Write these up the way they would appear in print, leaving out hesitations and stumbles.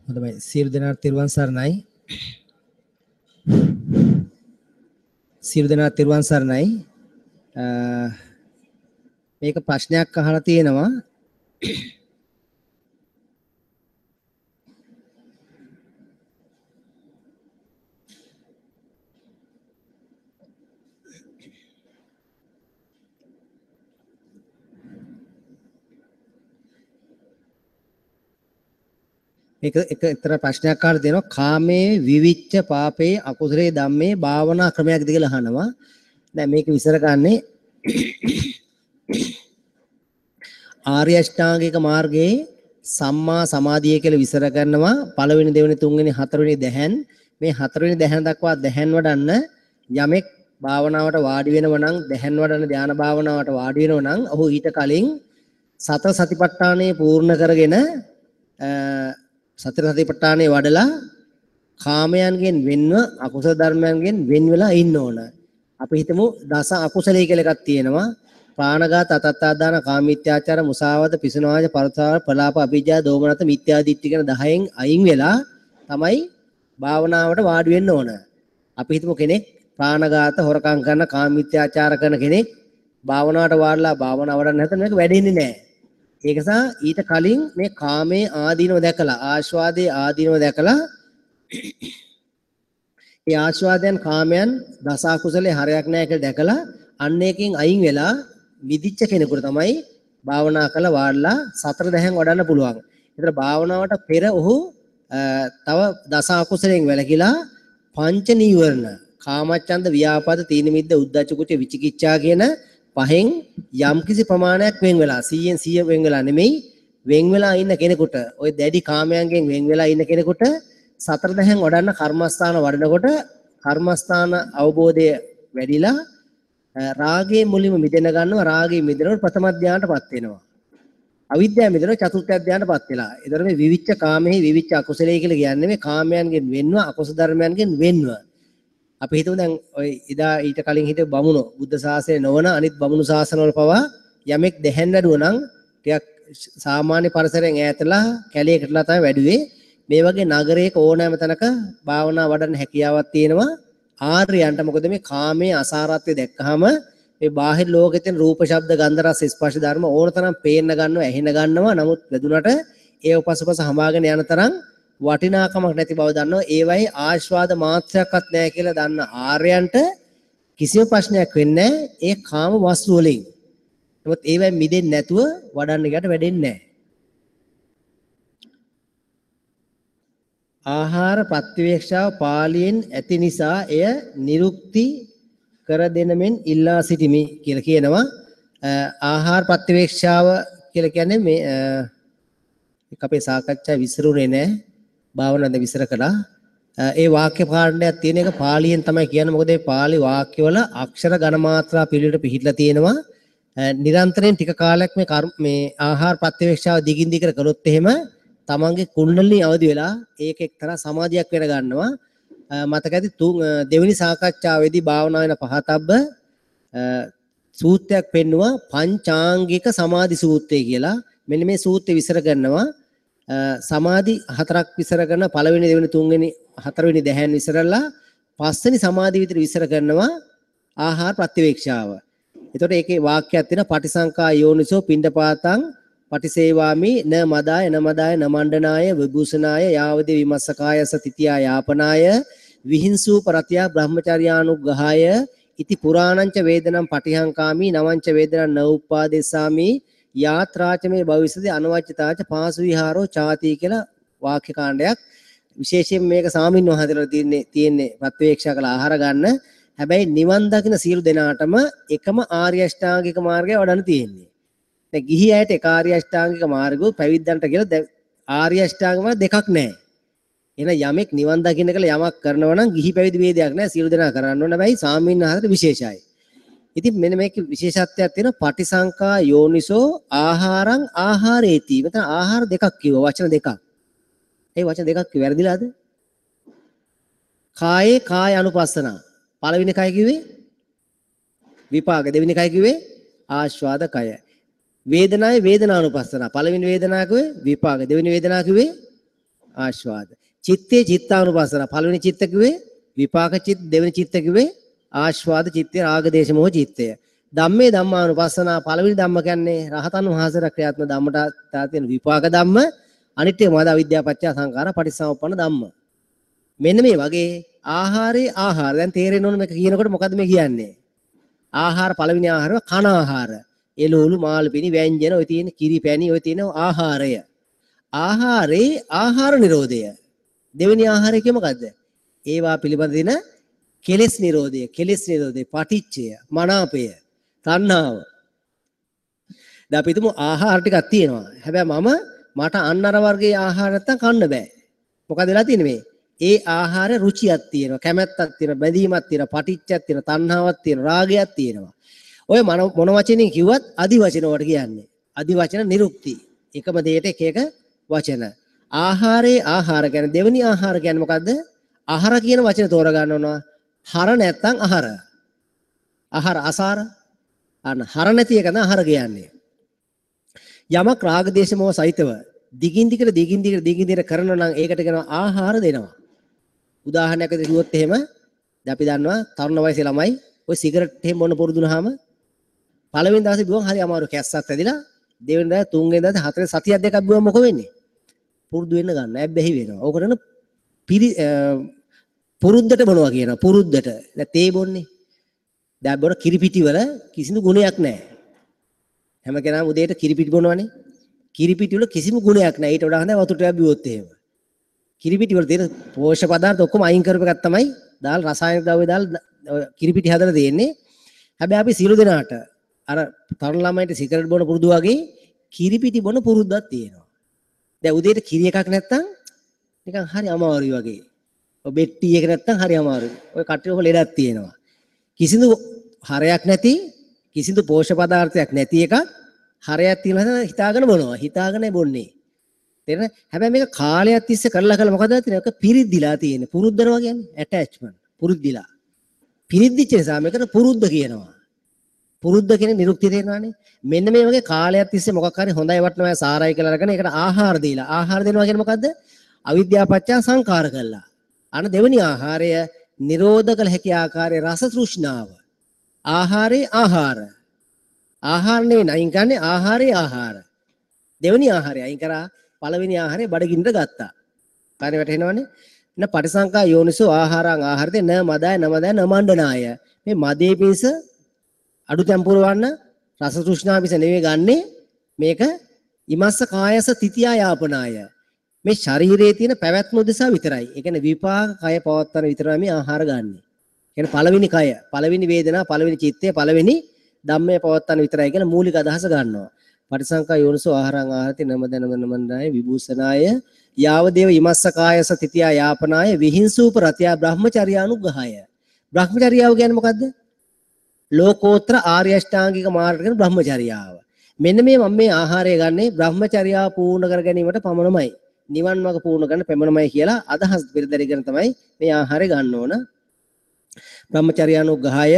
හොඳයි, සියලු දෙනාට තෙරුවන් සරණයි. සියලු දෙනාට තෙරුවන් සරණයි. මේක ප්‍රශ්නයක් අහලා තියෙනවා. මේක එක එක්තරා ප්‍රශ්නයක් අහලා දෙනවා. කාමයේ විවිච්ඡ පාපේ අකුසලයේ ධම්මේ භාවනා ක්‍රමයක්ද කියලා අහනවා. දැන් මේක විස්තර කරන්නේ ආර්ය අෂ්ටාංගික මාර්ගයේ සම්මා සමාධිය කියලා විස්තර කරනවා. පළවෙනි, දෙවෙනි, තුන්වෙනි, හතරවෙනි දැහැන්, මේ හතරවෙනි දැහැන දක්වා දැහැන් වඩන්න යමෙක් භාවනාවට වාඩි වෙනව නම්, දැහැන් වඩන ධ්‍යාන භාවනාවට වාඩි වෙනව නම්, ඔහු ඊට කලින් සතර සතිපට්ඨානය පූර්ණ කරගෙන සතර සතිපට්ඨානය වඩලා කාමයන්ගෙන් වෙන්ව අකුසල ධර්මයන්ගෙන් වෙන් වෙලා ඉන්න ඕන. අපි හිතමු දස අකුසලයේ කියලා එකක් තියෙනවා. ප්‍රාණඝාත, අතත්තාදාන, කාමීත්‍යාචාර, මුසාවාද, පිසුනාජ, පරතාව, ප්‍රලාප, අභිජ්ජා, දෝමනත, මිත්‍යා දිට්ඨි කියන 10න් අයින් වෙලා තමයි භාවනාවට වාඩි වෙන්න ඕන. අපි හිතමු කෙනෙක් ප්‍රාණඝාත, හොරකම් කරන, කාමීත්‍යාචාර කරන කෙනෙක් භාවනාවට වාඩිලා භාවනාව වඩන්න නැත්නම් මේක වැඩෙන්නේ නැහැ. ඒක නිසා ඊට කලින් මේ කාමයේ ආදීනව දැකලා, ආස්වාදයේ ආදීනව දැකලා, ඒ ආස්වාදයන් කාමයන් දස අකුසලයේ හරයක් නැහැ කියලා දැකලා අන්න ඒකෙන් අයින් වෙලා මිදිච්ච කෙනෙකුට තමයි භාවනා කළ වාඩිලා සතර දැහැන් වඩන්න පුළුවන්. ඒතර භාවනාවට පෙර ඔහු තව දස අකුසලයෙන් වැළකීලා පංච නීවරණ, කාමච්ඡන්ද, ව්‍යාපාද, තීන මිද්ද, උද්ධච්ච කුච්ච, විචිකිච්ඡා කියන පහෙන් යම්කිසි ප්‍රමාණයක් වෙන් වෙලා, 100න් 100 වෙන් වෙලා නෙමෙයි, වෙන් වෙලා ඉන්න කෙනෙකුට, ওই දැඩි කාමයන්ගෙන් වෙන් වෙලා ඉන්න කෙනෙකුට සතර දැහැන් වඩන්න කර්මස්ථාන වඩනකොට කර්මස්ථාන අවබෝධය වැඩිලා රාගයේ මුලින්ම මිදෙන ගන්නවා. රාගයේ මිදෙනකොට ප්‍රථම ධානයටපත් වෙනවා. අවිද්‍යාව මිදෙනවා චතුර්ථ ධානයටපත් වෙලා. ඒතර මේ විවිච්ඡ කාමෙහි විවිච්ඡ අකුසලයේ කියලා කියන්නේ මේ කාමයන්ගෙන් වෙන්ව අකුසල ධර්මයන්ගෙන් වෙන්ව. අපි හිතමු දැන් ඔය එදා ඊට කලින් හිටපු බමුණෝ බුද්ධ ශාසනය නොවන අනිත් බමුණු ශාසනවල පවා යමෙක් දැහැන් වැඩුවා නම් ටිකක් සාමාන්‍ය පරිසරයෙන් ඈතලා කැලේකටලා තමයි වැඩුවේ. මේ වගේ නගරයක ඕනෑම තැනක භාවනා වඩන්න හැකියාවක් තියෙනවා ආර්යයන්ට. මොකද මේ කාමයේ අසාරත්වය දැක්කහම මේ බාහිර ලෝකේ තියෙන රූප, ශබ්ද, ගන්ධ, රස, ස්පර්ශ ධර්ම ඕන තරම් පේන්න ගන්නවා, ඇහෙන ගන්නවා. නමුත් වැදුනට ඒ උපසපස හමාගෙන යන තරම් වටිනාකමක් නැති බව දන්නවා. ඒවයි ආස්වාද මාත්‍රයක්වත් නැහැ කියලා දන්න ආර්යයන්ට කිසිම ප්‍රශ්නයක් වෙන්නේ නැහැ ඒ කාම වස්තු වලින්. නමුත් ඒවයි මිදෙන්නේ නැතුව වඩන්න ගියට වැඩෙන්නේ නැහැ. ආහාර ප්‍රතිවේක්ෂාව පාලියෙන් ඇති නිසා එය නිරුක්ති කර දෙන මෙන් ඉල්ලා සිටිමි කියලා කියනවා. ආහාර ප්‍රතිවේක්ෂාව කියලා කියන්නේ මේ අපේ සාකච්ඡා විසිරුනේ නෑ. භාවනාවද විස්තර කළා. ඒ වාක්‍ය පාඨයක් තියෙන එක පාලියෙන් තමයි කියන්නේ. මොකද ඒ පාලි වාක්‍යවල අක්ෂර ඝන මාත්‍රා පිළිවෙලට පිහිටලා තියෙනවා. නිරන්තරයෙන් ටික කාලයක් මේ මේ ආහාර ප්‍රතිවේක්ෂාව දිගින් දිගට කළොත් එහෙම තමන්ගේ කුණ්ඩලිනී අවදි වෙලා ඒක එක්තරා සමාධියක් වෙන ගන්නවා. මතක ඇති දෙවෙනි සාකච්ඡාවේදී භාවනා වෙන පහතබ්බ සූත්‍රයක් පෙන්නවා, පංචාංගික සමාධි සූත්‍රය කියලා. මෙන්න මේ සූත්‍රය විස්තර කරනවා. සමාධි හතරක් විස්තර කරන, පළවෙනි, දෙවෙනි, තුන්වෙනි, හතරවෙනි දැහැන් විස්තරලා පස්වෙනි සමාධි විතර විස්තර කරනවා ආහාර ප්‍රතිවේක්ෂාව. එතකොට ඒකේ වාක්‍යයක් තියෙනවා, පටිසංකා යෝනිසෝ පිණ්ඩපාතං පටිසේවාමි න මදාය න මදාය න මණ්ඩනාය විභූෂනාය යාවදේ විමස්සකායස තිතියා යාපනාය විහිංසූ පරතියා බ්‍රහ්මචර්යානුග්‍රහාය ඉති පුරාණංච වේදනම් පටිහංකාමි නවංච වේදනං න උප්පාදෙස්සාමි යාත්‍රාච මේ භවිෂති අනවජ්‍යතාච පාසු විහාරෝ චාති කියලා වාක්‍ය කාණ්ඩයක්. විශේෂයෙන් මේක සාමින් වහන්සේලා තියෙන්නේ ප්‍රත්‍යවේක්ෂා කළ ආහාර ගන්න. හැබැයි නිවන් දකින සියලු දෙනාටම එකම ආර්ය අෂ්ටාංගික මාර්ගය වඩන්න තියෙන්නේ. දැන් ගිහි අයට එක ආර්ය අෂ්ටාංගික මාර්ගය, පැවිද්දන්ට කියලා ආර්ය අෂ්ටාංගික මාර්ග දෙකක් නෑ. එහෙනම් යමෙක් නිවන් දකින්න කියලා යමක් කරනවා නම් ගිහි පැවිදි ભેදයක් නෑ, සියලු දෙනා කරන්න ඕන. හැබැයි සාමින් වහන්සේට විශේෂයි. ඉතින් මෙන්න මේකේ විශේෂත්වයක් තියෙනවා, පටිසංකා යෝනිසෝ ආහාරං ආහාරේති. මෙතන ආහාර දෙකක් කිව්වා, වචන දෙකක්. ඒ වචන දෙකක් කිව්ව වැරදිලාද? කායේ කාය අනුපස්සන. පළවෙනි කය කිව්වේ විපාක, දෙවෙනි කය කිව්වේ ආස්වාද කය. වේදනාවේ වේදනානුපස්සන. පළවෙනි වේදනාව කිව්වේ විපාක, දෙවෙනි වේදනාව කිව්වේ ආස්වාද. චිත්තේ චිත්තානුපස්සන. පළවෙනි චිත්ත කිව්වේ විපාක චිත්ත, දෙවෙනි චිත්ත කිව්වේ ආස්වාද චිත්තය, රාග දේශ මොහ චිත්තය. ධම්මේ ධම්මානුපස්සනා. පළවෙනි ධම්ම කියන්නේ රහතන් වහන්සේලා ක්‍රියාත්මක ධම්මට තියෙන විපාක ධම්ම. අනිත් එක මොකද? අවිද්‍යාව පත්‍ය සංඛාර පටිච්චසමුප්පන්න ධම්ම. මෙන්න මේ වගේ ආහාරේ ආහාර. දැන් තේරෙන්න ඕන මේක කියනකොට මොකද්ද මේ කියන්නේ? ආහාර පළවෙනි ආහාරව කන ආහාර. එළවලු මාළු පිණි ව්‍යංජන ඔය තියෙන කිරි පැණි ඔය තියෙන ආහාරය. ආහාරේ ආහාර නිරෝධය. දෙවෙනි ආහාරය කිය මොකද්ද? ඒවා පිළිබඳ දින කෙලෙස් නිරෝධය, කෙලෙස් නිරෝධය, පටිච්චය, මනාපය, තණ්හාව. දැන් අපි හිතමු ආහාර ටිකක් තියෙනවා. හැබැයි මට අන්න අර වර්ගයේ ආහාර නැත්තම් කන්න බෑ. මොකද වෙලා තියෙන්නේ මේ? ඒ ආහාර රුචියක් තියෙනවා, කැමැත්තක් තියෙනවා, බැඳීමක් තියෙනවා, පටිච්චයක් තියෙනවා, තණ්හාවක් තියෙනවා, රාගයක් තියෙනවා. ඔය මොන වචනෙන් කිව්වත් අදි වචන වලට කියන්නේ. අදි වචන නිරුක්ති. එකම දෙයට එක එක වචන. ආහාරේ ආහාර කියන්නේ දෙවෙනි ආහාර කියන්නේ මොකද්ද? ආහාර කියන වචන තෝරා ගන්න ඕන. හර නැත්තම් ආහාර. ආහාර අසාර. අන්න හර නැති එක තමයි ආහාර කියන්නේ. යමක් රාග දේශ මොහ සහිතව දිගින් දිගට දිගින් දිගට දිගින් දිගට කරනවා නම් ඒකට කියනවා ආහාර දෙනවා. උදාහරණයක් විදිහට කිව්වොත් එහෙම දැන් අපි දන්නවා තරුණ වයසේ ළමයි ඔය සිගරට් එහෙම බොන පුරුදු වුණාම පළවෙනි දවසේ බිව්වම හරි අමාරු කැස්සක් ඇදිලා, දෙවෙනි දවසේ තුන්වෙනි දවසේ හතරවෙනි සතියක් දෙකක් බිව්වම මොකෝ වෙන්නේ? පුරුදු වෙන්න ගන්න ඇබ්බැහි වෙනවා. ඕකට න පුරුද්දට බොනවා කියනවා. පුරුද්දට. දැන් තේ බොන්නේ. දැන් බොන කිරිපිටි වල කිසිදු ගුණයක් නැහැ. හැම කෙනාම උදේට කිරිපිටි බොනවනේ. කිරිපිටි වල කිසිම ගුණයක් නැහැ. ඊට වඩා හොඳයි වතුර ටිකක් බිව්වොත් එහෙම. කිරිපිටි වල තියෙන පෝෂක පදාර්ථ ඔක්කොම අයින් කරපු එකක් තමයි දාලා රසායනික ද්‍රව්‍ය දාලා කිරිපිටි හදලා තියෙන්නේ. හැබැයි අපි සියලු දෙනාට අර තරුණ ළමයින්ට සිගරට් බොන පුරුදු වගේ කිරිපිටි බොන පුරුද්දක් තියෙනවා. දැන් උදේට කිරි එකක් නැත්තම් නිකන් හරි අමාරුයි වගේ. ඔය බෙට්ටි එක නැත්තම් හරි අමාරුයි. ඔය කට්ටිය ඔක ලෙඩක් තියෙනවා. කිසිදු හරයක් නැති, කිසිදු පෝෂක පදාර්ථයක් නැති එකක් හරයක් තියෙනවා හිතාගෙන බොනවා. හිතාගෙන බොන්නේ. තේරෙනවද? හැබැයි මේක කාලයක් තිස්සේ කරලා කරලා මොකද වෙන්නේ? ඒක පිරිද්දිලා තියෙන්නේ. පුරුද්දනවා කියන්නේ ඇටැච්මන්ට්. පුරුද්දිලා. පිරිද්දිච්ච නිසා මේකට පුරුද්ද කියනවා. පුරුද්ද කියන නිරුක්තිය තේරෙනවානේ. මෙන්න මේ වගේ කාලයක් තිස්සේ මොකක් හරි හොඳයි වටිනවා සාරයි කියලා අරගෙන ඒකට ආහාර දීලා. ආහාර දෙනවා කියන්නේ මොකද්ද? අවිද්‍යාව පත්‍ය සංඛාර කළා. අන දෙවෙනි ආහාරය නිරෝධ කළ හැකි ආකාරයේ රස තෘෂ්ණාව. ආහාරේ ආහාර. ආහාර නෙවෙයි අයින් කරන්නේ ආහාරේ ආහාර. දෙවෙනි ආහාරය අයින් කරා පළවෙනි ආහාරය බඩගින්නට ගත්තා. කාරණේ වැටහෙනවනේ. න පටිසංකා යෝනිසෝ ආහාරං ආහාරතේ න මදාය න මදාය න මණ්ඩනාය. මේ මදේ පිණිස අඩු තැන් පුරවන්න රස තෘෂ්ණාව පිණිස නෙවෙයි ගන්නෙ. මේක ඉමස්ස කායස තිතියා යාපනාය. මේ ශරීරයේ තියෙන පැවැත්ම උදෙසා විතරයි. ඒ කියන්නේ විපාක කය පවත්තන විතරයි මේ ආහාර ගන්නෙ. ඒ කියන්නේ පළවෙනි කය, පළවෙනි වේදනා, පළවෙනි චිත්තය, පළවෙනි ධම්මය පවත්තන විතරයි කියන මූලික අදහස ගන්නවා. පටිසංකා යෝනිසෝ ආහාරං ආහාරති නම දනම නමන්දාය විභූෂනාය යාව දේව ඉමස්ස කායස තිතියා යාපනාය විහිංසූප රතියා බ්‍රහ්මචර්යානුග්‍රහය. බ්‍රහ්මචර්යාව කියන්නේ මොකද්ද? ලෝකෝත්තර ආර්ය අෂ්ටාංගික මාර්ග කියන බ්‍රහ්මචර්යාව. මෙන්න මේ මම මේ ආහාරය ගන්නේ බ්‍රහ්මචර්යාව පූර්ණ කර ගැනීමට පමණමයි. නිවන් මාර්ග පූර්ණ කරන්න පමණමයි කියලා අදහස් පෙරදරිගෙන තමයි මේ ආහාරය ගන්න ඕන. බ්‍රහ්මචර්යානුග්‍රහය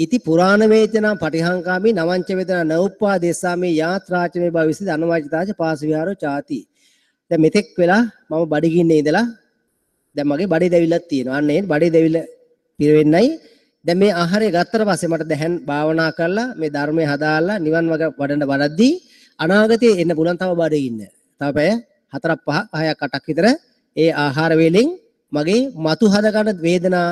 ඉති පුරාණ වේදනා පටිහංකාමි නවංච වේදනා නඋප්පාදේසාමි යාත්‍රාච මේ භවිස්සති අනවාචිතාච පාස විහාරෝ චාති. දැන් මෙතෙක් වෙලා මම බඩගින්නේ ඉඳලා දැන් මගේ බඩේ දැවිල්ලක් තියෙනවා. අන්න ඒ බඩේ දැවිල්ල පිරෙන්නයි දැන් මේ ආහාරය ගත්තට පස්සේ මට දැන් භාවනා කරලා මේ ධර්මය හදාarලා නිවන් මාර්ග වඩන වඩද්දී අනාගතයේ එන්න පුළුවන් තව බඩගින්න. තව පැය 4ක් 5ක් 6ක් 8ක් විතර ඒ ආහාර වේලෙන් මගේ මතු හද ගන්න වේදනා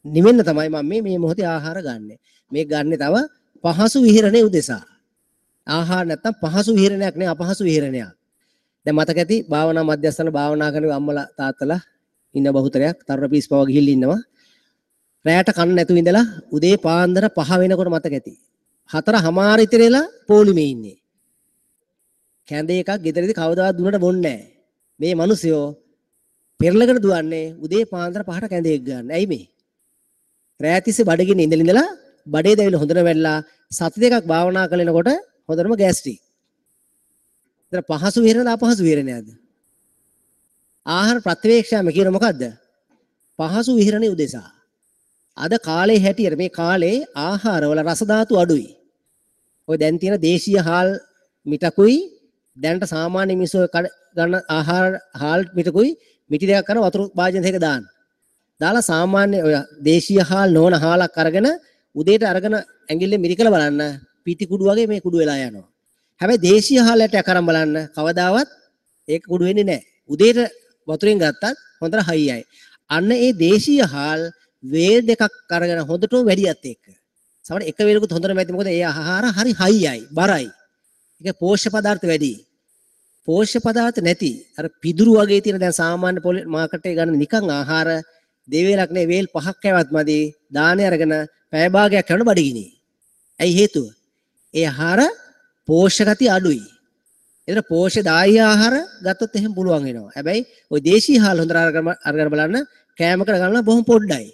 නිවෙන්න තමයි මම මේ මොහොතේ ආහාර ගන්නෙ. මේ ගන්නෙ තව පහසු විහරණය උදෙසා. ආහාර නැත්තම් පහසු විහරණයක් නේ අපහසු විහරණයක්. දැන් මතක ඇති භාවනා මධ්‍යස්ථාන භාවනා කරන අම්මලා තාත්තලා ඉන්න බහුතරයක් තරුණ පිස් පව ගිහිල්ලා ඉන්නවා. රැයට කන්න නැතුව ඉඳලා උදේ පාන්දර 5 වෙනකොට මතක ඇති. 4:30 ඉතිර වෙලා පොලිමේ ඉන්නේ. කැඳ එකක් ගෙදරදී කවදාවත් දුන්නට බොන්නේ නැහැ. මේ මිනිස්සුયો පෙරලකට දුවන්නේ උදේ පාන්දර 5ට කැඳ එක ගන්න. ඇයි මේ? රැය තිස්සේ බඩගින්න ඉඳලා බඩේ දැවිලා හොඳට වැල්ලා සති දෙකක් භාවනා කරනකොට හොඳටම ගෑස්ට්‍රික්. ඉතින් පහසු විහරණද අපහසු විහරණයක්ද? ආහාර ප්‍රතිවේක්ෂාම කියන මොකද්ද? පහසු විහරණේ උදෙසා. අද කාලේ හැටියට මේ කාලේ ආහාරවල රස ධාතු අඩුයි. ඔය දැන් තියෙන දේශීය හාල් මිටකුයි දැනට සාමාන්‍ය මිනිස්සු ගන්න ආහාර හාල් මිටකුයි මිටි දෙකක් කරන වතුර භාජන දෙක දාන්න. දාලා සාමාන්‍ය ඔය දේශීය හාල් නොවන හාලක් අරගෙන උදේට අරගෙන ඇඟිල්ලෙන් මිරිකලා බලන්න පිටි කුඩු වගේ මේ කුඩු වෙලා යනවා. හැබැයි දේශීය හාල් ඇටයක් අරන් බලන්න කවදාවත් ඒක කුඩු වෙන්නේ නැහැ. උදේට වතුරෙන් ගත්තත් හොඳට හයියයි. අන්න ඒ දේශීය හාල් වේල් දෙකක් අරගෙන හොඳටම වැඩියත් එක්ක. සමහර එක වේලකුත් හොඳටම ඇති, මොකද ඒ ආහාර හරි හයියයි, බරයි. ඒක පෝෂ්‍ය පදාර්ථ වැඩි. පෝෂ්‍ය පදාර්ථ නැති අර පිදුරු වගේ තියෙන දැන් සාමාන්‍ය මාකට් එකේ ගන්න නිකන් ආහාර දෙවේලක් නේ වේල් පහක් කෑවත් මදි. දානේ අරගෙන පැය භාගයක් කරන බඩගිනි. ඇයි හේතුව? ඒ ආහාර පෝෂ්‍ය ගතිය අඩුයි. ඒතර පෝෂ්‍යදායී ආහාර ගත්තොත් එහෙම පුළුවන් වෙනවා. හැබැයි ওই දේශීය හාල් හොඳට අරගෙන බලන්න කෑමකට ගන්න බොහොම පොඩ්ඩයි.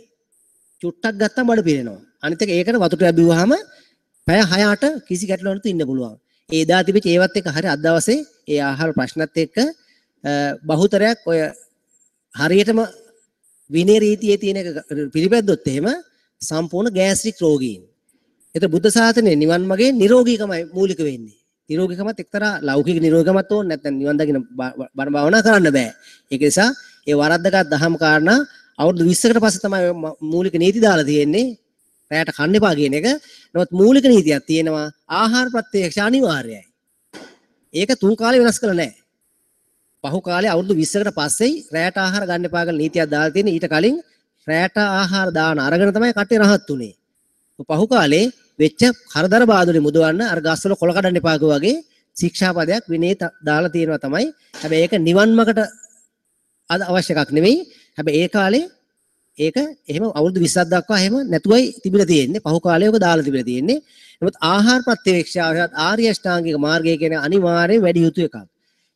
චුට්ටක් ගත්තම බඩ පිරෙනවා. අනිත් එක ඒකට වතුර ටිකක් බිව්වහම පැය 6-8 කිසි ගැටලුවක් නැතුව ඉන්න පුළුවන්. ඒ එදා තිබිච්ච ඒවත් එක්ක හරි අද දවසේ ඒ ආහාර ප්‍රශ්නත් එක්ක බහුතරයක් ඔය හරියටම විනය රීතියේ තියෙන එක පිළිපැද්දොත් එහෙම සම්පූර්ණ ගෑස්ට්‍රික් රෝගීන්. ඒතර බුද්ධ ශාසනයේ නිවන් මාර්ගයේ නිරෝගීකමයි මූලික වෙන්නේ. නිරෝගීකමත් එක්තරා ලෞකික නිරෝගීකමත් ඕන, නැත්නම් නිවන් දකින්න බණ භාවනා කරන්න බෑ. ඒක නිසා ඒ වරද්දගත් දහම් කාරණා අවුරුදු 20කට පස්සේ තමයි මූලික නීති දාලා තියෙන්නේ. රැයට කන්න එපා කියන එක. නමුත් මූලික නීතියක් තියෙනවා, ආහාර ප්‍රත්‍යක්ෂ අනිවාර්යයි. ඒක තුන් කාලේ වෙනස් කළා නෑ. පහු කාලේ අවුරුදු 20කට පස්සෙයි රැයට ආහාර ගන්න එපා කියලා නීතියක් දාලා තියෙන්නේ. ඊට කලින් රැයට ආහාර දාන අරගෙන තමයි කට්ටිය රහත් උනේ. පහු කාලේ වෙච්ච කරදර බාධුනේ මුදවන්න අර ගස්වල කොළ කඩන්න එපා වගේ ශික්ෂාපදයක් විනය දාලා තියෙනවා තමයි. හැබැයි ඒක නිවන් මාර්ගට අවශ්‍ය එකක් නෙවෙයි. හැබැයි ඒ කාලේ ඒක එහෙම අවුරුදු 20ක් දක්වා එහෙම නැතුවයි තිබිලා තියෙන්නේ. පහු කාලේ ඔක දාලා තිබිලා තියෙන්නේ. නමුත් ආහාර ප්‍රත්‍යවේක්ෂාව හෙවත් ආර්ය අෂ්ටාංගික මාර්ගය කියන අනිවාර්යයෙන් වැඩි යුතු එකක්.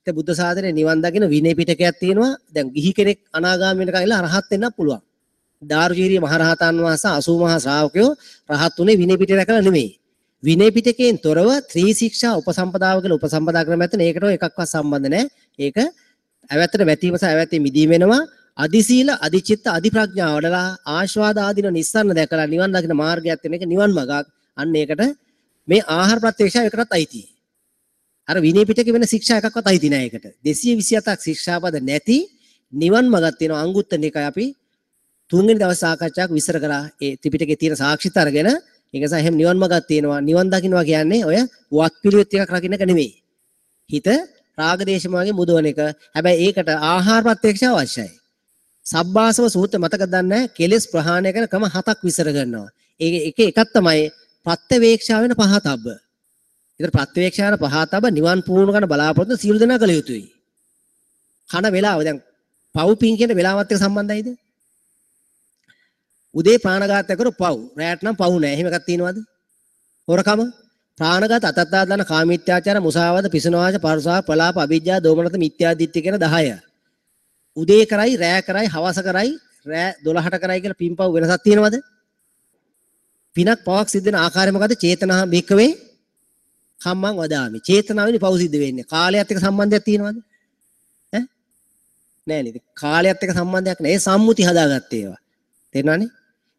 ඒ බුද්ධ ශාසනයේ නිවන් දකින විනය පිටකයක් තියෙනවා. දැන් ගිහි කෙනෙක් අනාගාමී වෙනකන් ඉල්ල රහත් වෙන්නත් පුළුවන්. දාරුචීරිය මහරහතන් වහන්සේ 80 මහා ශ්‍රාවකයෝ රහත් උනේ විනය පිටක රැකලා නෙමෙයි. විනය පිටකයෙන් තොරව ත්‍රි ශික්ෂා උපසම්පදාව කියලා උපසම්පදා ක්‍රමයක් ඇත්තන ඒකට ඔය එකක්වත් සම්බන්ධ නැහැ. ඒක ඇවැත්තට වැටීම සහ ඇවැත්තේ මිදීම වෙනවා. අදි සීල, අදි චිත්ත, අදි ප්‍රඥා වඩලා ආස්වාද ආදීන නිස්සරණ දැකලා නිවන් දකින මාර්ගයක් තියෙන එක නිවන් මගක්. අන්න ඒකට මේ ආහාර ප්‍රත්‍යක්ෂය ඒකටත් අයිති. අර විනය පිටකේ වෙන ශික්ෂා එකක්වත් අයිති නෑ ඒකට. 227ක් ශික්ෂාපද නැති නිවන් මගක් තියෙනවා. අංගුත්තර නිකාය අපි තුන්වෙනි දවස් සාකච්ඡාවක් විස්තර කරා. ඒ ත්‍රිපිටකේ තියෙන සාක්ෂිත අරගෙන ඒක නිසා එහෙම නිවන් මගක් තියෙනවා. නිවන් දකින්නවා කියන්නේ ඔය වත් පිළිවෙත් එකක් රකින්න එක නෙමෙයි. හිත රාග දේශ මොහයෙන් මුදවන එක. හැබැයි ඒකට ආහාර ප්‍රත්‍යක්ෂ අවශ්‍යයි. සබ්බාසව සූත්‍ර මතක දන්නේ නැහැ. කෙලෙස් ප්‍රහාණය කරන ක්‍රම හතක් විස්තර කරනවා. ඒක එක එකක් තමයි ප්‍රත්‍යවේක්ෂා වෙන පහතබ්බ. ඒතර ප්‍රත්‍යවේක්ෂා වෙන පහතබ්බ නිවන් පුහුණු කරන බලාපොරොත්තු සියලු දෙනා කළ යුතුයි. කන වෙලාව දැන් පව් පින් කියන වෙලාවත් එක්ක සම්බන්ධයිද? උදේ ප්‍රාණඝාතය කරු පව්. රැයට නම් පව් නෑ. එහෙම එකක් තියෙනවද? හොරකම, ප්‍රාණඝාත, අතත්තාදාන, කාමීත්‍යාචාර, මුසාවාද, පිසුනවාච, පරුසා, ප්‍රලාප, අවිජ්ජා, දෝමනත, මිත්‍යා දිට්ඨිය කියන 10. උදේ කරයි, රෑ කරයි, හවස කරයි, රෑ 12ට කරයි කියලා පින්පව් වෙනසක් තියෙනවද? පිනක් පවක් සිද්ධ වෙන ආකාරය මොකද්ද? චේතනා භික්කවේ කම්මං වදාමි. චේතනාවෙනි පව් සිද්ධ වෙන්නේ. කාලයත් එක්ක සම්බන්ධයක් තියෙනවද? ඈ නෑ නේද? කාලයත් එක්ක සම්බන්ධයක් නෑ. ඒ සම්මුති හදාගත්තේ ඒවා. තේරෙනවනේ?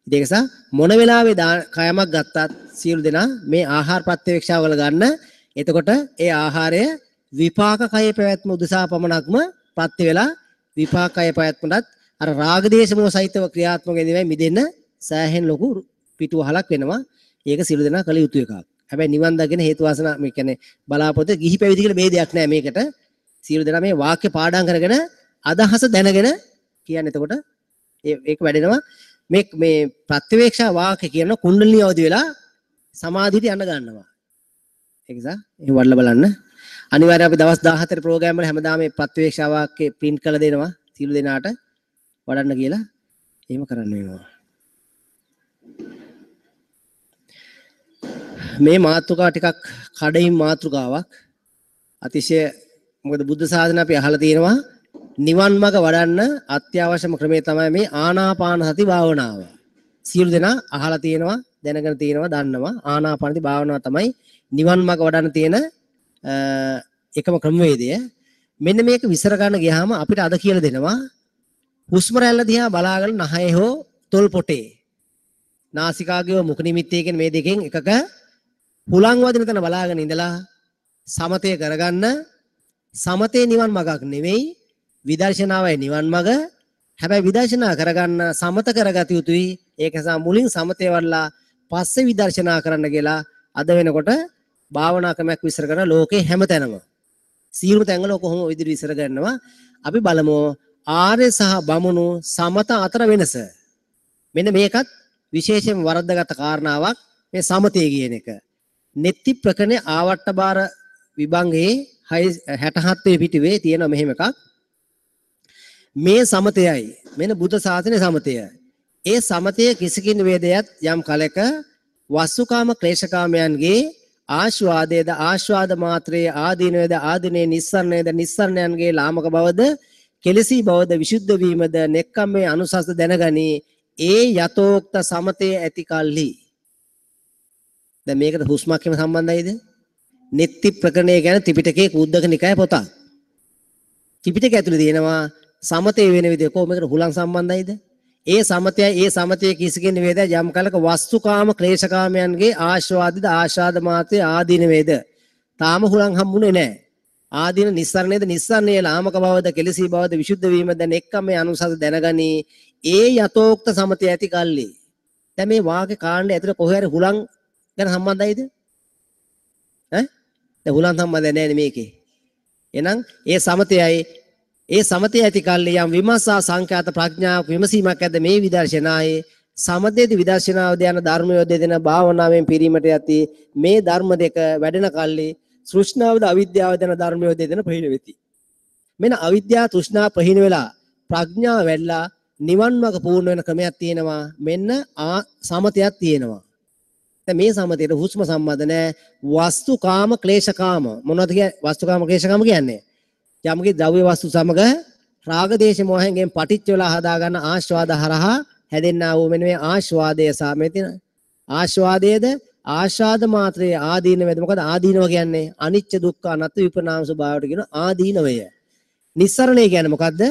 ඉතින් ඒක නිසා මොන වෙලාවේ කයමක් ගත්තත් සියලු දෙනා මේ ආහාර ප්‍රත්‍යවේක්ෂාව වල ගන්න. එතකොට ඒ ආහාරය විපාක කයේ පැවැත්ම උදෙසා පමණක්ම ප්‍රත්‍ය වෙලා විපාක කයේ පැවැත්මටත් අර රාග දේශ මොහ සහිතව ක්‍රියාත්මක වෙන්නේ මිදෙන්න සෑහෙන ලොකු පිටුවහලක් වෙනවා. ඒක සියලු දෙනා කළ යුතු එකක්. හැබැයි නිවන් දකින හේතු වාසනා මේ කියන්නේ බලාපොරොත්තු ගිහි පැවිදි කියලා ભેදයක් නෑ මේකට. සියලු දෙනා මේ වාක්‍ය පාඩම් කරගෙන අදහස දැනගෙන කියන්නේ එතකොට ඒක වැඩෙනවා. මේ මේ ප්‍රත්‍යවේක්ෂා වාක්‍ය කියන කුණ්ඩලිනී අවදි වෙලා සමාධියට යන්න ගන්නවා. ඒක නිසා එහෙම වඩලා බලන්න. අනිවාර්යයෙන් අපි දවස් 14 ප්‍රෝග්‍රෑම් වල හැමදාම මේ ප්‍රත්‍යවේක්ෂා වාක්‍ය ප්‍රින්ට් කරලා දෙනවා සියලු දෙනාට වඩන්න කියලා. එහෙම කරන්න වෙනවා. මේ මාතෘකාව ටිකක් කඩින් මාතෘකාවක්. අතිශය මොකද බුද්ධ ශාසනය අපි අහලා තියෙනවා නිවන් මඟ වඩන්න අත්‍යවශ්‍යම ක්‍රමය තමයි මේ ආනාපාන සති භාවනාව. සියලු දෙනා අහලා තියෙනවා, දැනගෙන තියෙනවා, දන්නවා. ආනාපාන සති භාවනාව තමයි නිවන් මඟ වඩන්න තියෙන එකම ක්‍රමවේදය. මෙන්න මේක විස්තර ගන්න ගියාම අපිට අද කියලා දෙනවා හුස්ම රැල්ල දිහා බලාගෙන නහයේ හෝ තොල් පොටේ නාසිකාග්‍රේ මුඛ නිමිත්තේ කියන මේ දෙකෙන් එකක හුලං වදින තැන බලාගෙන ඉඳලා සමතය කරගන්න. සමතේ නිවන් මගක් නෙවෙයි, විදර්ශනාවයි නිවන් මග. හැබැයි විදර්ශනා කරගන්න සමත කරගත යුතුයි. ඒක නිසා මුලින් සමතේ වඩලා පස්සේ විදර්ශනා කරන්න කියලා අද වෙනකොට භාවනා ක්‍රමයක් විස්තර කරන ලෝකේ හැමතැනම සියලුම තැන්වල කොහොම ඔය විදිහට විස්තර කරනවා. අපි බලමු ආර්ය සහ බමුණු සමත අතර වෙනස. මෙන්න මේකත් විශේෂයෙන් වරද්දාගත් කාරණාවක් මේ සමතය කියන එක. නෙත්ති ප්‍රකරණේ ආවට්ට බාර විභංගයේ 67 වෙනි පිටුවේ තියෙන මෙහෙම එකක්. මේ සමතයයි මෙන්න බුද්ධ ශාසනයේ සමතය. ඒ සමතය කිසිකින් වේදයත් යම් කලක වස්සුකාම ක්ලේශකාමයන්ගේ ආස්වාදයේද ආස්වාද මාත්‍රයේ ආදීනවේද ආදීනේ නිස්සරණයේද නිස්සරණයන්ගේ ලාමක බවද කෙලසී බවද විසුද්ධ වීමද නෙක්ඛම්මේ අනුසස්ද දැනගනී. ඒ යතෝක්ත සමතය ඇති කල්හි. දැන් මේකට හුස්මක් එහෙම සම්බන්ධයිද? නෙත්ති ප්‍රකරණය කියන්නේ ත්‍රිපිටකයේ කුද්දක නිකාය පොතක්. ත්‍රිපිටකය ඇතුලේ තියෙනවා සමතේ වෙන විදිය. කොහොම මේකට හුලං සම්බන්ධයිද? ඒ සමතයයි ඒ සමතය කිසිකින් වේද යම් කලක වස්තුකාම ක්ලේශකාමයන්ගේ ආස්වාදිත ආශාද මාත්‍රේ ආදීන වේද. තාම හුලං හම්බුනේ නැහැ. ආදීන නිස්සරණේද නිස්සරණයේ ලාමක බවද කෙලසී බවද විසුද්ධ වීමද නෙක්ඛම්මේ අනුසස දැනගනී. ඒ යතෝක්ත සමතය ඇති කල්ලි. දැන් මේ වාක්‍ය කාණ්ඩය ඇතුලේ කොහේ හරි හුලං ගැන සම්බන්ධයිද? ඈ? දැන් හුලං සම්බන්ධ නැහැ නේ මේකේ. එහෙනම් ඒ සමතයයි ඒ සමතය ඇති කල්ලි යම් විමසා සංඛ්‍යාත ප්‍රඥාවක් විමසීමක් ඇද්ද මේ විදර්ශනායේ සමතේද විදර්ශනාවද යන ධර්මය දෙදෙන භාවනාවෙන් පිරීමට යති. මේ ධර්ම දෙක වැඩෙන කල්ලි තෘෂ්ණාවද අවිද්‍යාවද යන ධර්මය දෙදෙන ප්‍රහීන වෙති. මෙන්න අවිද්‍යාව තෘෂ්ණා ප්‍රහීන වෙලා ප්‍රඥාව වැඩිලා නිවන් මඟ පූර්ණ වෙන ක්‍රමයක් තියෙනවා. මෙන්න සමතයක් තියෙනවා. දැන් මේ සමතේට හුස්ම සම්බන්ධ නෑ. වස්තුකාම ක්ලේශකාම මොනවද කියන්නේ? වස්තුකාම ක්ලේශකාම කියන්නේ යම්කි ද්‍රව්‍ය වස්තු සමග රාග දේශ මොහෙන්ගෙන් පටිච්ච වෙලා හදාගන්න ආස්වාද හරහා හැදෙන්නා වූ මෙන්න මේ ආස්වාදය සහ මේ තියෙන ආස්වාදයේද ආශාද මාත්‍රයේ ආදීනවද. මොකද ආදීනව කියන්නේ අනිච්ච දුක්ඛ අනාත්ම විපරිණාම ස්වභාවයට කියන ආදීනවය. නිස්සරණය කියන්නේ මොකද්ද?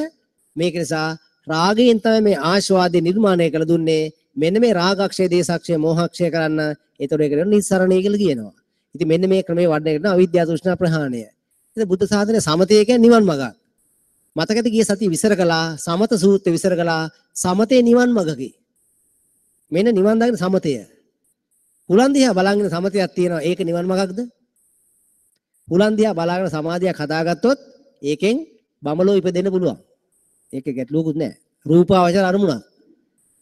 මේක නිසා රාගයෙන් තමයි මේ ආස්වාදය නිර්මාණය කළ දුන්නේ. මෙන්න මේ රාගක්ෂය දේශක්ෂය මෝහක්ෂය කරන්න. ඒතකොට ඒකට නිස්සරණය කියලා කියනවා. ඉතින් මෙන්න මේ ක්‍රමයේ වඩන එකට අවිද්‍යාව තෘෂ්ණා ප්‍රහාණය. ඉතින් බුද්ධ ශාසනයේ සමතය කියන්නේ නිවන් මඟක්. මතකද ගිය සතිය විසර කළා සමත සූත්‍රය විසර කළා. සමතේ නිවන් මඟකි. මෙන්න නිවන් දකින සමතය. හුලන් දිහා බලාගෙන සමතයක් තියෙනවා. ඒක නිවන් මඟක්ද? හුලන් දිහා බලාගෙන සමාධියක් හදාගත්තොත් ඒකෙන් බමලෝ ඉපදෙන්න පුළුවන්. ඒක ගැටලුවකුත් නෑ. රූපාවචර අරමුණක්.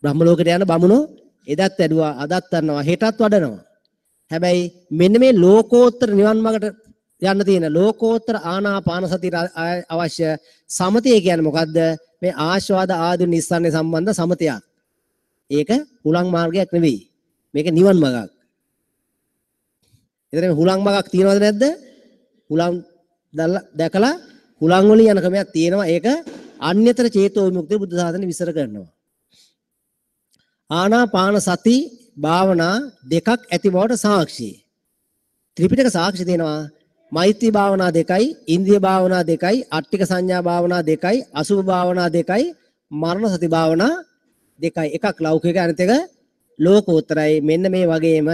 බ්‍රහ්ම ලෝකයට යන බමුණෝ එදත් වැඩුවා, අදත් වඩනවා, හෙටත් වඩනවා. හැබැයි මෙන්න මේ ලෝකෝත්තර නිවන් මඟට යන්න තියෙන ලෝකෝත්තර ආනාපාන සතියට අවශ්‍ය සමතය කියන්නේ මොකද්ද? මේ ආස්වාද ආදී නිස්සාරණය සම්බන්ධ සමතයක්. ඒක හුලං මාර්ගයක් නෙවෙයි. මේක නිවන් මඟක්. එතන මේ හුලං මඟක් තියෙනවද නැද්ද? හුලං දැකලා හුලං වලින් යන ක්‍රමයක් තියෙනවා. ඒක අන්‍යතර චේතෝ විමුක්තිය බුද්ධ ශාසනය විස්තර කරනවා. ආනාපාන සති භාවනා දෙකක් ඇති බවට සාක්ෂි. ත්‍රිපිටක සාක්ෂි දෙනවා. මෛත්‍රී භාවනා දෙකයි, ඉන්ද්‍රිය භාවනා දෙකයි, අට්ටික සංඥා භාවනා දෙකයි, අසුභ භාවනා දෙකයි, මරණ සති භාවනා දෙකයි. එකක් ලෞකික අනිත් එක ලෝකෝත්තරයි. මෙන්න මේ වගේම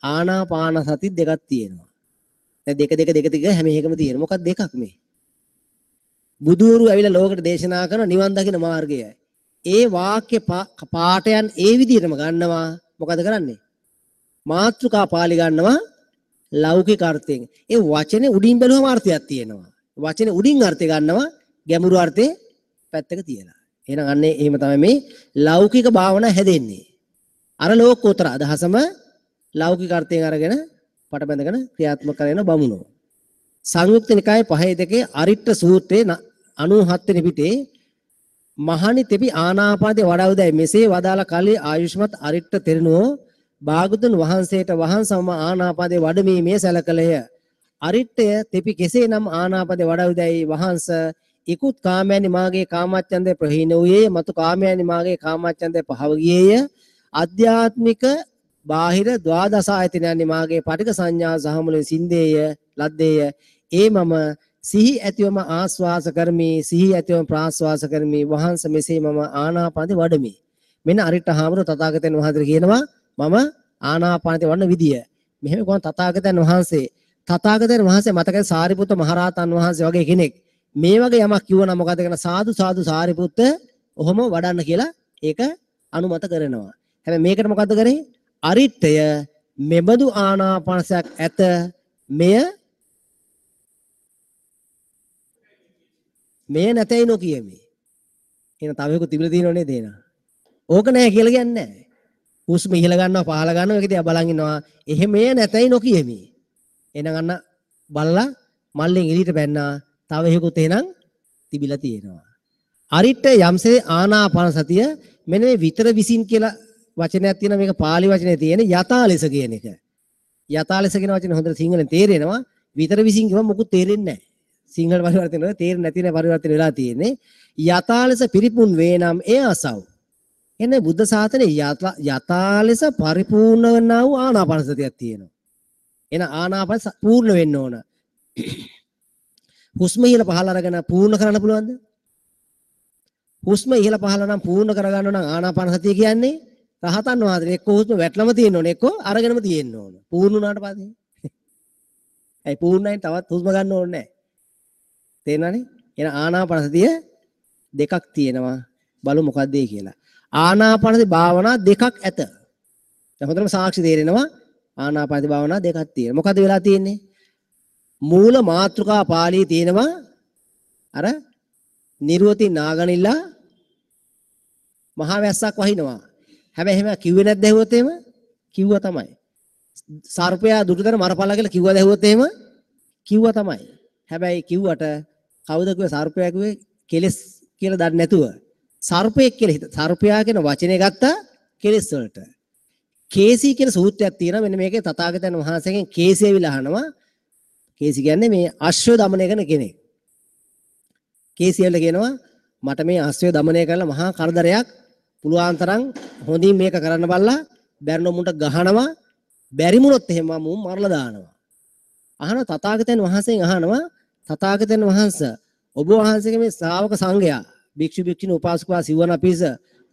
ආනාපාන සති දෙකක් තියෙනවා. දැන් දෙක දෙක දෙක දෙක හැම එකම තියෙනවා. මොකක්ද දෙකක් මේ? බුදුවරු ඇවිල්ලා ලෝකෙට දේශනා කරන නිවන් දකින මාර්ගය. ඒ වාක්‍ය පාඨයන් ඒ විදිහටම ගන්නවා. මොකද කරන්නේ? මාතෘකා පාළි ගන්නවා ලෞකික අර්ථයෙන්. ඒ වචනේ උඩින් බැලුවම අර්ථයක් තියෙනවා. වචනේ උඩින් අර්ථය ගන්නවා, ගැඹුරු අර්ථේ පැත්තක තියලා. එහෙනම් අන්නේ එහෙම තමයි මේ ලෞකික භාවනා හැදෙන්නේ. අර ලෝකෝත්තර අදහසම ලෞකික අර්ථයෙන් අරගෙන පට බැඳගෙන ක්‍රියාත්මක කරන බමුණෝ. සංයුක්ත නිකායේ 5 2 අරිට්ඨ සූත්‍රයේ 97 වෙනි පිටේ මහණි තෙපි ආනාපානයේ වඩා උදයි මෙසේ වදාළ කලී ආයුෂ්මත් අරිට්ඨ තෙරණුවෝ භාගතුන් වහන්සේට වහන්සම ආනාපානයේ වඩමීමේ සැලකලය. අරිට්ඨය තෙපි කෙසේනම් ආනාපානයේ වඩා උදයි වහන්ස ඉකුත් කාමයනි මාගේ කාමච්ඡන්දය ප්‍රහීන වූයේය, මතු කාමයනි මාගේ කාමච්ඡන්දය පහව ගියේය. ආධ්‍යාත්මික බාහිර ද්වාදස ආයතනයනි මාගේ පටික සංඥා සහ මුලින් සින්දේය ලද්දේය. ඒ මම සිහි ඇතිවම ආස්වාස කරමි, සිහි ඇතිවම ප්‍රාස්වාස කරමි. වහන්ස මෙසේ මම ආනාපානයේ වඩමි. මෙන්න අරිට්ඨ හාමුදුරුවෝ තථාගතයන් වහන්සේ කියනවා මම ආනාපානයේ වඩන විදිය. මෙහෙම කොහොම තථාගතයන් වහන්සේ තථාගතයන් වහන්සේ මතකයි සාරිපුත්ත මහරහතන් වහන්සේ වගේ කෙනෙක් මේ වගේ යමක් කිව්වනම් මොකද කරන සාදු සාදු සාරිපුත්ත ඔහොම වඩන්න කියලා ඒක අනුමත කරනවා. හැබැයි මේකට මොකද්ද කරේ? අරිට්ඨය මෙබඳු ආනාපානසයක් ඇත මෙය මෙය නැතයි නොකියමි. එහෙනම් තව එකක් තිබිලා තියෙනව නේද එහෙනම්? ඕක නෑ කියලා කියන්නේ නෑ. හුස්ම ඉහළ ගන්නවා පහළ ගන්නවා ඒක දිහා බලන් ඉන්නවා. එහෙම මෙය නැතයි නොකියමි. එහෙනම් අන්න බලලා මල්ලෙන් එළියට බැන්නා. තව එකකුත් එහෙනම් තිබිලා තියෙනවා. අරිට්ඨ යම්සේ ආනාපාන සතිය මෙන්න මේ විතර විසින් කියලා වචනයක් තියෙනවා. මේක පාලි වචනේ තියෙන යථා ලෙස කියන එක. යථා ලෙස කියන වචනේ හොඳට සිංහලෙන් තේරෙනවා. විතර විසින් කියවම මොකුත් තේරෙන්නේ නැහැ. සිංහල පරිවර්තන වල තේරෙන්නේ නැති නේ පරිවර්තන වෙලා තියෙන්නේ. යථා ලෙස පිරිපුන් වේ නම් එය අසව්. එන්නේ බුද්ධ ශාසනයේ යථා ලෙස පරිපූර්ණ වන්නා වූ ආනාපාන සතියක් තියෙනවා. එන ආනාපාන පූර්ණ වෙන්න ඕන. හුස්ම ඉහළ පහළ අරගෙන පූර්ණ කරන්න පුළුවන්ද? හුස්ම ඉහළ පහළ නම් පූර්ණ කරගන්න නම් ආනාපාන සතිය කියන්නේ රහතන් වහන්සේ එක්ක හුස්ම වැටලම තියෙන්න ඕන එක්ක අරගෙනම තියෙන්න ඕන. පූර්ණ වුණාට පස්සේ. ඇයි පූර්ණයෙන් තවත් හුස්ම ගන්න ඕනේ නැහැ. තේරෙනවනේ? එහෙනම් ආනාපාන සතිය දෙකක් තියෙනවා. බලමු මොකක්ද ඒ කියලා. ආනාපාන සති භාවනා දෙකක් ඇත. දැන් හොඳටම සාක්ෂි තේරෙනවා ආනාපාන සති භාවනා දෙකක් තියෙනවා. මොකද වෙලා තියෙන්නේ? මූල මාතෘකා පාළියේ තියෙනවා අර නිර්වති නාගනිලා මහා වැස්සක් වහිනවා. හැබැයි එහෙම කිව්වේ නැද්ද ඇහුවොත් එහෙම? කිව්වා තමයි. සර්පයා දුටුතර මරපල්ලා කියලා කිව්වද ඇහුවොත් එහෙම? කිව්වා තමයි. හැබැයි කිව්වට කවුද කිව්වේ සර්පයා කිව්වේ කෙලස් කියලා දන්නේ නැතුව සර්පයෙක් කියලා හිත සර්පයා කියන වචනේ ගත්තා කෙලස් වලට. කේසී කියන සූත්‍රයක් තියෙනවා. මෙන්න මේකේ තථාගතයන් වහන්සේගෙන් කේසී ඇවිල්ලා අහනවා. කේසී කියන්නේ මේ අශ්වය දමනය කරන කෙනෙක්. කේසී ඇවිල්ලා කියනවා මට මේ අශ්වය දමනය කරලා මහා කරදරයක් පුළුවන් තරම් හොඳින් මේක කරන්න බලලා බැරිනො මුන්ට ගහනවා බැරි වුණොත් එහෙම මුන් මරලා දානවා. අහනවා තථාගතයන් වහන්සේගෙන් අහනවා තථාගතයන් වහන්සේ ඔබ වහන්සේගේ මේ ශ්‍රාවක සංඝයා භික්ෂු භික්ෂුණී උපාසකවා සිවණ පිරිස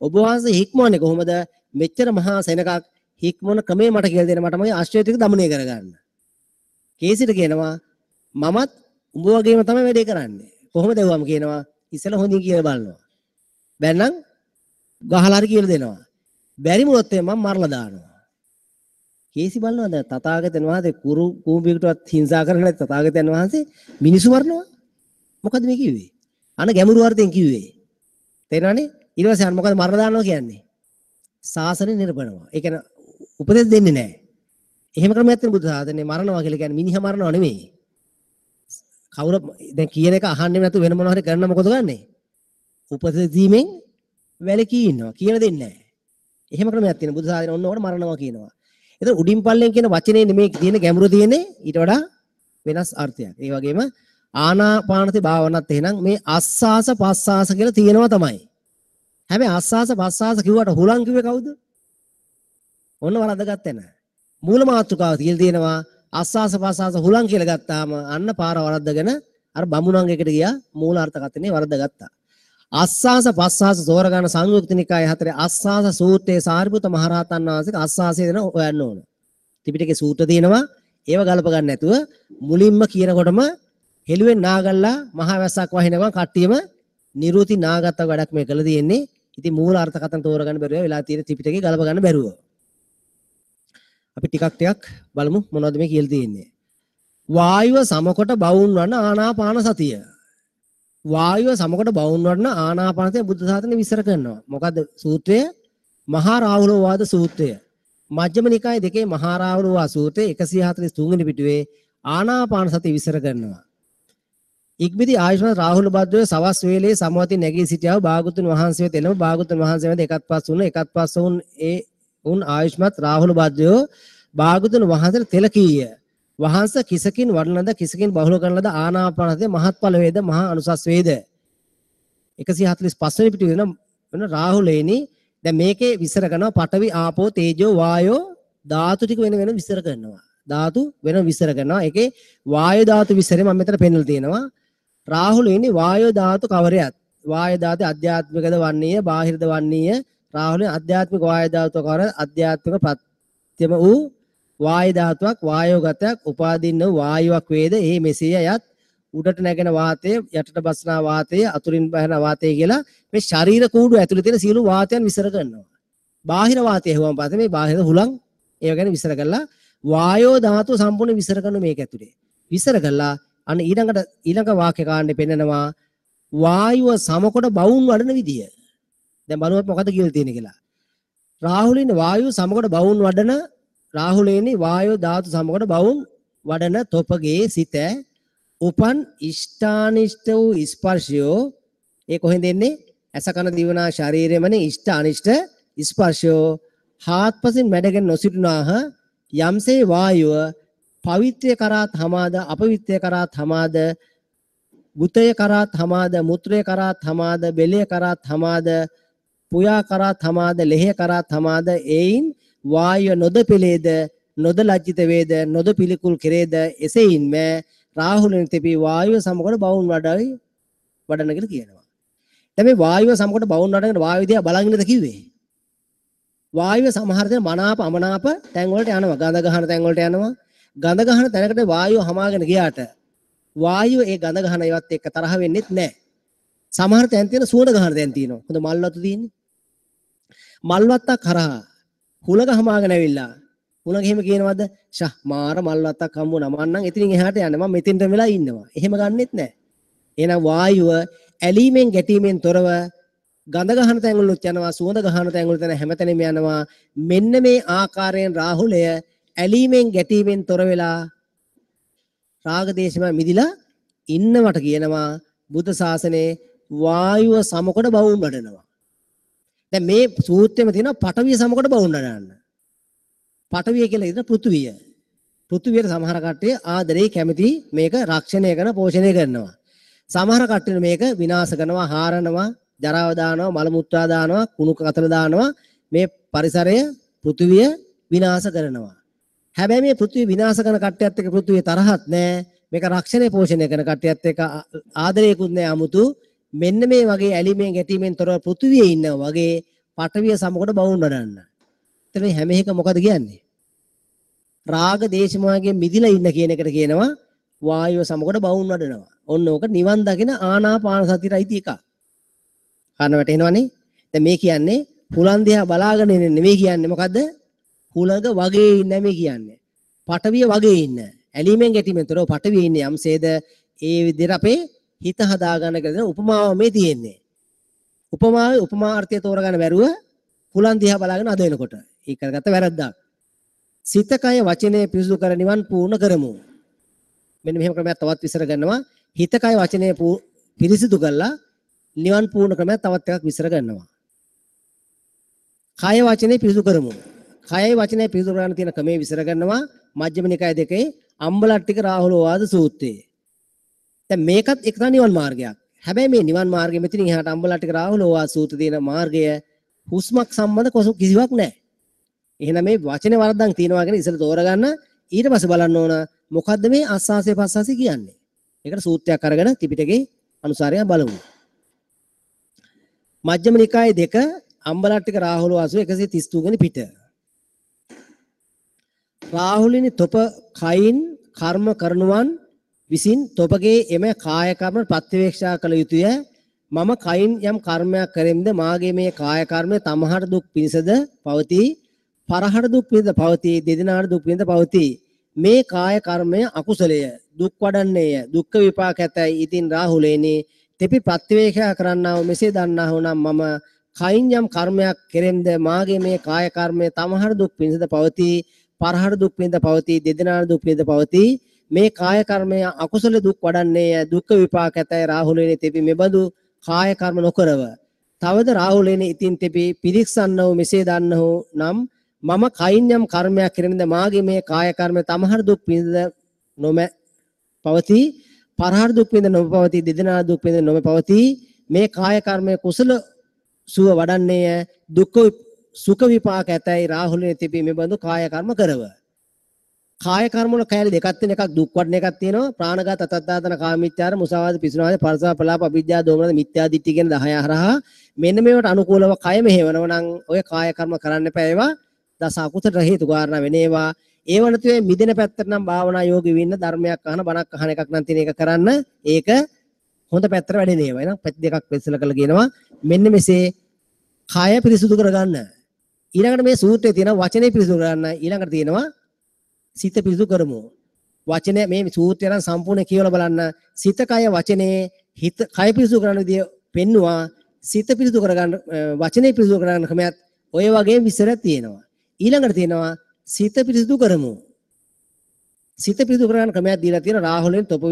ඔබ වහන්සේ හික්මවන්නේ කොහොමද? මෙච්චර මහා සෙනඟක් හික්මවන ක්‍රමය මට කියලා දෙන්න මට මගේ අශ්වය ටික දමනය කරගන්න. කේසිට කියනවා මමත් උඹ වගේම තමයි වැඩේ කරන්නේ. කොහොමද ඇහුවම කියනවා ඉස්සෙල්ලා හොඳින් කියලා බලනවා. බැන්නම් ගහලා හරි කියලා දෙනවා. බැරි වුණොත් එහෙම මම මරලා දානවා. කේසි බලනවා දැන් තථාගතයන් වහන්සේ කුරු කූඹියකටවත් හිංසා කරන්නේ නැති තථාගතයන් වහන්සේ මිනිස්සු මරනවා. මොකද මේ කිව්වේ? අන ගැඹුරු අර්ථයෙන් කිව්වේ. තේරෙනවනේ? ඊට පස්සේ අර මොකද මරලා දානවා කියන්නේ? ශාසනය නිරපනවා. ඒ කියන්නේ උපදෙස් දෙන්නේ නැහැ. එහෙම ක්‍රමයක් තියෙන බුද්ධ ශාසනය මරනවා කියලා කියන්නේ මිනිහා මරනවා නෙමෙයි. කවුරු දැන් කියන එක අහන්නේ නැතුව වෙන මොනවා හරි කරන මොකද ගන්නෙ? උපදෙස් දීමෙන් වැළකී ඉන්නවා. කියලා දෙන්නේ නැහැ. එහෙම ක්‍රමයක් තියෙන බුද්ධ ශාසනය ඔන්න ඕකට මරනවා කියනවා. ඒතර උඩින් පල්ලෙන් කියන වචනේ නෙමෙයි තියෙන ගැඹුරු තියෙන්නේ ඊට වඩා වෙනස් අර්ථයක්. ඒ වගේම ආනාපානසති භාවනාවත් එහෙනම් මේ අස්ಸಾස පස්ಸಾස කියලා තියෙනවා තමයි. හැබැයි අස්ಸಾස පස්ಸಾස කිව්වට හුලං කිව්වේ කවුද? ඔන්න වරද්දගත්තේ නෑ. මූල මාතෘකාව කියලා තියෙනවා අස්සාස පස්සාස හුලං කියලා ගත්තාම අන්න පාර වරද්දගෙන අර බමුණන් එකට ගියා මූල අර්ථකථනය වරද්දගත්තා. අස්සාස පස්සාස තෝරගන්න සංයුක්ත නිකාය හතරේ අස්සාස සූත්‍රයේ සාරිපුත්ත මහරහතන් වහන්සේගේ අස්සාසය දෙන හොයන්න ඕන. ත්‍රිපිටකේ සූත්‍ර තියෙනවා ඒව ගලප ගන්න නැතුව මුලින්ම කියනකොටම හෙළුවෙන් නාගල්ලා මහා වැස්සක් වහිනකම් කට්ටියම නිරුති නාගත්ත වැඩක් මේ කළ තියෙන්නේ. ඉතින් මූල අර්ථකථන තෝරගන්න බැරුව වෙලා තියෙන ත්‍රිපිටකේ ගලප ගන්න බැරුව. අපි ටිකක් ටිකක් බලමු මොනවද මේ කියලා තියෙන්නේ. වායුව සමකොට බවුන් වන ආනාපාන සතිය. වායුව සමකොට බවුන් වන ආනාපාන සතිය බුද්ධ ශාසනය විස්තර කරනවා. මොකද්ද සූත්‍රය? මහා රාහුලවාද සූත්‍රය. මජ්ක්‍ධිම නිකායේ දෙකේ මහා රාහුලවාද සූත්‍රය 143 වෙනි පිටුවේ ආනාපාන සතිය විස්තර කරනවා. ඉක්බිති ආයුෂ්මත් රාහුල භද්‍රය සවස් වේලේ සමවතින් නැගී සිටියාව භාගතුන් වහන්සේ වෙත එළඹ භාගතුන් වහන්සේ වෙත එකත් පස් වුණ එකත් පස් වුන් ඒ උන් ආයුෂ්මත් රාහුල භද්‍රයෝ භාගතුන් වහන්සේට තෙල කීය. වහන්සේ කිසකින් වඩන ලද කිසකින් බහුල කරන ලද ආනාපාන සතිය මහත්ඵල වේද මහා අනුසස් වේද. 145 වෙනි පිටුවේ වෙන රාහුලේනි දැන් මේකේ විස්තර කරනවා පඨවි ආපෝ තේජෝ වායෝ ධාතු ටික වෙන වෙන විස්තර කරනවා. ධාතු වෙන විස්තර කරනවා. ඒකේ වායු ධාතු විස්තරය මම මෙතන පෙන්නලා තියෙනවා. රාහුලේනි වායු ධාතු කවරයත් වායු ධාතු අධ්‍යාත්මිකද වන්නේය බාහිරද වන්නේය. රාහුලේ අධ්‍යාත්මික වායු ධාතු කවර අධ්‍යාත්මික ප්‍රත්‍යම වූ වායු ධාතුවක් වායෝගතයක් උපාදින්න වායුවක් වේද ඒ මෙසේය යත් උඩට නැගෙන වාතය යටට බස්නා වාතය අතුරින් බහන වාතය කියලා මේ ශරීර කූඩුව ඇතුලේ තියෙන සියලු වාතයන් විසර කරනවා. බාහිර වාතය ඇහුවම පස්සේ මේ බාහිර හුලං ඒව ගැන විසර කරලා වායෝ ධාතුව සම්පූර්ණ විසර කරන මේක ඇතුලේ. විසර කරලා අන්න ඊළඟ වාක්‍ය කාණ්ඩේ පෙන්නනවා වායුව සමකොට බවුන් වඩන විදිය. දැන් බලුවත් මොකද කියලා තියෙන්නේ කියලා. රාහුලින් වායුව සමකොට බවුන් වඩන රාහුලේනි වායෝ ධාතු සමකොට බවුන් වඩන තොපගේ සිත උපන් ඉෂ්ඨානිෂ්ඨ වූ ස්පර්ශයෝ ඒ කොහෙන්ද එන්නේ? ඇස කන දිවනා ශරීරෙමනේ ඉෂ්ඨ අනිෂ්ඨ ස්පර්ශයෝ හාත්පසින් මැඩගෙන නොසිටුනාහ යම්සේ වායුව පවිත්‍රය කරාත් හමාද අපවිත්‍රය කරාත් හමාද ගුතය කරාත් හමාද මුත්‍රය කරාත් හමාද බෙලය කරාත් හමාද පුයා කරාත් හමාද ලෙහය කරාත් හමාද එයින් වායුව නොද පෙලේද නොද ලජ්ජිත වේද නොද පිළිකුල් කෙරේද එසෙයින්ම රාහුලෙන් තෙපි වායුව සමකොට බවුන් වඩයි වඩන කියලා කියනවා. දැන් මේ වායුව සමකොට බවුන් වඩනකොට වායුව දිහා බලන් ඉන්නද කිව්වේ? වායුව සමහර දේ මනාප අමනාප තැන් වලට යනවා. ගඳ ගහන තැන් වලට යනවා. ගඳ ගහන තැනකට වායුව හමාගෙන ගියාට වායුව ඒ ගඳ ගහන ඒවත් එක්ක තරහ වෙන්නෙත් නැහැ. සමහර තැන් තියෙන සුවඳ ගහන තැන් තියෙනවා. හොඳ මල් වතු තියෙන්නේ. මල් වත්තක් හරහා හුලඟ හමාගෙන ඇවිල්ලා හුලඟ එහෙම කියනවද? ෂා මාර මල් වත්තක් හම්බ වුණා. මං නම් එතනින් එහාට යන්නේ. මං මෙතෙන්ට වෙලා ඉන්නවා. එහෙම ගන්නෙත් නැහැ. එහෙනම් වායුව ඇලීමෙන් ගැටීමෙන් තොරව ගඳ ගහන තැන් වලුත් යනවා, සුවඳ ගහන තැන් වලට යන හැමතැනම යනවා. මෙන්න මේ ආකාරයෙන් රාහුලය ඇලීමෙන් ගැටීමෙන් තොර වෙලා රාග දේශම මිදිලා ඉන්නවට කියනවා බුද්ධ ශාසනයේ වායුව සමකොට බවුන් වඩනවා. දැන් මේ සූත්‍රෙම තියෙනවා පඨවිය සමකොට බවුන් වඩන්න. පඨවිය කියලා කියන පෘථුවිය. පෘථුවියට සමහර කට්ටිය ආදරේ කැමති මේක රක්ෂණය කරන පෝෂණය කරනවා. සමහර කට්ටිය මේක විනාශ කරනවා, හාරනවා, ජරාව දානවා, මල මුත්‍රා දානවා, කුණු කතර දානවා, මේ පරිසරය පෘථුවිය විනාශ කරනවා. හැබැයි මේ පෘථුවිය විනාශ කරන කට්ටියත් එක්ක පෘථුවිය තරහත් නෑ. මේක රක්ෂණය පෝෂණය කරන කට්ටියත් එක්ක ආදරයකුත් නෑ 아무තු. මෙන්න මේ වගේ ඇලීමෙන් ගැටීමෙන් තොරව පෘථුවියේ ඉන්නවා වගේ පඨවිය සමකොට බවුන් වඩන්න. එතන මේ හැම එකම මොකද කියන්නේ? රාග දේශ මොහයෙන් මිදිලා ඉන්න කියන එකට කියනවා වායුව සමකොට බවුන් වඩනවා. ඔන්න ඕක නිවන් දකින ආනාපාන සතියට අයිති එකක්. කන වැටෙනවනේ. දැන් මේ කියන්නේ හුලං දිහා බලාගෙන ඉන්න නෙමෙයි කියන්නේ. මොකද්ද? හුලඟ වගේ ඉන්න මේ කියන්නේ. පඨවිය වගේ ඉන්න. ඇලීමෙන් ගැටීමෙන් තොරව පඨවිය ඉන්නේ යම්සේද ඒ විදිහට අපේ හිත හදාගන්න කියලා දෙන උපමාව මේ තියෙන්නේ. උපමාවේ උපමාර්ථය තෝරගන්න බැරුව හුලං දිහා බලාගෙන අද වෙනකොට ඒක කරගත්ත වැරද්දක්. සිත කය වචනය පිරිසුදු කර නිවන් පූර්ණ කරමු. මෙන්න මෙහෙම ක්‍රමයක් තවත් විස්තර කරනවා. හිත කය වචනය පිරිසිදු කරලා නිවන් පූර්ණ ක්‍රමයක් තවත් එකක් විස්තර කරනවා. කය වචනේ පිරිසුදු කරමු. කයයි වචනය පිරිසුදු කරගන්න තියෙන ක්‍රමයේ විස්තර කරනවා මජ්ක්‍ධිම නිකාය දෙකේ අම්බලට්ටික රාහුලෝවාද සූත්‍රයේ. දැන් මේකත් එක්තරා නිවන් මාර්ගයක්. හැබැයි මේ නිවන් මාර්ගය මෙතනින් එහාට අම්බලට්ටික රාහුලෝවාද සූත්‍රයේ තියෙන මාර්ගය හුස්මක් සම්බන්ධ කිසිවක් නැහැ. එහෙනම් මේ වචනේ වරද්දන් තියනවා කියන ඉස්සෙල්ලා තෝරගන්න ඊට පස්සේ බලන්න ඕන මොකද්ද මේ ආස්වාසය පස්වාසය කියන්නේ. ඒකට සූත්‍රයක් අරගෙන ත්‍රිපිටකේ අනුසාරය බලමු. මජ්ක්‍ධිම නිකායේ දෙක අම්බලට්ටික රාහුල වාසුව 133 වෙනි පිට. රාහුලිනි තොප කයින් කර්ම කරනුවන් විසින් තොපගේ එම කාය කර්ම ප්‍රත්‍යවේක්ෂා කළ යුතුය. මම කයින් යම් කර්මයක් කරෙම්ද මාගේ මේ කාය කර්මය තමහට දුක් පිණිසද පවතී, පරහට දුක් පිණිසද පවතී, දෙදෙනාට දුක් පිණිසද පවතී. මේ කාය කර්මය අකුසලය, දුක් වඩන්නේය, දුක්ඛ විපාක ඇතයි. ඉතින් රාහුලේනි තෙපි ප්‍රත්‍යවේක්ෂා කරන්නා වූ මෙසේ දන්නා වූ නම් මම කයින් යම් කර්මයක් කෙරෙම්ද මාගේ මේ කාය කර්මය තමහට දුක් පිණිසද පවතී, පරහට දුක් පිණිසද පවතී, දෙදෙනාට දුක් පිණිසද පවතී. මේ කාය කර්මය අකුසල දුක් වඩන්නේය, දුක්ඛ විපාක ඇතයි. රාහුලේනි තෙපි මෙබඳු කාය කර්ම නොකරව. තවද රාහුලේනි ඉතින් තෙපි පිරික්සන්නව මෙසේ දන්නහු නම් මම කයින් යම් කර්මයක් කෙරෙම්ද මාගේ මේ කාය කර්මය තමහට දුක් පිණිසද නොම පවතී, පරහට දුක් පිණිසද නොම පවතී, දෙදෙනාට දුක් පිණිසද නොම පවතී. මේ කාය කර්මය කුසල සුව වඩන්නේය, දුක්ඛ සුඛ විපාක ඇතයි. රාහුලේනි තෙපි මෙබඳු කාය කර්ම කරව. කාය කර්ම වල කැලි දෙකක් තියෙන, එකක් දුක් වඩන එකක් තියෙනවා. ප්‍රාණඝාත, අතත්තාතන, කාමීත්‍යාර, මුසාවාද, පිසුනාද, පරසා ප්‍රලාප, අවිද්‍යා, දෝමනද, මිත්‍යා දිට්ඨිය කියන 10 හරහා මෙන්න මේවට අනුකූලව කය මෙහෙවනවා නම් ඔය කාය කර්ම කරන්න එපා. ඒවා දස අකුසල හේතු කාරණා වෙන ඒවා. ඒව නැතුව මිදෙන පැත්තට නම් භාවනා යෝගී වෙන්න ධර්මයක් අහන බණක් අහන එකක් නම් තියෙන එක කරන්න ඒක හොඳ පැත්තට වැඩෙන ඒවා. එහෙනම් පැති දෙකක් වෙස්සල කරලා කියනවා මෙන්න මෙසේ කය පිරිසුදු කරගන්න. ඊළඟට මේ සූත්‍රයේ තියෙන වචනේ පිරිසුදු කරගන්න. ඊළඟට තියෙනවා සිත පිරිසුදු කරමු. වචනය මේ සූත්‍රය නම් සම්පූර්ණ කියවලා බලන්න. සිත කය වචනේ හිත කය පිරිසුදු කරන විදිය පෙන්නවා. සිත පිරිසුදු කරගන්න වචනේ පිරිසුදු කරගන්න ක්‍රමයක් ඔය වගේ විස්තරයක් තියෙනවා. ඊළඟට තියෙනවා සිත පිරිසුදු කරමු. සිත පිරිසුදු කරගන්න ක්‍රමයක් දීලා තියෙනවා රාහුලෙන් තොප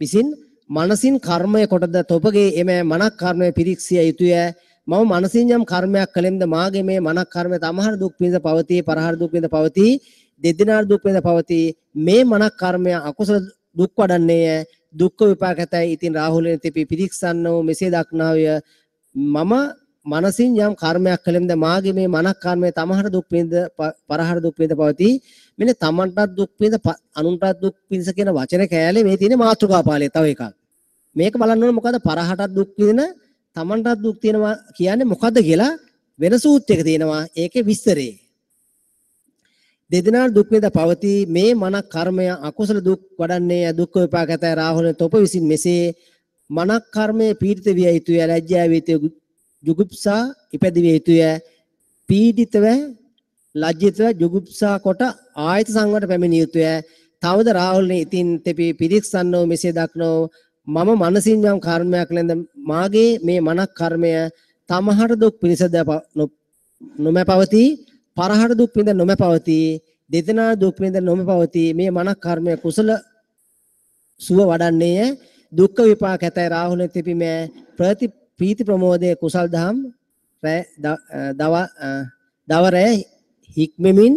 විසින් මනසින් කර්මය කොටද තොපගේ එම මනක් කර්මය පිරික්සිය යුතුය. මම මනසින් යම් කර්මයක් කළෙම්ද මාගේ මේ මනක් කර්මය තමහර දුක් පිණිස පවතී, පරහර දුක් පිණිස පවතී, දෙදෙනාට දුක් පිණිස පවතී. මේ මනක් කර්මය අකුසල දුක් වඩන්නේය, දුක්ඛ විපාක ඇතයි. ඉතින් රාහුලෙන් තෙපි පිරික්සන්නෝ මෙසේ දක්නාවය. මම මනසින් යම් කර්මයක් කළෙම්ද මාගේ මේ මනක් කර්මය තමහර දුක් පිණිස පරහර දුක් පිණිස පවතී. මෙන්න තමන්ටත් දුක් පිණිස අනුන්ටත් දුක් පිණිස කියන වචන කෑලේ මේ තියෙන මාතෘකා පාළිය තව එකක්. මේක බලන්න ඕන මොකද පරහටත් දුක් විඳින තමන්ටත් දුක් තියෙනවා කියන්නේ මොකද්ද කියලා වෙන සූත්‍රයක තියෙනවා ඒකේ විස්තරේ. දෙදෙනාට දුක් විඳ පවතී මේ මනක් කර්මය අකුසල දුක් වඩන්නේ දුක්ඛ විපාක ඇතයි. රාහුල තොප විසින් මෙසේ මනක් කර්මයේ පීඩිත විය යුතුය, ලැජ්ජා විය යුතුය, ජුගුප්සා ඉපැදවිය යුතුය. පීඩිතව ලැජ්ජිතව ජුගුප්සා කොට ආයත සංවරට පැමිණිය යුතුය. තවද රාහුලනේ ඉතින් තෙපි පිරික්සන්නෝ මෙසේ දක්නෝ මම මනසින් යම් කර්මයක් ලැබ මාගේ මේ මනක් කර්මය තමහට දුක් පිණිසද නොම පවතී, පරහට දුක් පිණිස නොම පවතී, දෙදෙනා දුක් පිණිස නොම පවතී. මේ මනක් කර්මය කුසල සුව වඩන්නේය, දුක්ඛ විපාක ඇතයි. රාහුල තෙපි මෑ ප්‍රති ප්‍රීති ප්‍රමෝදයේ කුසල් දහම් දව රැ හික්මෙමින්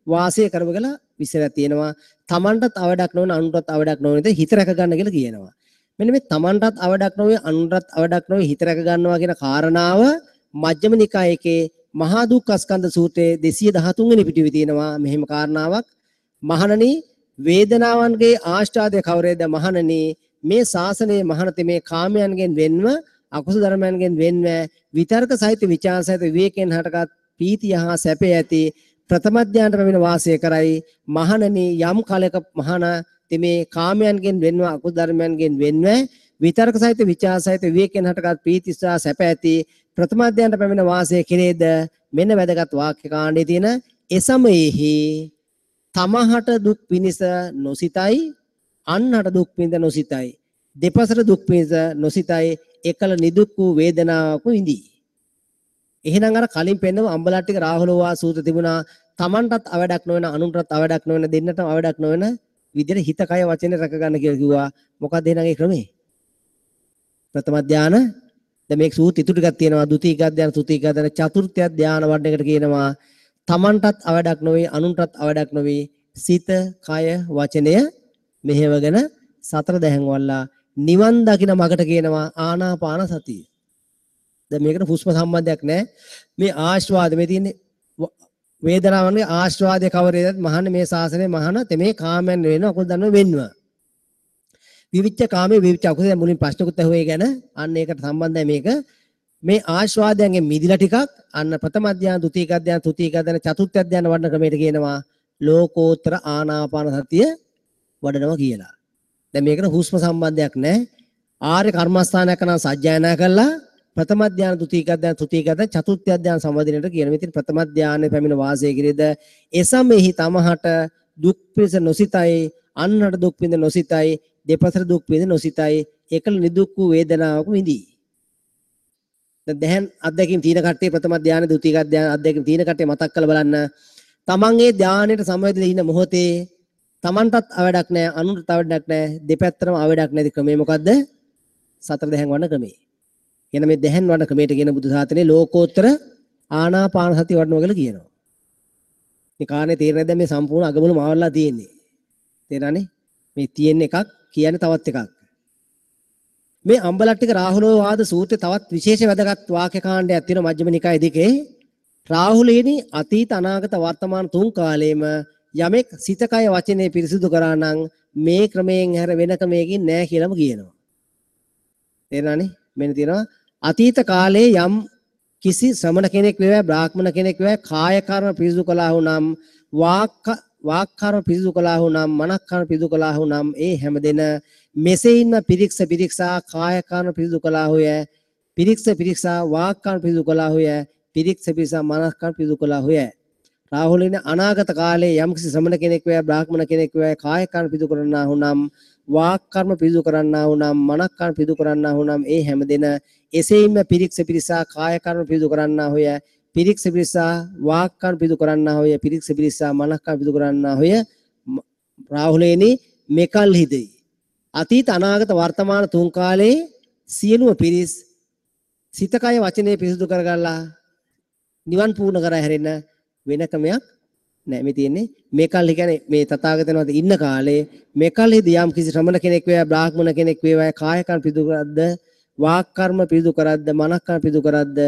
වාසය කරව කියලා විස්තරයක් තියෙනවා. තමන්ටත් අවඩක් නොවන අනුන්ටත් අවඩක් නොවන විදිහට හිත රැක ගන්න කියලා කියනවා. මෙන්න මේ තමන්ටත් අවඩක් නොවේ අනුන්ටත් අවඩක් නොවේ හිත රැක ගන්නවා කියන කාරණාව මජ්ක්‍ධිම නිකායකේ මහා දුක්ඛස්කන්ධ සූත්‍රයේ 213 වෙනි පිටුවේ තියෙනවා මෙහෙම කාරණාවක්. මහණනි වේදනාවන්ගේ ආස්වාදය කවරේද? මහණනි මේ ශාසනයේ මහණතෙ මේ කාමයන්ගෙන් වෙන්ව අකුසල ධර්මයන්ගෙන් වෙන්ව විතර්ක සහිත විචාර සහිත විවේකයෙන් හටගත් පීතිය හා සැපය ඇති ප්‍රථම ධ්‍යානට පැමිණ වාසය කරයි. මහණනි යම් කලක මහණ මේ කාමයන්ගෙන් වෙන්ව අකුසල ධර්මයන්ගෙන් වෙන්ව විතර්ක සහිත විචාර සහිත විවේකයෙන් හටගත් පීති සහ සැප ඇති ප්‍රථම ධ්‍යානට පැමිණ වාසය කෙරේද? මෙන්න වැදගත් වාක්‍ය කාණ්ඩයේ තියෙන එසමයෙහි තමහට දුක් පිණිස නොසිතයි, අන්හට දුක් පිණිස නොසිතයි, දෙපසට දුක් පිණිස නොසිතයි, එකල නිදුක් වූ වේදනාවක් විඳී. එහෙනම් අර කලින් පෙන්නව අම්බලට්ටික රාහුලවා සූත්‍ර තිබුණා. තමන්ටත් අවඩක් නොවන අනුන්ටත් අවඩක් නොවන දෙන්නටම අවඩක් නොවන විදිහට හිත කය වචනේ රැක ගන්න කියලා කිව්වා. මොකක්ද එහෙනම් ඒ ක්‍රමේ? ප්‍රථම ධානය. දැන් මේ සූත්‍ර ඉතුරු ටිකක් තියෙනවා. ද්විතීක ධානය, තෘතීක ධානය, චතුර්ථ ධානය වඩන එකට කියනවා තමන්ටත් අවඩක් නොවේ අනුන්ටත් අවඩක් නොවේ සිත කය වචනය මෙහෙවගෙන සතර දැහන් වල්ලා නිවන් දකින මගට කියනවා ආනාපාන සතිය. දැන් මේකට හුස්ම සම්බන්ධයක් නැහැ. මේ ආස්වාද මේ තියෙන්නේ වේදනාවන්ගේ ආස්වාදය කවරේදත් මහන්නේ මේ ශාසනයේ මහන තෙමේ කාමයන් වෙන අකුසල ධර්ම වෙන්ව. විවිච්ඡ කාමයේ විවිච්ඡ අකුසල. දැන් මුලින් ප්‍රශ්නකුත් ඇහුවේ ඒ ගැන. අන්න ඒකට සම්බන්ධයි මේක. මේ ආස්වාදයන්ගෙන් මිදිලා ටිකක් අන්න ප්‍රථම ධ්‍යාන, ද්විතීක ධ්‍යාන, තෘතීක ධ්‍යාන, චතුර්ථ ධ්‍යාන වඩන ක්‍රමයට කියනවා ලෝකෝත්තර ආනාපාන සතිය වඩනවා කියලා. දැන් මේකට හුස්ම සම්බන්ධයක් නැහැ. ආර්ය කර්මස්ථානයක් නම් සජ්ජායනා කළා ප්‍රථම ධ්‍යාන, ද්විතීක ධ්‍යාන, තෘතීක ධ්‍යාන, චතුර්ථ ධ්‍යාන සම්බන්ධනයට කියන. මේ තියෙන ප්‍රථම ධ්‍යානෙ පැමිණ වාසය කිරීද එසමෙහි තමහට දුක් පිණිස නොසිතයි, අන්හට දුක් පිණිස නොසිතයි, දෙපසට දුක් පිණිස නොසිතයි, එකල නිදුක් වූ වේදනාවක විඳී. දැන් දැහන් අත්දැකීම් තියෙන කට්ටිය ප්‍රථම ධ්‍යාන, ද්විතීක ධ්‍යාන අත්දැකීම් තියෙන කට්ටිය මතක් කරලා බලන්න. තමන් ඒ ධ්‍යානයට සමවැදලා ඉන්න මොහොතේ තමන්ටත් අවඩක් නැහැ, අනුන්ටත් අවඩක් නැහැ, දෙපැත්තටම අවඩක් නැති ක්‍රමය මොකද්ද? සතර දැහන් වඩන ක්‍රමය. කියන මේ දැහන් වඩන ක්‍රමයට කියන බුදු සාසනයේ ලෝකෝත්තර ආනාපාන සතිය වඩනවා කියලා කියනවා. මේ කාරණේ තේරෙන්නේ නැද්ද? මේ සම්පූර්ණ අගමුල මාවලා තියෙන්නේ. තේරෙනවනේ? මේ තියෙන එකක් කියන්නේ තවත් එකක්. මේ අම්බලට්ටික රාහුලෝ වාද සූත්‍රයේ තවත් විශේෂ වැදගත් වාක්‍ය කාණ්ඩයක් තියෙනවා මජ්ක්‍ධිම නිකායේ දෙකේ. රාහුලේනි අතීත අනාගත වර්තමාන තුන් කාලයේම යමෙක් සිත කය වචනේ පිරිසිදු කරා නම් මේ ක්‍රමයෙන් හැර වෙන ක්‍රමයකින් නෑ කියලාම කියනවා. තේරෙනවනේ? මෙන්න තියෙනවා අතීත කාලයේ යම් කිසි ශ්‍රමණ කෙනෙක් වේවා බ්‍රාහ්මණ කෙනෙක් වේවා කාය කර්ම පිරිසිදු කළා වුනම් වාක් වාක් කර්ම පිරිසිදු කළාහු නම් මනස් කර්ම පිරිසිදු කළාහු නම් ඒ හැම දෙන මෙසේින්ම පිරික්ස පිරික්සා කාය කර්ම පිරිසිදු කළාහුය, පිරික්ස පිරික්සා වාක් කර්ම පිරිසිදු කළාහුය, පිරික්ස පිරික්සා මනස් කර්ම පිරිසිදු කළාහුය. රාහුලින අනාගත කාලයේ යම්කිසි ශ්‍රමණ කෙනෙක් වේවා බ්‍රාහ්මණ කෙනෙක් වේවා කාය කර්ම පිරිසිදු කරන්නාහු නම් වාක් කර්ම පිරිසිදු කරන්නාහු නම් මනස් කර්ම පිරිසිදු කරන්නාහු නම් ඒ හැම දෙන එසේින්ම පිරික්ස පිරික්සා කාය කර්ම පිරිසිදු කරන්නාහුය, පිරික්ස පිරික්සා වාක් කර්ම පිරිසිදු කරන්නාහුය, පිරික්ස පිරික්සා මනස් කර්ම පිරිසිදු කරන්නාහුය. රාහුලේනි මෙකල්හිදී අතීත අනාගත වර්තමාන තුන් කාලයේ සියලුම පිරිස් සිත කය වචනේ පිරිසිදු කරගල්ලා නිවන් පූර්ණ කර හැරෙන්න වෙන ක්‍රමයක් නෑ. මේ තියෙන්නේ මෙකල්හි කියන්නේ මේ තථාගතයන් වහන්සේ ඉන්න කාලේ මෙකල්හිදී යම් කිසි ශ්‍රමණ කෙනෙක් වේවා බ්‍රාහ්මණ කෙනෙක් වේවා කාය කර්ම පිරිසිදු කරද්ද වාක් කර්ම පිරිසිදු කරද්ද මනස් කර්ම පිරිසිදු කරද්ද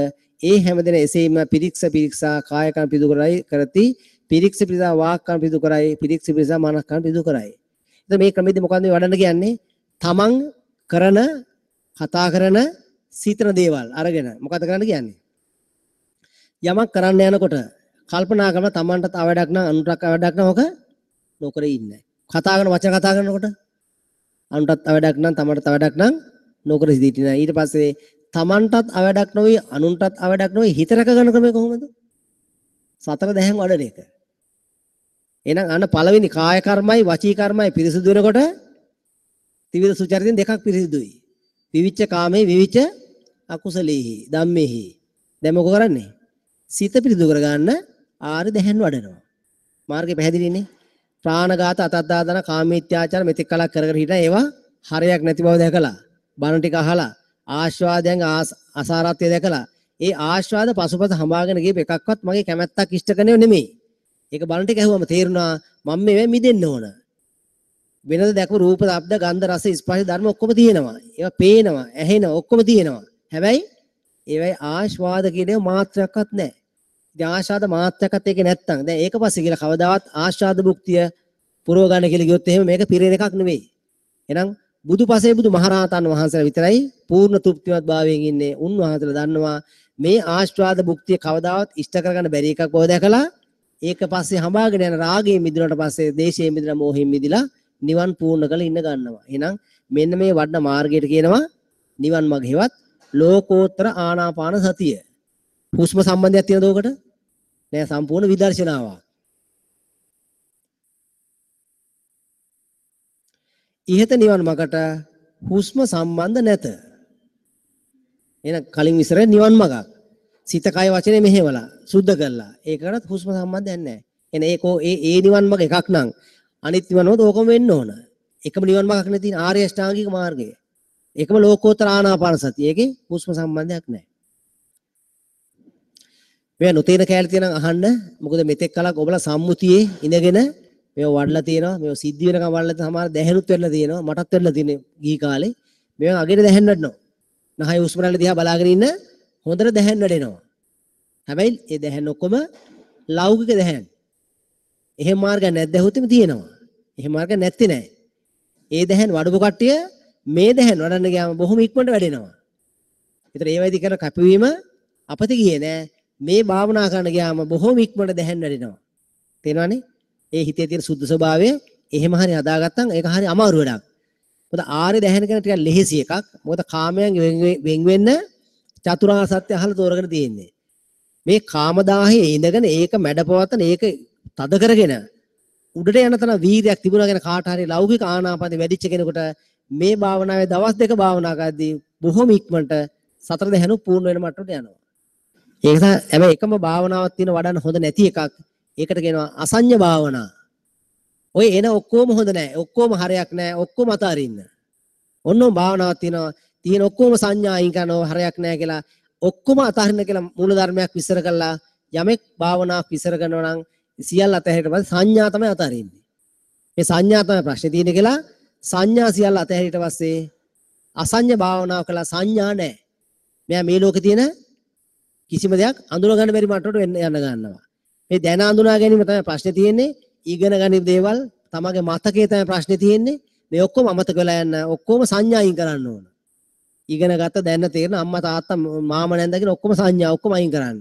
ඒ හැමදෙන එසේම පිරික්ස පිරික්සා කාය කර්ම පිරිසිදු කරයි කරති, පිරික්ස පිරික්සා වාක් කර්ම පිරිසිදු කරයි, පිරික්ස පිරික්සා මනස් කර්ම පිරිසිදු කරයි. එතකොට මේ ක්‍රමෙදි මොකද්ද මේ වඩන්න කියන්නේ? තමන් කරන කතා කරන සිතන දේවල් අරගෙන මොකද්ද කරන්න කියන්නේ? යමක් කරන්න යනකොට කල්පනා කරන තමන්ට තව වැඩක් නම් අනුන්ටත් වැඩක් නම් ඔක නොකර ඉන්න. කතා කරන වචන කතා කරනකොට අනුන්ටත් වැඩක් නම් තමන්ටත් වැඩක් නම් නොකර සිටින. ඊට පස්සේ තමන්ටත් අවඩක් නොවේ අනුන්ටත් අවඩක් නොවේ හිත රැක ගන්න ක්‍රමය කොහොමද? සතර දැහැන් වඩන එක. එහෙනම් අන්න පළවෙනි කාය කර්මයි වචී කර්මයි පිරිසිදු වෙනකොට ත්‍රිවිධ සුචරිතෙන් දෙකක් පිරිසිදුයි. විවිච්ඡ කාමේ විවිච්ඡ අකුසලේහි ධම්මේහි. දැන් මොකෝ කරන්නේ? සිත පිරිසිදු කරගන්න ආරි දැහැන් වඩනවා. මාර්ගය පැහැදිලිනේ. ප්‍රාණඝාත අතද්දාදන කාමීත්‍යාචාර මෙතෙක් කලක් කර කර හිටියා ඒවා හරයක් නැති බව දැකලා බණ ටික අහලා ආශ්වාදයන් අසාරත්වය දැකලා ඒ ආශ්වාද පසුපස හඹාගෙන ගියප එකක්වත් මගේ කැමැත්තක් ඉෂ්ට කරනේව නෙමෙයි. ඒක බණ ටික ඇහුවම තේරුණා මම මේවෙන් මිදෙන්න ඕන. වෙනද දැකපු රූප, ශබ්ද, ගන්ධ, රස, ස්පර්ශ ධර්ම ඔක්කොම තියෙනවා. ඒවා පේනවා, ඇහෙනවා, ඔක්කොම තියෙනවා. හැබැයි ඒවයි ආශ්වාද කියන ඒවා මාත්‍රයක්වත් නැහැ. ඉතින් ආශ්වාද මාත්‍රයක්වත් ඒකේ නැත්තම් දැන් ඒක පස්සේ කියලා කවදාවත් ආශ්වාද භුක්තිය පුරව ගන්න කියලා ගියොත් එහෙම මේක පිරෙන එකක් නෙවෙයි. එහෙනම් බුදුපසේ බුදු මහරහතන් වහන්සේලා විතරයි පූර්ණ තෘප්තිමත් භාවයෙන් ඉන්නේ. උන්වහන්සේලා දන්නවා මේ ආශ්වාද භුක්තිය කවදාවත් ඉෂ්ට කරගන්න බැරි එකක් බව දැකලා ඒක පස්සේ හඹාගෙන යන රාගයෙන් මිදුණාට පස්සේ දේශයෙන් මිදලා මෝහයෙන් මිදලා නිවන් පූර්ණ කරලා ඉන්න ගන්නවා. එහෙනම් මෙන්න මේ වඩන මාර්ගයට කියනවා නිවන් මඟ හෙවත් ලෝකෝත්තර ආනාපාන සතිය. හුස්ම සම්බන්ධයක් තියෙනද ඔකට? නෑ, සම්පූර්ණ විදර්ශනාවක්. ඉහත නිවන් මගට හුස්ම සම්බන්ධ නැත. එහෙනම් කලින් විස්තර නිවන් මගක්. සිත කය වචනේ මෙහෙवला සුද්ධ කරලා. ඒකටත් හුස්ම සම්බන්ධයක් නැහැ. එහෙනම් ඒකෝ ඒ ඒ නිවන් මග එකක් නම් අනිත් නිවන් මග ඕකම වෙන්න ඕන. එකම නිවන් මගක් නේ තියෙන ආර්ය අෂ්ටාංගික මාර්ගය. ඒකම ලෝකෝත්තර ආනාපාන සතිය. ඒකේ හුස්ම සම්බන්ධයක් නැහැ. මේවා නොතේන කෑලි තියෙනම් අහන්න. මොකද මෙතෙක් කලක් ඔබලා සම්මුතියේ ඉඳගෙන මේවා වඩලා තියෙනවා. මේවා සිද්ධ වෙනකම් වඩලා තියෙන සමහර දැහැනුත් වෙලා තියෙනවා. මටත් වෙලා තියෙන්නේ ගිහි කාලේ. මේවා අගේට දැහැන් වඩනවා. නහය හුස්ම රැල්ල දිහා බලාගෙන ඉන්න හොඳට දැහැන් වැඩෙනවා. හැබැයි ඒ දැහැන් ඔක්කොම ලෞකික දැහැන්. එහෙම මාර්ගයක් නැද්ද ඇහුවොත් එimhe තියෙනවා. එහෙම මාර්ගයක් නැත්තේ නෑ. ඒ දැහැන් වඩපු කට්ටිය මේ දැහැන් වඩන්න ගියාම බොහොම ඉක්මනට වැඩෙනවා. ඒතර ඒ වයිදි කරන කැපවීම අපතේ ගියේ නෑ. මේ භාවනා කරන්න ගියාම බොහොම ඉක්මනට දැහැන් වැඩෙනවා. තේරෙනවනේ? ඒ හිතේ තියෙන සුද්ධ ස්වභාවය එහෙම හරි හදාගත්තම් ඒක හරි අමාරු වැඩක්. මොකද ආර්ය දැහැන් කියන ටිකක් ලෙහෙසි එකක්. මොකද කාමයන් වෙන් වෙන්න චතුරාර්ය සත්‍ය අහලා තෝරගෙන තියෙන්නේ. මේ කාමදාහයේ ඉඳගෙන ඒක මැඩපවත්තන ඒක තද කරගෙන උඩට යන තරම් වීර්යයක් තිබුණා කියන කාට හරි ලෞකික ආනාපානෙ වැඩිච්ච කෙනෙකුට මේ භාවනාවේ දවස් දෙක භාවනා කරද්දී බොහොම ඉක්මනට සතර දැහැනු පූර්ණ වෙන මට්ටමට යනවා. ඒක නිසා හැබැයි එකම භාවනාවක් තියෙන වඩන්න හොඳ නැති එකක්. ඒකට කියනවා අසඤ්ඤ භාවනා. ඔය එන ඔක්කොම හොඳ නෑ. ඔක්කොම හරයක් නෑ. ඔක්කොම අතාරින්න. ඔන්නෝම භාවනාවක් තියෙනවා. තියෙන ඔක්කොම සංඥා අයින් කරනවා හරයක් නෑ කියලා ඔක්කොම අතාරින්න කියලා මූල ධර්මයක් විස්තර කළා. යමෙක් භාවනාවක් විස්තර කරනවා නම් සියල්ල අතහැරියට පස්සේ සංඥා තමයි අතාරින්නේ. මේ සංඥා තමයි ප්‍රශ්නේ තියෙන්නේ කියලා සංඥා සියල්ල අතහැරියට පස්සේ අසඤ්ඤ භාවනාව කළා සංඥා නෑ. මෙයා මේ ලෝකේ තියෙන කිසිම දෙයක් අඳුන ගන්න බැරි මට්ටමට වෙන්න යන ගන්නවා. මේ දැන අඳුනා ගැනීම තමයි ප්‍රශ්නේ තියෙන්නේ. ඉගෙන ගන්න දේවල් තමගේ මතකයේ තමයි ප්‍රශ්නේ තියෙන්නේ. මේ ඔක්කොම අමතක වෙලා යන ඔක්කොම සංඥා අයින් කරන්න ඕන. ඉගෙන ගත්ත දැන තේරෙන අම්මා තාත්තා මාමා නැන්දා කියන ඔක්කොම සංඥා ඔක්කොම අයින් කරන්න.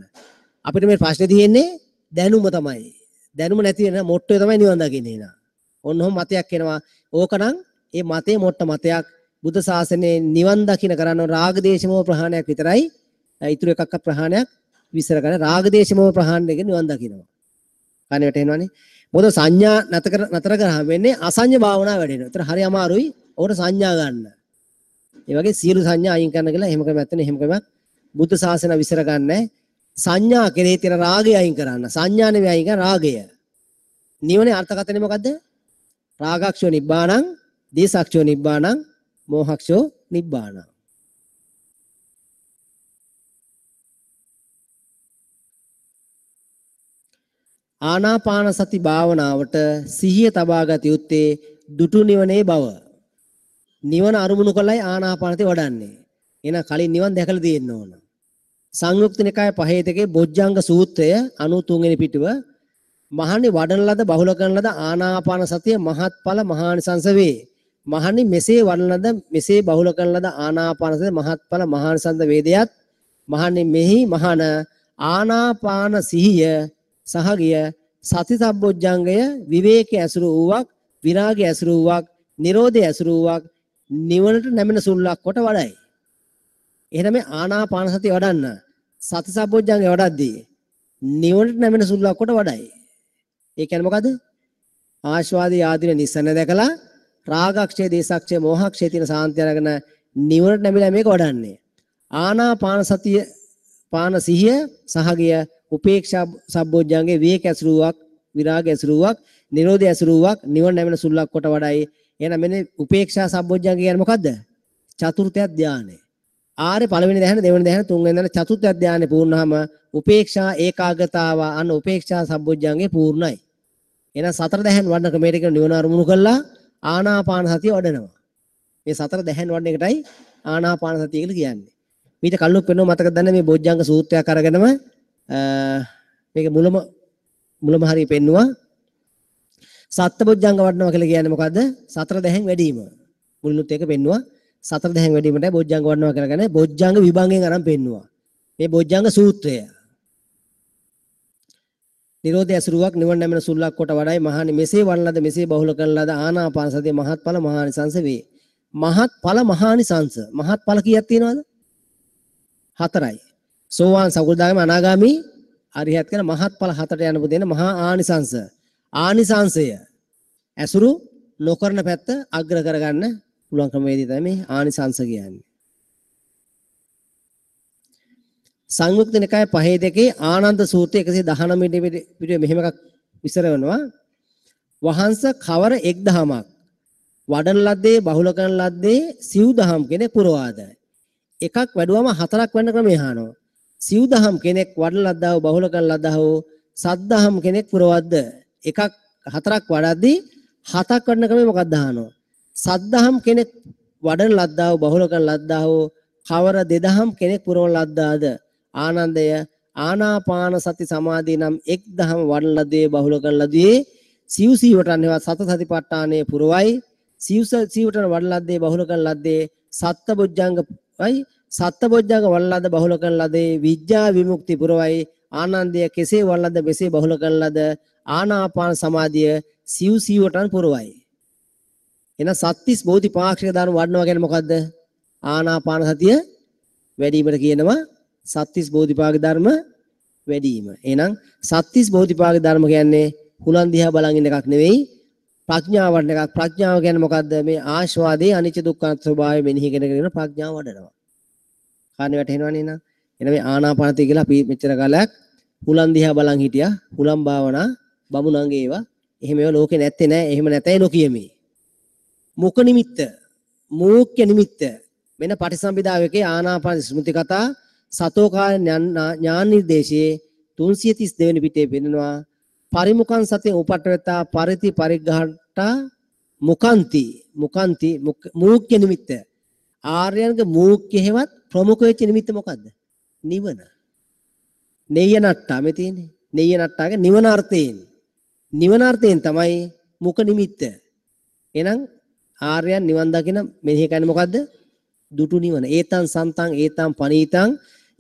අපිට මේ ප්‍රශ්නේ තියෙන්නේ දැනුම තමයි. දැනුම නැති වෙන මොට්ටේ තමයි නිවන් දකින්නේ නා. ඔන්න ඔහොම මතයක් එනවා. ඕකනම් ඒ මතේ මොට්ට මතයක්. බුද්ධ ශාසනයේ නිවන් දකින්න කරන්න රාග දේශ මොහ ප්‍රහාණයක් විතරයි. ඉතුරු එකක්ක ප්‍රහාණයක් විස්තර කරන්න. රාග දේශ මොහ ප්‍රහාණය එක නිවන් දකින්නවා. කනේ වැටෙනවනේ. මොකද සංඥා නතර කරාම වෙන්නේ අසංඥ භාවනාව වැඩෙනවා. ඒතර හරි අමාරුයි ඔකට සංඥා ගන්න. ඒ වගේ සියලු සංඥා අයින් කරන්න කියලා එහෙම ක්‍රමයක් තියෙන. එහෙම ක්‍රමයක් බුද්ධ ශාසනය විස්තර ගන්නෑ. සංඥා කෙරෙහි තියෙන රාගය අයින් කරන්න. සංඥා නෙවෙයි අයින් කරන රාගය. නිවනේ අර්ථකථනය මොකද්ද? රාගක්ෂෝ නිබ්බාණං, දේශක්ෂෝ නිබ්බාණං, මෝහක්ෂෝ නිබ්බාණං. ආනාපාන සති භාවනාවට සිහිය තබා ගත යුත්තේ දුටු නිවනේ බව. නිවන අරමුණු කළයි ආනාපානසති වඩන්නේ. එහෙනම් කලින් නිවන් දැකලා තියෙන්න ඕන. සංයුක්ත නිකාය 5 2 බොජ්ජංග සූත්‍රය 93 වෙනි පිටුව. මහණනි වඩන ලද බහුල කරන ලද ආනාපාන සතිය මහත්ඵල මහානිසංස වේ. මහණනි මෙසේ වඩන ලද මෙසේ බහුල කරන ලද ආනාපාන සතිය මහත්ඵල මහානිසංස වේදයත් මහණනි මෙහි මහණ ආනාපාන සිහිය සහගිය සති සම්බොජ්ජංගය විවේකයේ ඇසුරු වූවක්, විරාගය ඇසුරු වූවක්, නිරෝධය ඇසුරු වූවක්, නිවනට නැමෙන සුල්ලක් කොට වඩයි. එහෙනම් මේ ආනාපාන සතිය වඩන්න සති සම්බොජ්ජංගය වඩද්දී නිවනට නැමෙන සුල්ලක් කොට වඩයි. ඒ කියන්නේ මොකද? ආශ්වාදී ආදීන නිස්සන දැකලා රාගක්ෂය, දේශක්ෂය, මෝහක්ෂය තියෙන සාන්තිය අරගෙන නිවනට නැමිලා මේක වඩන්නේ. ආනාපාන සතිය පාන සිහිය සහගිය උපේක්ෂා සම්බොජ්ජංගේ විවේක ඇසුරුවක්, විරාග ඇසුරුවක්, නිරෝධය ඇසුරුවක්, නිවන නැමෙන සුල්ලක් කොට වඩයි. එහෙනම් මෙන්න උපේක්ෂා සම්බොජ්ජංග කියන්නේ මොකද්ද? චතුර්ථ ධානය. ආර්ය පළවෙනි ධ්‍යාන, දෙවෙනි ධ්‍යාන, තුන්වෙනි ධ්‍යාන, චතුර්ථ ධ්‍යානෙ පූර්ණවම උපේක්ෂා ඒකාග්‍රතාව අන්න උපේක්ෂා සම්බොජ්ජංගේ පූර්ණයි. එහෙනම් සතර දැහන් වඩන ක්‍රමයට කියන නිවන අරමුණු කළා ආනාපාන සතිය වඩනවා. මේ සතර දැහන් වඩන එකටයි ආනාපාන සතිය කියලා කියන්නේ. මීට කලින් පෙන්නුව මතකද දන්නේ මේ බොජ්ජංග සූත්‍රයක් අරගෙනම මේක මුලම හරිය පෙන්නුවා. සත්බොජ්ජංග වඩනවා කියලා කියන්නේ මොකද්ද? සතර දැහන් වැඩිම. මුලිනුත් ඒක පෙන්නුවා. සතර දැහන් වැඩිමටයි බොජ්ජංග වඩනවා කියලා කියන්නේ. බොජ්ජංග විභංගයෙන් අරන් පෙන්නුවා. මේ බොජ්ජංග සූත්‍රය. නිරෝධය ඇසුරුවක් නිවන නැමෙන සුල්ලක් කොට වඩයි. මහණනි මෙසේ වඩන ලද මෙසේ බහුල කරන ලද ආනාපාන සතිය මහත්ඵල මහානිසංස වේ. මහත්ඵල මහානිසංස. මහත්ඵල කීයක් තියෙනවද? 4යි. සෝවාන් සකෘදාගාමී අනාගාමී අරිහත් කියන මහත්ඵල 4ට යන පුදේන මහා ආනිසංස. ආනිසංසය ඇසුරු නොකරන පැත්ත අග්‍ර කරගන්න පුළුවන් ක්‍රමවේදය තමයි මේ ආනිසංස කියන්නේ. සංයුක්ත නිකාය 5 2 ආනන්ද සූත්‍රය 119 පිටුවේ මෙහෙම එකක් විස්තර වෙනවා. වහන්ස කවර එක් දහමක් වඩන ලද්දේ බහුල කරන ලද්දේ සිව් දහම් කෙනෙක් පුරවාද. එකක් වැඩුවම හතරක් වෙන ක්‍රමය අහනවා. සිව් දහම් කෙනෙක් වඩන ලද්දා වූ බහුල කරන ලද්දා වූ සත් දහම් කෙනෙක් පුරවද්ද. එකක් හතරක් වඩද්දී හතක් වඩන ක්‍රමය මොකක්ද අහනවා. සත් දහම් කෙනෙක් වඩන ලද්දා වූ බහුල කරන ලද්දා වූ කවර දෙදහම් කෙනෙක් පුරවන ලද්දාද. ආනන්දය ආනාපාන සති සමාධිය නම් එක් දහම වඩන ලද්දේ බහුල කරන ලද්දේ සිව් සීවටන් හේවත් සත සතිපට්ඨානයේ පුරවයි. සිව් සීවටන් වඩන ලද්දේ බහුල කරන ලද්දේ සත්ත බොජ්ජංගයි. සත්ත බොජ්ජංග වඩන ලද බහුල කරන ලද්දේ විද්‍යා විමුක්ති පුරවයි. ආනන්දය කෙසේ වඩන ලද මෙසේ බහුල කරන ලද ආනාපාන සමාධිය සිව් සීවටන් පුරවයි. එහෙනම් සත්‍තිස් බෝධිපාක්ෂික ධර්ම වඩනවා කියන්නේ මොකද්ද? ආනාපාන සතිය වැඩිවීමට කියනවා සත්‍තිස් බෝධිපාක්ෂික ධර්ම වැඩිවීම. එහෙනම් සත්‍තිස් බෝධිපාක්ෂික ධර්ම කියන්නේ හුලන් දිහා බලන් ඉන්න එකක් නෙවෙයි, ප්‍රඥාව වඩන එකක්. ප්‍රඥාව කියන්නේ මොකද්ද? මේ ආස්වාදයේ අනිච්ච දුක්ඛ ස්වභාවය මෙනෙහි කරගෙන ප්‍රඥාව වඩනවා. කාරණේ වැටහෙනවනේ නේද? එහෙනම් මේ ආනාපානසතිය කියලා අපි මෙච්චර කාලයක් හුලන් දිහා බලන් හිටියා. හුලන් භාවනා බමුණන්ගේ ඒවා. එහෙම ඒවා ලෝකේ නැත්තේ නෑ. එහෙම නැතයි නොකියමි. මුඛ නිමිත්ත, මූඛ්‍ය නිමිත්ත වෙන පටිසම්භිදාවකේ ආනාපාන ස්මෘති කතා සතෝකාය ඥාන නිර්දේශයේ 332 වෙනි පිටේ පෙන්නනවා. පරිමුඛං සතිය උපට්ඨවතා පරිති පරිග්ඝාටා මුඛන්ති මුඛන්ති මූඛ්‍ය නිමිත්ත. ආර්යයන්ගේ මූඛ්‍ය හේවත් ප්‍රමුඛ වෙච්ච නිමිත්ත මොකද්ද? නිවන. නෙය්‍ය නට්ටා මේ තියෙන්නේ. නෙය්‍ය නට්ටාගේ නිවන අර්ථයෙන්. නිවන අර්ථයෙන් තමයි මුඛ නිමිත්ත. එහෙනම් ආර්යයන් නිවන් දකින මෙනෙහි කරන්නේ මොකද්ද? දුටු නිවන. ඒතං සන්තං ඒතං පනීතං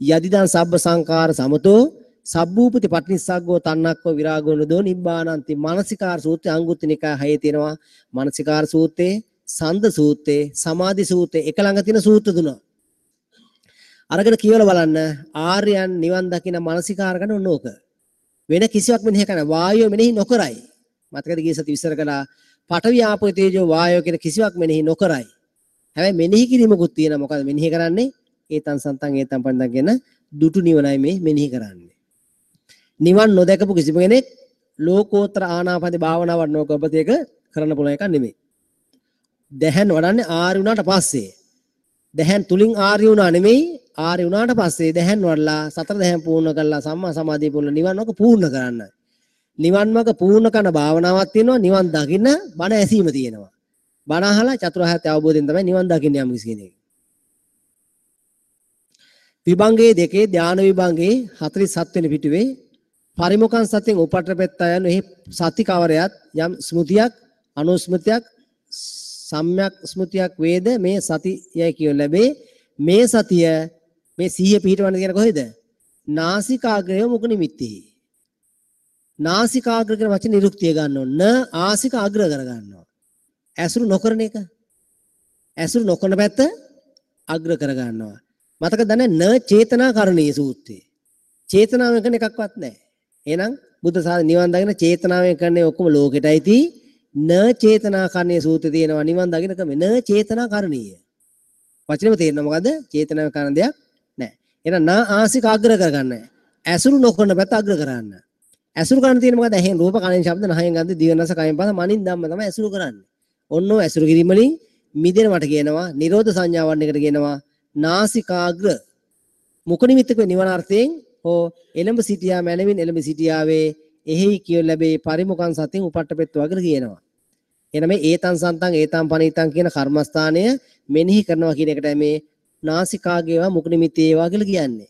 යදිදං සබ්බ සංකාර සමතෝ සබ්බූපති පටිනිස්සග්ගෝ තන්නක්කෝ විරාගෝ නදෝ නිබ්බානන්ති. මානසිකාර සූත්‍රය අංගුත්තර නිකාය 6 තියෙනවා. මානසිකාර සූත්‍රයේ, සන්ද සූත්‍රයේ, සමාධි සූත්‍රයේ එක ළඟ තියෙන සූත්‍ර තුන. අරගෙන කියවලා බලන්න ආර්යයන් නිවන් දකින මානසිකාර කරන ඔන්න ඕක. වෙන කිසිවක් මෙනෙහි කරන වායුව මෙනෙහි නොකරයි. මතකද ගිය සති විස්තර කළා. පඨවි ආපෝ තේජෝ වායෝ කියන කිසිවක් මෙනෙහි නොකරයි. හැබැයි මෙනෙහි කිරීමකුත් තියෙනවා. මොකද මෙනෙහි කරන්නේ? ඒතං සන්තං ඒතං පණ්ඩං කියන දුටු නිවනයි මේ මෙනෙහි කරන්නේ. නිවන් නොදකපු කිසිම කෙනෙක් ලෝකෝත්තර ආනාපාන භාවනාවක් නොකරපත එක කරන්න පුළුවන් එකක් නෙමෙයි. දැහැන් වඩන්නේ ආර්ය වුණාට පස්සේ. දැහැන් තුලින් ආර්ය වුණා නෙමෙයි, ආර්ය වුණාට පස්සේ දැහැන් වඩලා සතර දැහැන් පූර්ණ කරලා සම්මා සමාධිය පූර්ණ නිවන් මාර්ග පූර්ණ කරන්න. නිවන් මාර්ග පූර්ණ කරන භාවනාවක් තියෙනවා, නිවන් දකින්න බණ ඇසීම තියෙනවා. බණ අහලා චතුරාර්ය සත්‍ය අවබෝධයෙන් තමයි නිවන් දකින්න යම් කිසි කෙනෙක්. විභංගයේ දෙකේ ධාන විභංගයේ 47 වෙනි පිටුවේ පරිමුඛං සතියෙන් උපට්ඨපෙත්තා යන එහි සති කවරයත් යම් ස්මෘතියක් අනුස්මෘතියක් සම්‍යක් ස්මෘතියක් වේද මේ සතියයි කියන ලැබේ. මේ සතිය මේ සිහිය පිහිටවන්න කියන කොහෙද? නාසිකාග්‍රය මුඛ නිමිත්තෙහි. නාසිකාග්‍ර කියන වචන නිරුක්තිය ගන්න ඕන. න ආසික අග්‍ර කර ගන්නවා. ඇසුරු නොකරන එක. ඇසුරු නොකරන පැත්ත අග්‍ර කර ගන්නවා. මතක දන්නේ න චේතනා කරණීය සූත්‍රය. චේතනාවෙන් කරන එකක්වත් නැහැ. එහෙනම් බුද්ධ ශාසනය නිවන් දකින චේතනාවෙන් කරන්නේ ඔක්කොම ලෝකෙටයි තී. න චේතනා කරණීය සූත්‍රය තියෙනවා නිවන් දකින ක්‍රමය. න චේතනා කරණීය. වචනේම තේරෙනවා මොකද? චේතනාවෙන් කරන දෙයක් නැහැ. එහෙනම් න ආසික අග්‍ර කරගන්න. ඇසුරු නොකරන පැත්ත අග්‍ර කරන්න. ඇසුරු කරන්න තියෙන මොකද? ඇහෙන් රූප, කනෙන් ශබ්ද, නහයෙන් ගන්ධ, දිවෙන් රස, කයෙන් පහස, මනින් ධම්ම තමයි ඇසුරු කරන්නේ. ඔන්න ඔය ඇසුරු කිරීම වලින් මිදෙනවට කියනවා නිරෝධ සංඥාවන් එකට කියනවා නාසිකාග්‍ර. මුඛ නිමිත්තක නිවන අර්ථයෙන් හෝ එළඹ සිටියා මැනවින් එළඹ සිටියාවේ එහෙයි කියු ලැබේ පරිමුඛං සතින් උපට්ඨපෙත්වා කියලා කියනවා. එහෙනම් මේ ඒතං සන්තං ඒතං පනීතං කියන කර්මස්ථානය මෙනෙහි කරනවා කියන එකටයි මේ නාසිකාගේවා මුඛ නිමිත්තේ ඒවා කියලා කියන්නේ.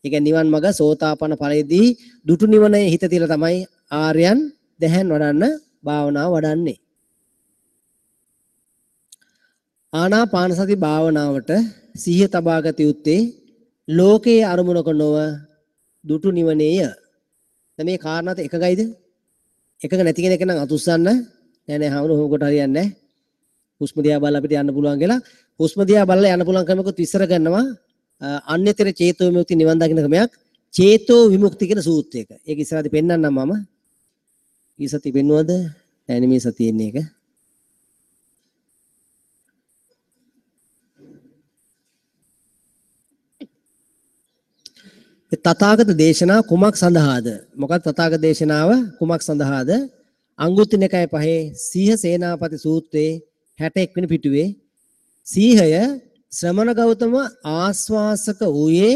ඒ කියන්නේ නිවන් මඟ සෝතාපන්න ඵලයේදී දුටු නිවනේ හිත තියලා තමයි ආර්යයන් දැහැන් වඩන්න භාවනාව වඩන්නේ. ආනාපාන සති භාවනාවට සිහිය තබාගත යුත්තේ ලෝකයේ අරමුණක නොව දුටු නිවනේය. දැන් මේ කාරණාත් එකගයිද? එකග නැති කෙනෙක් නම් අතුස්සන්න නෑ නෑ හවුන හොම කොට හරියන්නේ නෑ. හුස්ම දිහා බලලා අපිට යන්න පුළුවන් කියලා. හුස්ම දිහා බලලා යන්න පුළුවන් ක්‍රමයකුත් විස්තර කරනවා. අන්‍යතර චේතෝ විමුක්ති නිවන් දකින්න ක්‍රමයක් චේතෝ විමුක්ති කියන සූත්‍රයක. ඒක ඉස්සරහදී පෙන්නන්නම් මම. ඊ සතිය පෙන්නුවද? නෑ නේ මේ සතියේ ඉන්නේ ඒක. තථාගත දේශනා කුමක් සඳහාද? මොකක්ද තථාගත දේශනාව කුමක් සඳහාද? අංගුත්තර නිකාය පහේ සීහ සේනාපති සූත්‍රයේ 61 වෙනි පිටුවේ සීහය ශ්‍රමණ ගෞතම ආස්වාසක වූයේ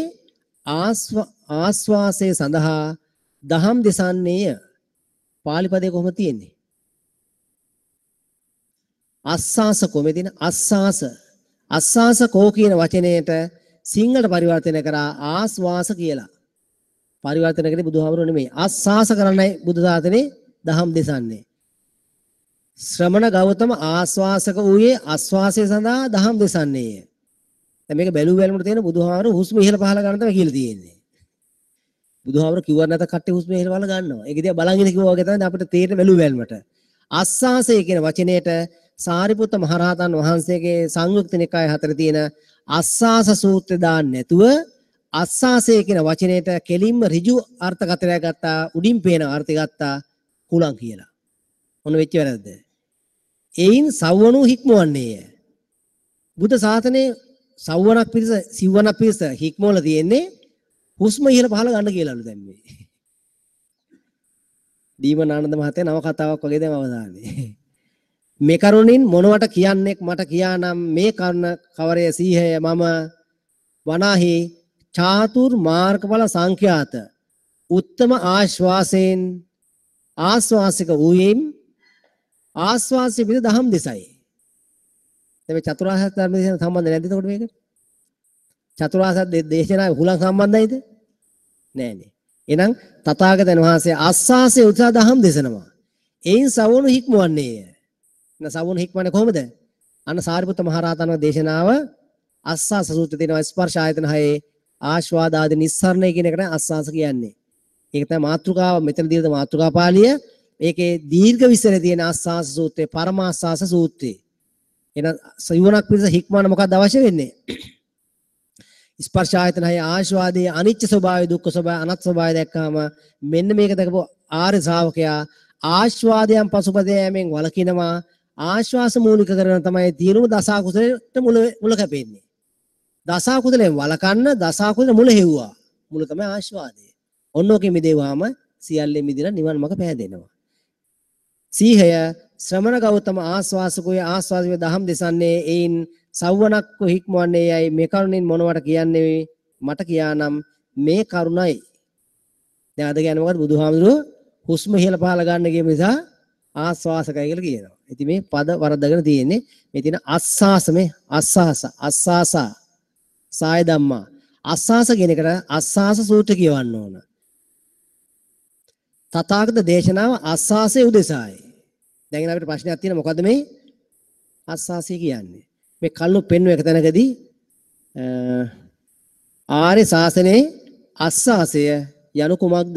ආස්වාසය සඳහා දහම් දෙසන්නේය. පාලි පදේ කොහොමද තියෙන්නේ? අස්සාස කොහොමද තියෙන්නේ? අස්සාස. අස්සාස කෝ කියන වචනයට සිංහලට පරිවර්තනය කරා ආස්වාස කියලා. පරිවර්තන කරේ බුදුහාමුදුරුවෝ නෙමෙයි. ආස්වාස කරන්නයි බුදු සාසනේ දහම් දෙසන්නේ. ශ්‍රමණ ගෞතම ආස්වාසක වූයේ ආස්වාසය සඳහා දහම් දෙසන්නේය. දැන් මේක බැලු බැලමුට තියෙන බුදුහාමුදුරුවෝ හුස්ම ඉහළ පහළ ගන්න තමයි කියලා තියෙන්නේ. බුදුහාමුදුරුවෝ කිව්වත් නැත කට්ටිය හුස්ම ඉහළ පහළ ගන්නවා. ඒක දිහා බලන් ඉන්න කිව්වා වගේ තමයි අපිට තේරෙන බැලු බැලමට. ආස්වාසය කියන වචනයට සාරිපුත්ත මහරහතන් වහන්සේගේ සංයුක්ත නිකාය හතර තියෙන අස්සාස සූත්‍රය දාන්න නැතුව අස්සාසය කියන වචනයට කෙලින්ම ඍජු අර්ථකථනයක් ගත්තා, උඩින් පේන අර්ථය ගත්තා කුලං කියලා. ඔන්න වෙච්ච වැරද්ද. එයින් සවවනු හික්මවන්නේය. බුද්ධ ශාසනයේ සවවනක් පිරිස සිව්වනක් පිරිස හික්මවල තියෙන්නේ හුස්ම ඉහළ පහළ ගන්න කියලාලු දැන් මේ. දීමන ආනන්ද මහත්තයා නව කතාවක් වගේ දැන් අවසානයේ. මේ කරුණින් මොනවට කියන්නෙක් මට කියානම් මේ කරුණ කවරය සීහය මම වනාහි චාතුර් මාර්ගඵල සංඛ්‍යාත උත්තම ආශ්වාසයෙන් ආශ්වාසික වූයෙන් ආශ්වාසය පිට දහම් දෙසයි. දැන් මේ චතුරාර්ය සත්‍ය ධර්ම දේශනාව සම්බන්ධ නැද්ද එතකොට මේක? චතුරාර්ය සත්‍ය දේශනාව හුලං සම්බන්ධයිද? නෑනේ. එහෙනම් තථාගතයන් වහන්සේ ආශ්වාසයේ උත්සාහ දහම් දෙසනවා. එයින් සවනු හික්මවන්නේය. සවුන හික්මන්නේ කොහොමද? අන්න සාරිපුත්ත මහරහතන් වහන්සේ දේශනාව අස්සාස සූත්‍රයේ තියෙනවා ස්පර්ශ ආයතන හයේ ආස්වාද ආදී නිස්සරණය කියන එකට අස්සාස කියන්නේ. ඒක තමයි මාතෘකාව. මෙතන දීලා මාතෘකා පාළිය. ඒකේ දීර්ඝ විස්තරය තියෙන ආස්වාස සූත්‍රය, පරමාස්වාස සූත්‍රය. එහෙනම් සිවණක් පිණිස හික්මවන්න මොකක්ද අවශ්‍ය වෙන්නේ? ස්පර්ශ ආයතන හය ආස්වාදයේ අනිච්ච ස්වභාවය, දුක්ඛ ස්වභාවය, අනාත්ම ස්වභාවය දැක්කාම මෙන්න මේක දැකපු ආර්ය ශ්‍රාවකයා ආස්වාදයන් පසුපස යෑමෙන් වළකිනවා. ආශ්වාස මූලික කරගෙන තමයි තියෙනුම දස අකුසලයට මුල කැපෙන්නේ. දස අකුසලයෙන් වළකන්න දස අකුසල මුල හෙව්වා. මුල තමයි ආශ්වාදය. ඔන්න ඔකේ මිදෙව්වාම සියල්ලෙන් මිදලා නිවන් මඟ පෑදෙනවා. සීහය ශ්‍රමණ ගෞතම ආස්වාසකුය ආස්වාදයේ දහම් දෙසන්නේ එයින් සව්වනක්ව හික්මවන්නේ යයි මේ කරුණින් මොනවට කියන්නේ මට කියානම් මේ කරුණයි. දැන් අද කියන්නේ මොකද්ද? බුදුහාමුදුරුවෝ හුස්ම ඉහළ පහළ ගන්න කියපු නිසා ආස්වාසකයි කියලා කියනවා. ඉතින් මේ පද වරද්දගෙන තියෙන්නේ. මේ තියෙන අස්ಸಾස, මේ අස්ಸಾස, අස්සාසා සාය ධම්මා. අස්ಸಾස කියන එකට අස්ಸಾස සූත්‍ර කියවන්න ඕන. තථාගත දේශනාව අස්සාසයේ උදෙසායි. දැන් අපිට ප්‍රශ්නයක් තියෙනවා, මොකද්ද මේ අස්සාසය කියන්නේ? මේ කල්ලු පෙන්වන එක තැනකදී ආර්ය ශාසනයේ අස්සාසය යනු කුමක්ද?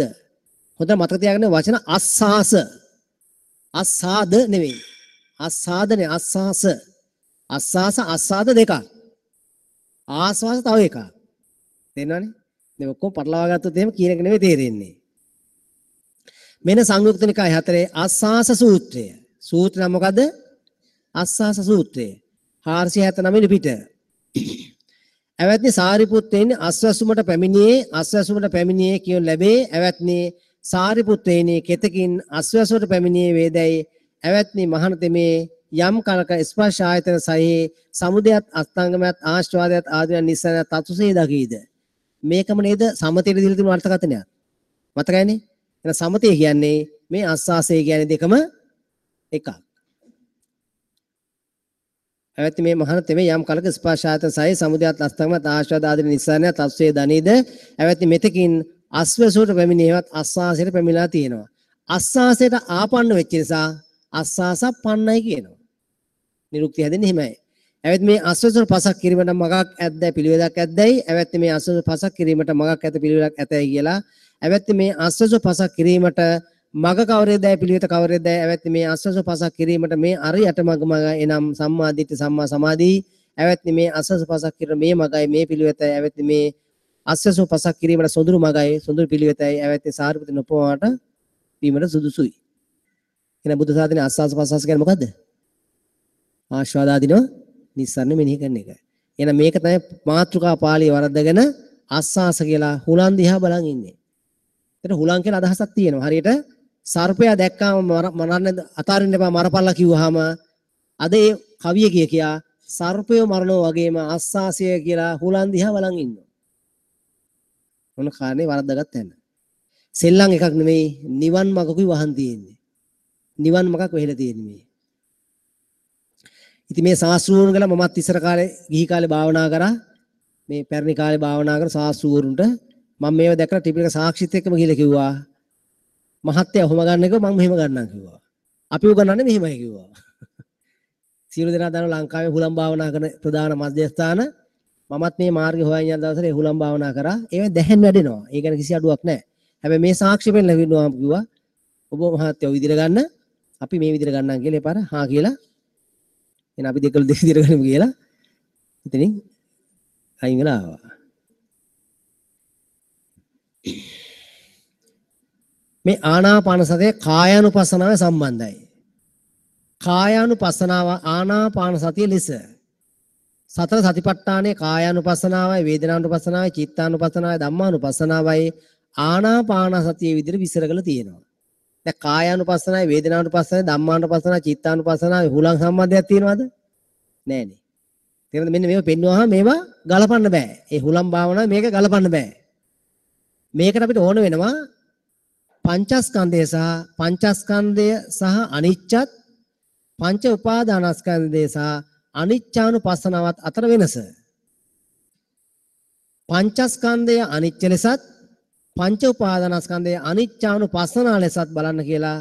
හොඳට මතක තියාගන්න වචන අස්සාස. අස්සාද නෙවෙයි. අස්සාදනේ අස්සාස. අස්සාස අස්සාද දෙකක්. ආස්වාස තව එකක්. තේරෙනවනේ? මේ ඔක්කොම පටලවා ගත්තොත් එහෙම කියන එක නෙවෙයි තේරෙන්නේ. මෙන්න සංයුක්ත නිකාය 4 අස්සාස සූත්‍රය. සූත්‍ර නම මොකද්ද? අස්සාස සූත්‍රය. 479 වෙනි පිට. ඇවැත්නි සාරිපුත්තේනි අස්වැසුමට පැමිණියේ අස්වැසුමට පැමිණියේ කියනු ලැබේ. ඇවැත්නි සාරිපුත්තේනි කෙතකින් අස්වැසුමට පැමිණියේ වේදැයි. ඇවැත්නි මහණතෙමේ යම් කලක ස්පර්ශ ආයතන සහේ සමුදයත් අස්තංගමයත් ආශ්වාදයත් ආදියන් නිස්සාරණයත් තතුසේ දකීද. මේකම නේද සමතේට දීලා තිබුණු අර්ථකථනයක්. මතකයිනේ? එහෙනම් සමතේ කියන්නේ මේ අස්වාසය කියන්නේ දෙකම එකක්. ඇවැත්නි මේ මහණතෙමේ යම් කලක ස්පර්ශ ආයතන සහේ සමුදයත් අස්තංගමයත් ආශ්වාද ආදී නිස්සාරණයත් තතුසේ දනීද. ඇවැත්නි මෙතකින් අස්වැසුවට පැමිණියවත් අස්වාසයට පැමිණලා තියෙනවා. අස්වාසයට ආපන්න වෙච්ච නිසා අස්වාස පන්නයි කියනවා. නිරුක්ති හැදෙන්නේ එහෙමයි. ඇවැත්නි මේ අස්වැසුවට පසක් කිරීමට මගක් ඇද්දයි පිළිවෙලක් ඇද්දයි. ඇවැත්නි මේ අස්වැසුවට පසක් කිරීමට මගක් ඇත පිළිවෙලක් ඇතයි කියලා. ඇවැත්නි මේ අස්වැසුවට පසක් කිරීමට මග කවරේදයි පිළිවෙත කවරේදයි. ඇවැත්නි මේ අස්වැසුවට පසක් කිරීමට මේ අරියට මග මග එනම් සම්මා දිට්ඨි සම්මා සමාධි. ඇවැත්නි මේ අස්වැසුවට පසක් කිරීම මේ මගයි මේ පිළිවෙතයි. ඇවැත්නි මේ අස්වැසුව පසක් කිරීමට සොඳුරු මගයි සොඳුරු පිළිවෙතයි. ඇවැත්නි සාරිපුත්‍ර නොපවාට වීමට සුදුසුයි. එහෙනම් බුද්ධ ශාසනයේ ආස්වාස ප්‍රස්වාස කියන්නේ මොකද්ද? ආස්වාද ආදීනව නිස්සාරණ මෙනෙහි කරන එක. එහෙනම් මේක තමයි මාතෘකා පාළිය වරද්දගෙන ආස්වාස කියලා හුලන් දිහා බලන් ඉන්නේ. එතන හුලන් කියලා අදහසක් තියෙනවා. හරියට සර්පයා දැක්කාම මරන්න අතාරින්න එපා මරපල්ලා කිව්වහම අද ඒ කවිය කිය කියා සර්පය මරනවා වගේම ආස්වාසය කියලා හුලන් දිහා බලන් ඉන්නවා. මොන කාරණේ වරද්දාගත්ත තැන. සෙල්ලම් එකක් නෙමෙයි, නිවන් මගකුයි වහන් තියෙන්නේ. නිවන් මගක් වෙහෙලා තියෙන්නේ මේ. ඉතින් මේ ශාස්ත්‍රූරුන් ගැන මමත් ඉස්සර කාලේ ගිහි කාලේ භාවනා කරා. මේ පැරණි කාලේ භාවනා කරන ශාස්ත්‍රූරුන්ට මම මේව දැකලා ත්‍රිපිටක සාක්ෂිත් එක්කම ගිහලා කිව්වා, මහත්තයා ඔහොම ගන්න එක මම මෙහෙම ගන්නම් කිව්වා. අපි උගන්වන්නේ මෙහෙමයි කිව්වා. සියලු දෙනා දන්නවා ලංකාවේ හුලම් භාවනා කරන ප්‍රධාන මධ්‍යස්ථාන. මමත් මේ මාර්ගය හොයන් යන දවසට ඒ හුලම් භාවනා කරා. ඒවෙන් දැහැන් වැඩෙනවා. ඒ ගැන කිසි අඩුවක් නැහැ. හැබැයි මේ සාක්ෂි පෙන්නලා කිව්වම කිව්වා, ඔබ මහත්තයා ඔය විදිහට ගන්න, අපි මේ විදිහට ගන්නම් කියලා. ඒ පාර හා කියලා. එහෙනම් අපි දෙකල දෙක විදිහට ගනිමු කියලා. ඉතින් අයින් වෙලා ආවා. මේ ආනාපාන සතිය කායානුපස්සනාව සම්බන්ධයි. කායානුපස්සනාව ආනාපාන සතිය ලෙස සතර සතිපට්ඨානයේ කායානුපස්සනාවයි වේදනානුපස්සනාවයි චිත්තානුපස්සනාවයි ධම්මානුපස්සනාවයි ආනාපාන සතිය විදිහට විස්තර කරලා තියෙනවා. දැන් කායානුපස්සනාවයි වේදනානුපස්සනාවයි ධම්මානුපස්සනාවයි චිත්තානුපස්සනාවයි හුලං සම්බන්ධයක් තියෙනවද? නෑනේ. තේරෙනවද? මෙන්න මේව පෙන්නුවාම මේවා ගලපන්න බෑ. ඒ හුලං භාවනාව මේක ගලපන්න බෑ. මේකට අපිට ඕන වෙනවා පංචස්කන්ධය සහ පංචස්කන්ධය සහ අනිච්චත් පංච උපාදානස්කන්ධය සහ අනිච්චානුපස්සනාවත් අතර වෙනස. පංචස්කන්ධය අනිච්ච ලෙසත් පංච උපාදානස්කන්ධය අනිච්චානුපස්සනා ලෙසත් බලන්න කියලා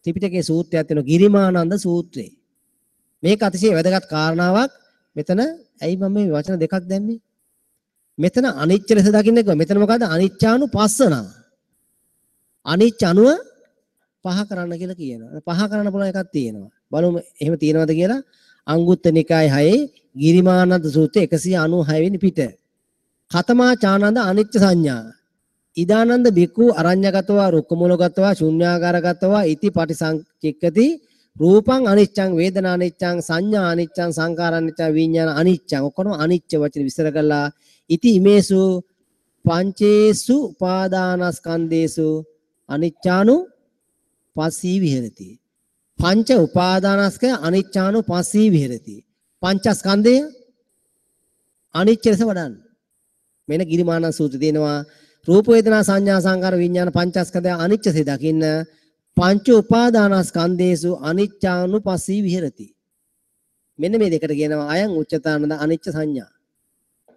ත්‍රිපිටකයේ සූත්‍රයක් තියෙනවා, ගිරිමානන්ද සූත්‍රය. මේක අතිශය වැදගත් කාරණාවක්. මෙතන ඇයි මම මේ වචන දෙකක් දැම්මේ? මෙතන අනිච්ච ලෙස දකින්න කිව්වා. මෙතන මොකද්ද? අනිච්චානුපස්සනා. අනිච්ච අනුව පහ කරන්න කියලා කියනවා. පහ කරන්න පුළුවන් එකක් තියෙනවා. බලමු එහෙම තියෙනවද කියලා. අංගුත්තර නිකාය 6 ගිරිමානන්ද සූත්‍රය 196 වෙනි පිට. කතමා චානන්ද අනිච්ච සංඥා. ඉදානන්ද බික්ඛු අරඤ්‍යගතවා රුක්කමූලගතවා ශුන්‍යාගාරගතවා ඉති පටිසංචික්කති රූපං අනිච්චං වේදනා අනිච්චං සංඥා අනිච්චං සංඛාර අනිච්චං විඥාන අනිච්චං ඔක්කොම අනිච්ච වචන විස්තර කළා. ඉති ඉමේසු පංචේසු උපාදානස්කන්ධේසු අනිච්චානු පස්සී විහෙරති. පංච උපාදානස්කය අනිච්චානු පස්සී විහෙරති. පංචස්කන්ධය අනිච්ච ලෙස වඩන්න. මෙන්න ගිරිමානන්ද සූත්‍රය තියෙනවා. රූප වේදනා සංඥා සංකාර විඥාන පංචස්කන්ධය අනිච්චසේ දකින්න පංච උපාදානස්කන්ධේසු අනිච්චානුපස්සී විහෙරති. මෙන්න මේ දෙකට කියනවා අයං උච්චතානන්ද අනිච්ච සංඥා.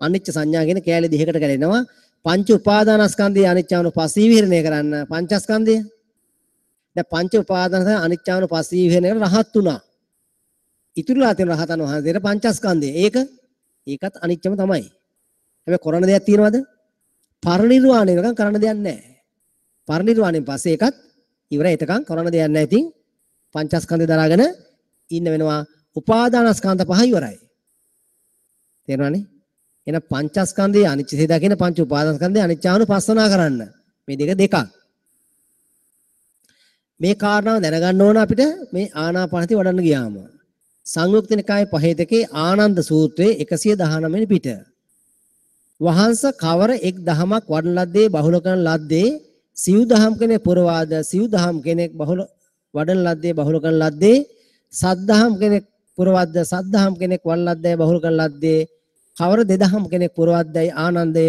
අනිච්ච සංඥා කියන කෑලි දෙකකට කැඩෙනවා. පංච උපාදානස්කන්ධය අනිච්චානුපස්සී විහරණය කරන්න පංචස්කන්ධය. දැන් පංච උපාදානස්කන්ධය අනිච්චානුපස්සී විහරණය කරලා රහත් වුණා. ඉතුරුලා තියෙන රහතන් වහන්සේට පංචස්කන්ධය. ඒකත් අනිච්චම තමයි. හැබැයි කරන දෙයක් තියෙනවද? පරිනිර්වාණය වෙනකන් කරන්න දෙයක් නැහැ. පරිනිර්වාණයෙන් පස්සේ ඒකත් ඉවරයි. එතකන් කරන්න දෙයක් නැහැ. ඉතින් පංචස්කන්ධය දරාගෙන ඉන්න වෙනවා. උපාදානස්කන්ධ පහ ඉවරයි. තේරුණානේ? එහෙනම් පංචස්කන්ධයේ අනිච්චසේ දකින පංච උපාදානස්කන්ධයේ අනිච්චානුපස්සනා කරන්න. මේ දෙක දෙකක්. මේ කාරණාව දැනගන්න ඕන අපිට මේ ආනාපානසති වඩන්න ගියාම. සංයුක්ත නිකායේ පහේ දෙකේ ආනන්ද සූත්‍රයේ 119 වෙනි පිට. වහන්ස කවර එක් දහමක් වඩන ලද්දේ බහුල කරන ලද්දේ සිව් දහම් කෙනෙක් පුරවාද සිව් දහම් කෙනෙක් බහුල වඩන ලද්දේ බහුල කරන ලද්දේ සත් දහම් කෙනෙක් පුරවද්ද සත් දහම් කෙනෙක් වඩන ලද්දේ බහුල කරන ලද්දේ කවර දෙදහම් කෙනෙක් පුරවද්දයි ආනන්දය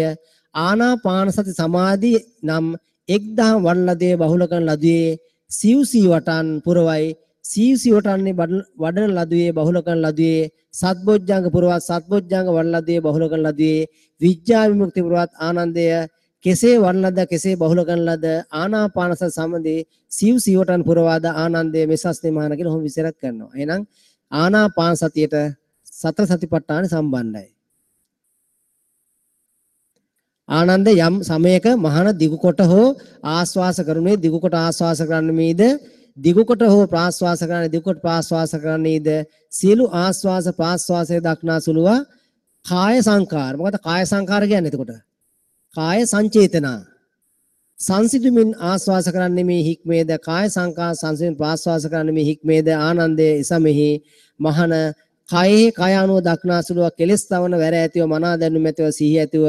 ආනාපාන සති සමාධි නම් එක් දහම් වඩන ලද්දේ බහුල කරන ලදුවේ සිව් සීවටන් පුරවයි සිව් සීවටන්නේ වඩන ලදුවේ බහුල කරන ලදුවේ සත්බොජ්ජංග පුරවත් සත්බොජ්ජංග වඩන ලදුවේ බහුල කරන ලදුවේ විඥා විමුක්ති පුරවත් ආනන්දය කෙසේ වඩන ලද කෙසේ බහුල කරන ලද ආනාපාන සති සමාධි සිව් සීවටන් පුරවාද ආනන්දය මෙසස්නේ මහාන කියලා ඔහොම විස්තරයක් කරනවා. එහෙනම් ආනාපාන සතියට සතර සතිපට්ඨාන සම්බන්ධයි. ආනන්ද යම් සමයක මහාන දිගු කොට හෝ ආස්වාස කරුණේ දිගු කොට ආස්වාස කරන්නේද දිගු කොට හෝ ප්‍රාස්වාස කරන්නේ දිගු කොට ප්‍රාස්වාස කරන්නේද සියලු ආස්වාස ප්‍රාස්වාසය දක්නා සුළුවා කාය සංකාර. මොකද කාය සංකාර කියන්නේ එතකොට කාය සංචේතනා සංසිඳුමින් ආස්වාස කරන්නේ මේ හික්මේද කාය සංකාර සංසිඳුමින් ප්‍රාස්වාස කරන්නේ මේ හික්මේද ආනන්දයේ එසමෙහි මහාන කයෙහි කය අනුව දක්නා සුළුවා කෙලස් තවන වැර ඇතිව මනා දැනුම ඇතිව සිහිය ඇතිව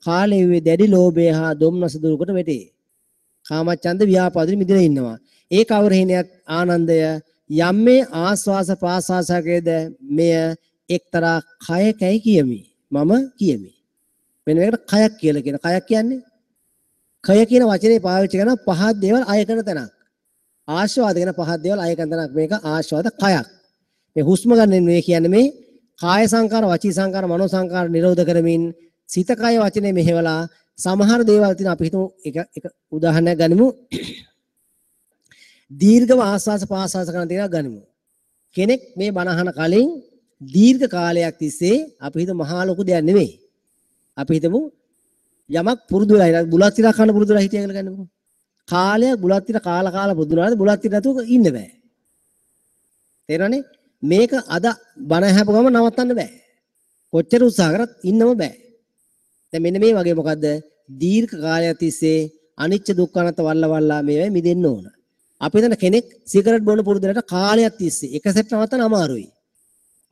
කාලයේ වූ දැඩි ලෝභය හා දොම්නස දුරුකොට වැටේ. කාමච්ඡන්ද ව්‍යාපාදින් මිදෙලා ඉන්නවා. ඒ කවර හේනයක් ආනන්දය යම් මේ ආස්වාස ප්‍රාස්වාසකයේද මෙය එක්තරා කයකයි කියමි. මම කියමි. මෙන්න මේකට කයක් කියලා කියන. කයක් කියන්නේ කය කියන වචනේ පාවිච්චි කරන පහත් දේවල් අය කරන තැනක්. ආස්වාද කියන පහත් දේවල් අය කරන තැනක්. මේක ආස්වාද කයක්. මේ හුස්ම ගන්න මේ කියන්නේ මේ කාය සංකාර, වචී සංකාර, මනෝ සංකාර නිරෝධ කරමින් සිත කය වචනේ මෙහෙवला සමහර දේවල් තියෙන අපි හිතමු එක එක උදාහරණයක් ගනිමු. දීර්ඝව ආස්වාස පාස්වාස කරන දේවල් ගනිමු. කෙනෙක් මේ බණ අහන කලින් දීර්ඝ කාලයක් තිස්සේ අපි හිතමු මහා ලොකු දෙයක් නෙවෙයි. අපි හිතමු යමක් පුරුදු වෙලා හිටියා බුලත් ටිකක් කන්න පුරුදු වෙලා හිටියා කියලා ගන්නකො. කාලයක් බුලත් ටික කාලා කාලා පුරුදු වුණාද බුලත් ටික නැතුව ඉන්න බෑ. තේරෙනවනේ? මේක අද බණ ඇහපු ගමන් නවත්තන්න බෑ. කොච්චර උත්සාහ කරත් ඉන්නම බෑ. දැන් මෙන්න මේ වගේ මොකද්ද දීර්ඝ කාලයක් තිස්සේ අනිච්ච දුක්ඛ අනාත්ම වල්ල වල්ලා මේවයි මිදෙන්න ඕන. අපි හිතන කෙනෙක් සිගරට් බොන පුරුදු වෙලාට කාලයක් තිස්සේ එක සැරේට නවත්තන්න අමාරුයි.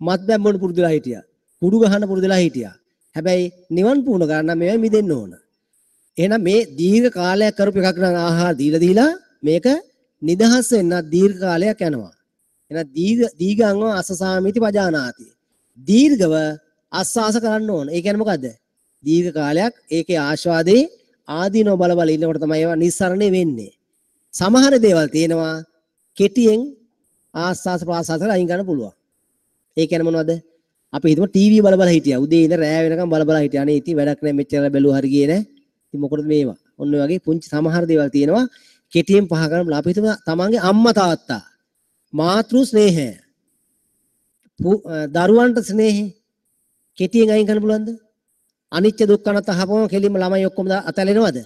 මත්පැන් බොන පුරුදු වෙලා හිටියා. කුඩු ගහන්න පුරුදු වෙලා හිටියා. හැබැයි නිවන් පුහුණු කරන්න නම් මේවයි මිදෙන්න ඕන. එහෙනම් මේ දීර්ඝ කාලයක් කරපු එකක් නම් ආහාර දීලා දීලා මේක නිදහස් වෙන්න දීර්ඝ කාලයක් යනවා. එහෙනම් දීඝංව අසසාමිති පජානාති. දීර්ඝව අස්වාස කරන්න ඕන. ඒ කියන්නේ මොකද්ද? දීර්ඝ කාලයක් ඒකේ ආස්වාදේ ආදීනව බල බල ඉන්නකොට තමයි ඒවා නිස්සරණේ වෙන්නේ. සමහර දේවල් තියෙනවා කෙටියෙන් ආස්වාස ප්‍රාස්වාස කරලා අයින් කරන්න පුළුවන්. ඒ කියන්නේ මොනවද? අපි හිතමු ටීවී බල බල හිටියා. උදේ ඉඳන් රෑ වෙනකම් බල බල හිටියා. අනේ ඉතින් වැඩක් නෑ මෙච්චර බැලුවා හරි ගියේ නෑ. ඉතින් මොකටද මේවා? ඔන්න ඔය වගේ පුංචි සමහර දේවල් තියෙනවා කෙටියෙන් පහ කරන්න. අපි හිතමු තමන්ගේ අම්මා තාත්තා මාතෘ ස්නේහය දරුවන්ට ස්නේහය කෙටියෙන් අයින් කරන්න පුළුවන්ද? අනිච්ච දුක්ඛ අනාත්ම අහපුවම කෙලින්ම ළමයි ඔක්කොම අතැලෙනවද?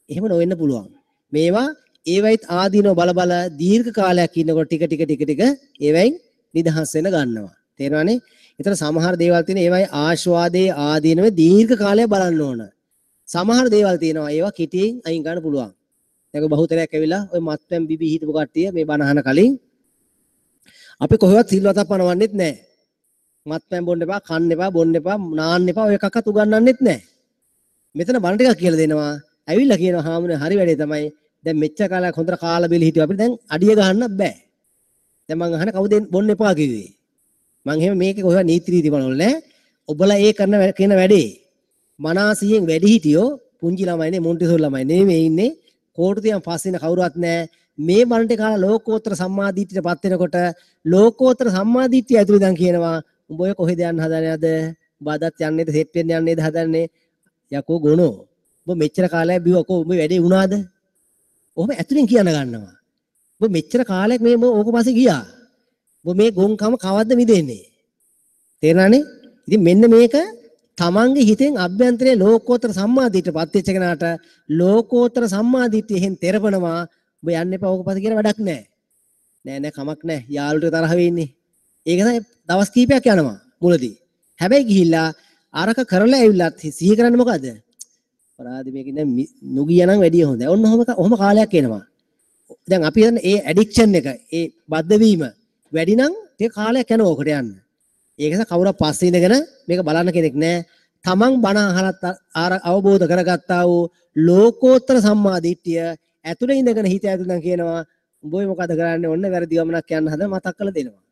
එහෙම නොවෙන්න පුළුවන්. මේවා ඒවයිත් ආදීනව බල බල දීර්ඝ කාලයක් ඉන්නකොට ටික ටික ටික ටික ඒවයින් නිදහස් වෙන ගන්නවා. තේරෙනවනේ? ඒතර සමහර දේවල් තියෙන ඒවයි ආස්වාදයේ ආදීනව දීර්ඝ කාලයක් බලන්න ඕන. සමහර දේවල් තියෙනවා ඒවා කෙටියෙන් අයින් කරන්න පුළුවන්. දැන් ඔය බහුතරයක් ඇවිල්ලා ඔය මත්පැන් බිබී හිටපු කට්ටිය මේ බණ අහන කලින් අපි කොහෙවත් සිල්වතක් පනවන්නෙත් නැහැ. මත්පැන් බොන්න එපා, කන්න එපා, බොන්න එපා, නාන්න එපා ඔය එකක්වත් උගන්වන්නෙත් නැහැ. මෙතන බණ ටිකක් කියලා දෙනවා. ඇවිල්ලා කියනවා හාමුදුරනේ හරි වැඩේ තමයි. දැන් මෙච්චර කාලයක් හොඳට කාලා බීලා හිටියා අපිට දැන් අඩිය ගහන්න බෑ. දැන් මං අහන කවුද බොන්න එපා කිව්වේ? මං එහෙම මේකේ කොහෙවත් නීති රීති බලවල නෑ. ඔබලා ඒ කරන කියන වැඩේ මනාසියෙන් වැඩි හිටියෝ පුංචි ළමයිනේ මොන්ටිසෝරි ළමයි නෙමෙයි මේ ඉන්නේ. කෝටු තියන් පස්සේ ඉන්න කවුරුවත් නෑ. මේ බණ ටික කාලා ලෝකෝත්තර සම්මාදිට්ඨියට පත් වෙනකොට ලෝකෝත්තර සම්මාදිට්ඨිය ඇතුළේ දැන් කියනවා උඹ ඔය කොහෙද යන්න හදන්නේ අද? උඹ අදත් යන්නේද සෙට් වෙන්න යන්නේද හදන්නේ? යකෝ ගොනෝ. උඹ මෙච්චර කාලයක් බිව්වා කෝ උඹ වැඩේ වුණාද? ඔහොම ඇතුලෙන් කියන්න ගන්නවා. උඹ මෙච්චර කාලයක් මේ ඕක පස්සේ ගියා. උඹ මේ ගොන්කම කවද්ද මිදෙන්නේ? තේරෙනවනේ? ඉතින් මෙන්න මේක තමන්ගේ හිතෙන් අභ්‍යන්තරයේ ලෝකෝත්තර සම්මාදිට්ඨියට පත් වෙච්ච කෙනාට ලෝකෝත්තර සම්මාදිට්ඨිය එහෙන් තෙරපනවා. උඹ යන්න එපා ඕක පස්සේ කියලා වැඩක් නෑ. නෑ නෑ කමක් නෑ. යාළුවට තරහ වෙන්නේ. ඒක තමයි දවස් කීපයක් යනවා මුලදී. හැබැයි ගිහිල්ලා අරක කරලා ඇවිල්ලත් සිහි කරන්නේ මොකද? අපරාධ මේක දැන් නොගියා නම් වැඩිය හොඳයි. ඔන්න ඔහොම කාලයක් එනවා. දැන් අපි හිතන්නේ ඒ ඇඩික්ෂන් එක, ඒ බද්ධ වීම වැඩි නම් ටික කාලයක් යනවා ඔකට යන්න. ඒක නිසා කවුරුත් පස්සේ ඉඳගෙන මේක බලන්න කෙනෙක් නෑ. තමන් බණ අහලත් අවබෝධ කරගත්තා වූ ලෝකෝත්තර සම්මා දිට්ඨිය ඇතුලේ ඉඳගෙන හිත ඇතුලෙන් දැන් කියනවා උඹ ඔය මොකද කරන්නේ? ඔන්න වැරදි ගමනක් යන්න හදන මතක් කරලා දෙනවා.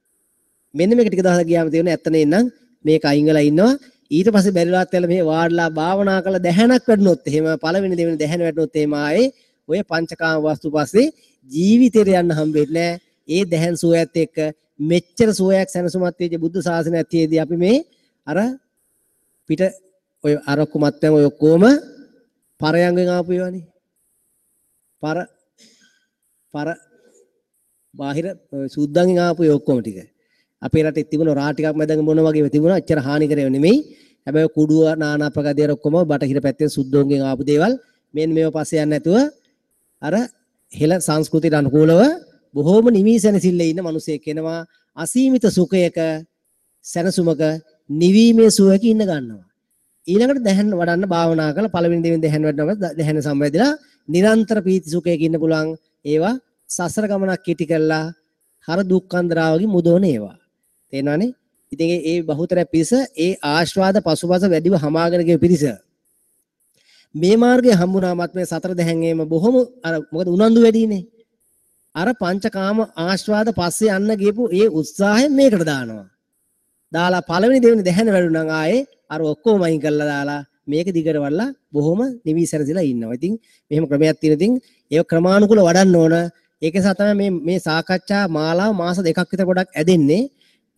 මෙන්න මේක ටික දවසක් ගියාම තේරෙනවා ඇත්ත නේනම් මේක අයින් වෙලා ඉන්නවා. ඊට පස්සේ බැරිලාත් වෙලා මේ වාඩිලා භාවනා කරලා දැහැණක් වැඩුණොත් එහෙම පළවෙනි දෙවෙනි දැහැණ වැඩුණොත් එහෙම ආයේ ඔය පංචකාම වස්තු පස්සේ ජීවිතේට යන්න හම්බෙන්නේ නෑ. ඒ දැහැන් සුවයත් එක්ක මෙච්චර සුවයක් සැනසුමක් තියෙච්ච බුද්ධ ශාසනයක් තියේදී අපි මේ අර පිට ඔය අරක්කු මත්පැන් ඔය ඔක්කොම පරයන්ගෙන් ආපු ඒවානේ. පර පර බාහිර සුද්දන්ගෙන් ආපු ඒ ඔක්කොම ටික. අපේ රටේ තිබුණ රා ටිකක් මැදන් මොන වගේ තිබුණා එච්චර හානි කරේව නෙමෙයි. හැබැයි කුඩුව නානා ප්‍රකාර දේවල් ඔක්කොම බටහිර පැත්තෙන් සුද්දෝන්ගෙන් ආපු දේවල් මෙන්න මේව පස්සේ යන්නේ නැතුව අර හෙළ සංස්කෘතියට අනුකූලව බොහෝම නිවි සැනසෙල්ලේ ඉන්න මිනිසෙක් එනවා. අසීමිත සුඛයක සැනසුමක නිවීමේ සුවයක ඉන්න ගන්නවා. ඊළඟට දැහන් වඩන්න භාවනා කරලා පළවෙනි දෙවෙනි දැහන් වඩනවා දැහන සම්වැදිලා නිරන්තර පීති සුඛයක ඉන්න පුළුවන්. ඒවා සසර ගමනක් කෙටි කරලා හර දුක්ඛන්දරාවකින් මුදවන ඒවා. තේරෙනවනේ? ඉතින් ඒ බහුතරය පිරිස ඒ ආස්වාද පසුපස වැඩිව හමාගෙන ගිය පිරිස මේ මාර්ගය හම්බුනාමත් මේ සතර දැහැන් එම බොහොම අර මොකද උනන්දු වැඩිනේ. අර පංචකාම ආස්වාද පස්සේ යන්න ගියපු ඒ උත්සාහයෙන් මේකට දානවා. දාලා පළවෙනි දෙවෙනි දැහැන වැඩුණා නම් ආයේ අර ඔක්කොම අයින් කරලා දාලා මේක දිගට වඩලා බොහොම නිවි සැරසිලා ඉන්නවා. ඉතින් මෙහෙම ක්‍රමයක් තියෙන ඉතින් ඒක ක්‍රමානුකූල වඩන්න ඕන. ඒක නිසා තමයි මේ මේ සාකච්ඡා මාලාව මාස දෙකක් විතර පොඩක් ඇදෙන්නේ.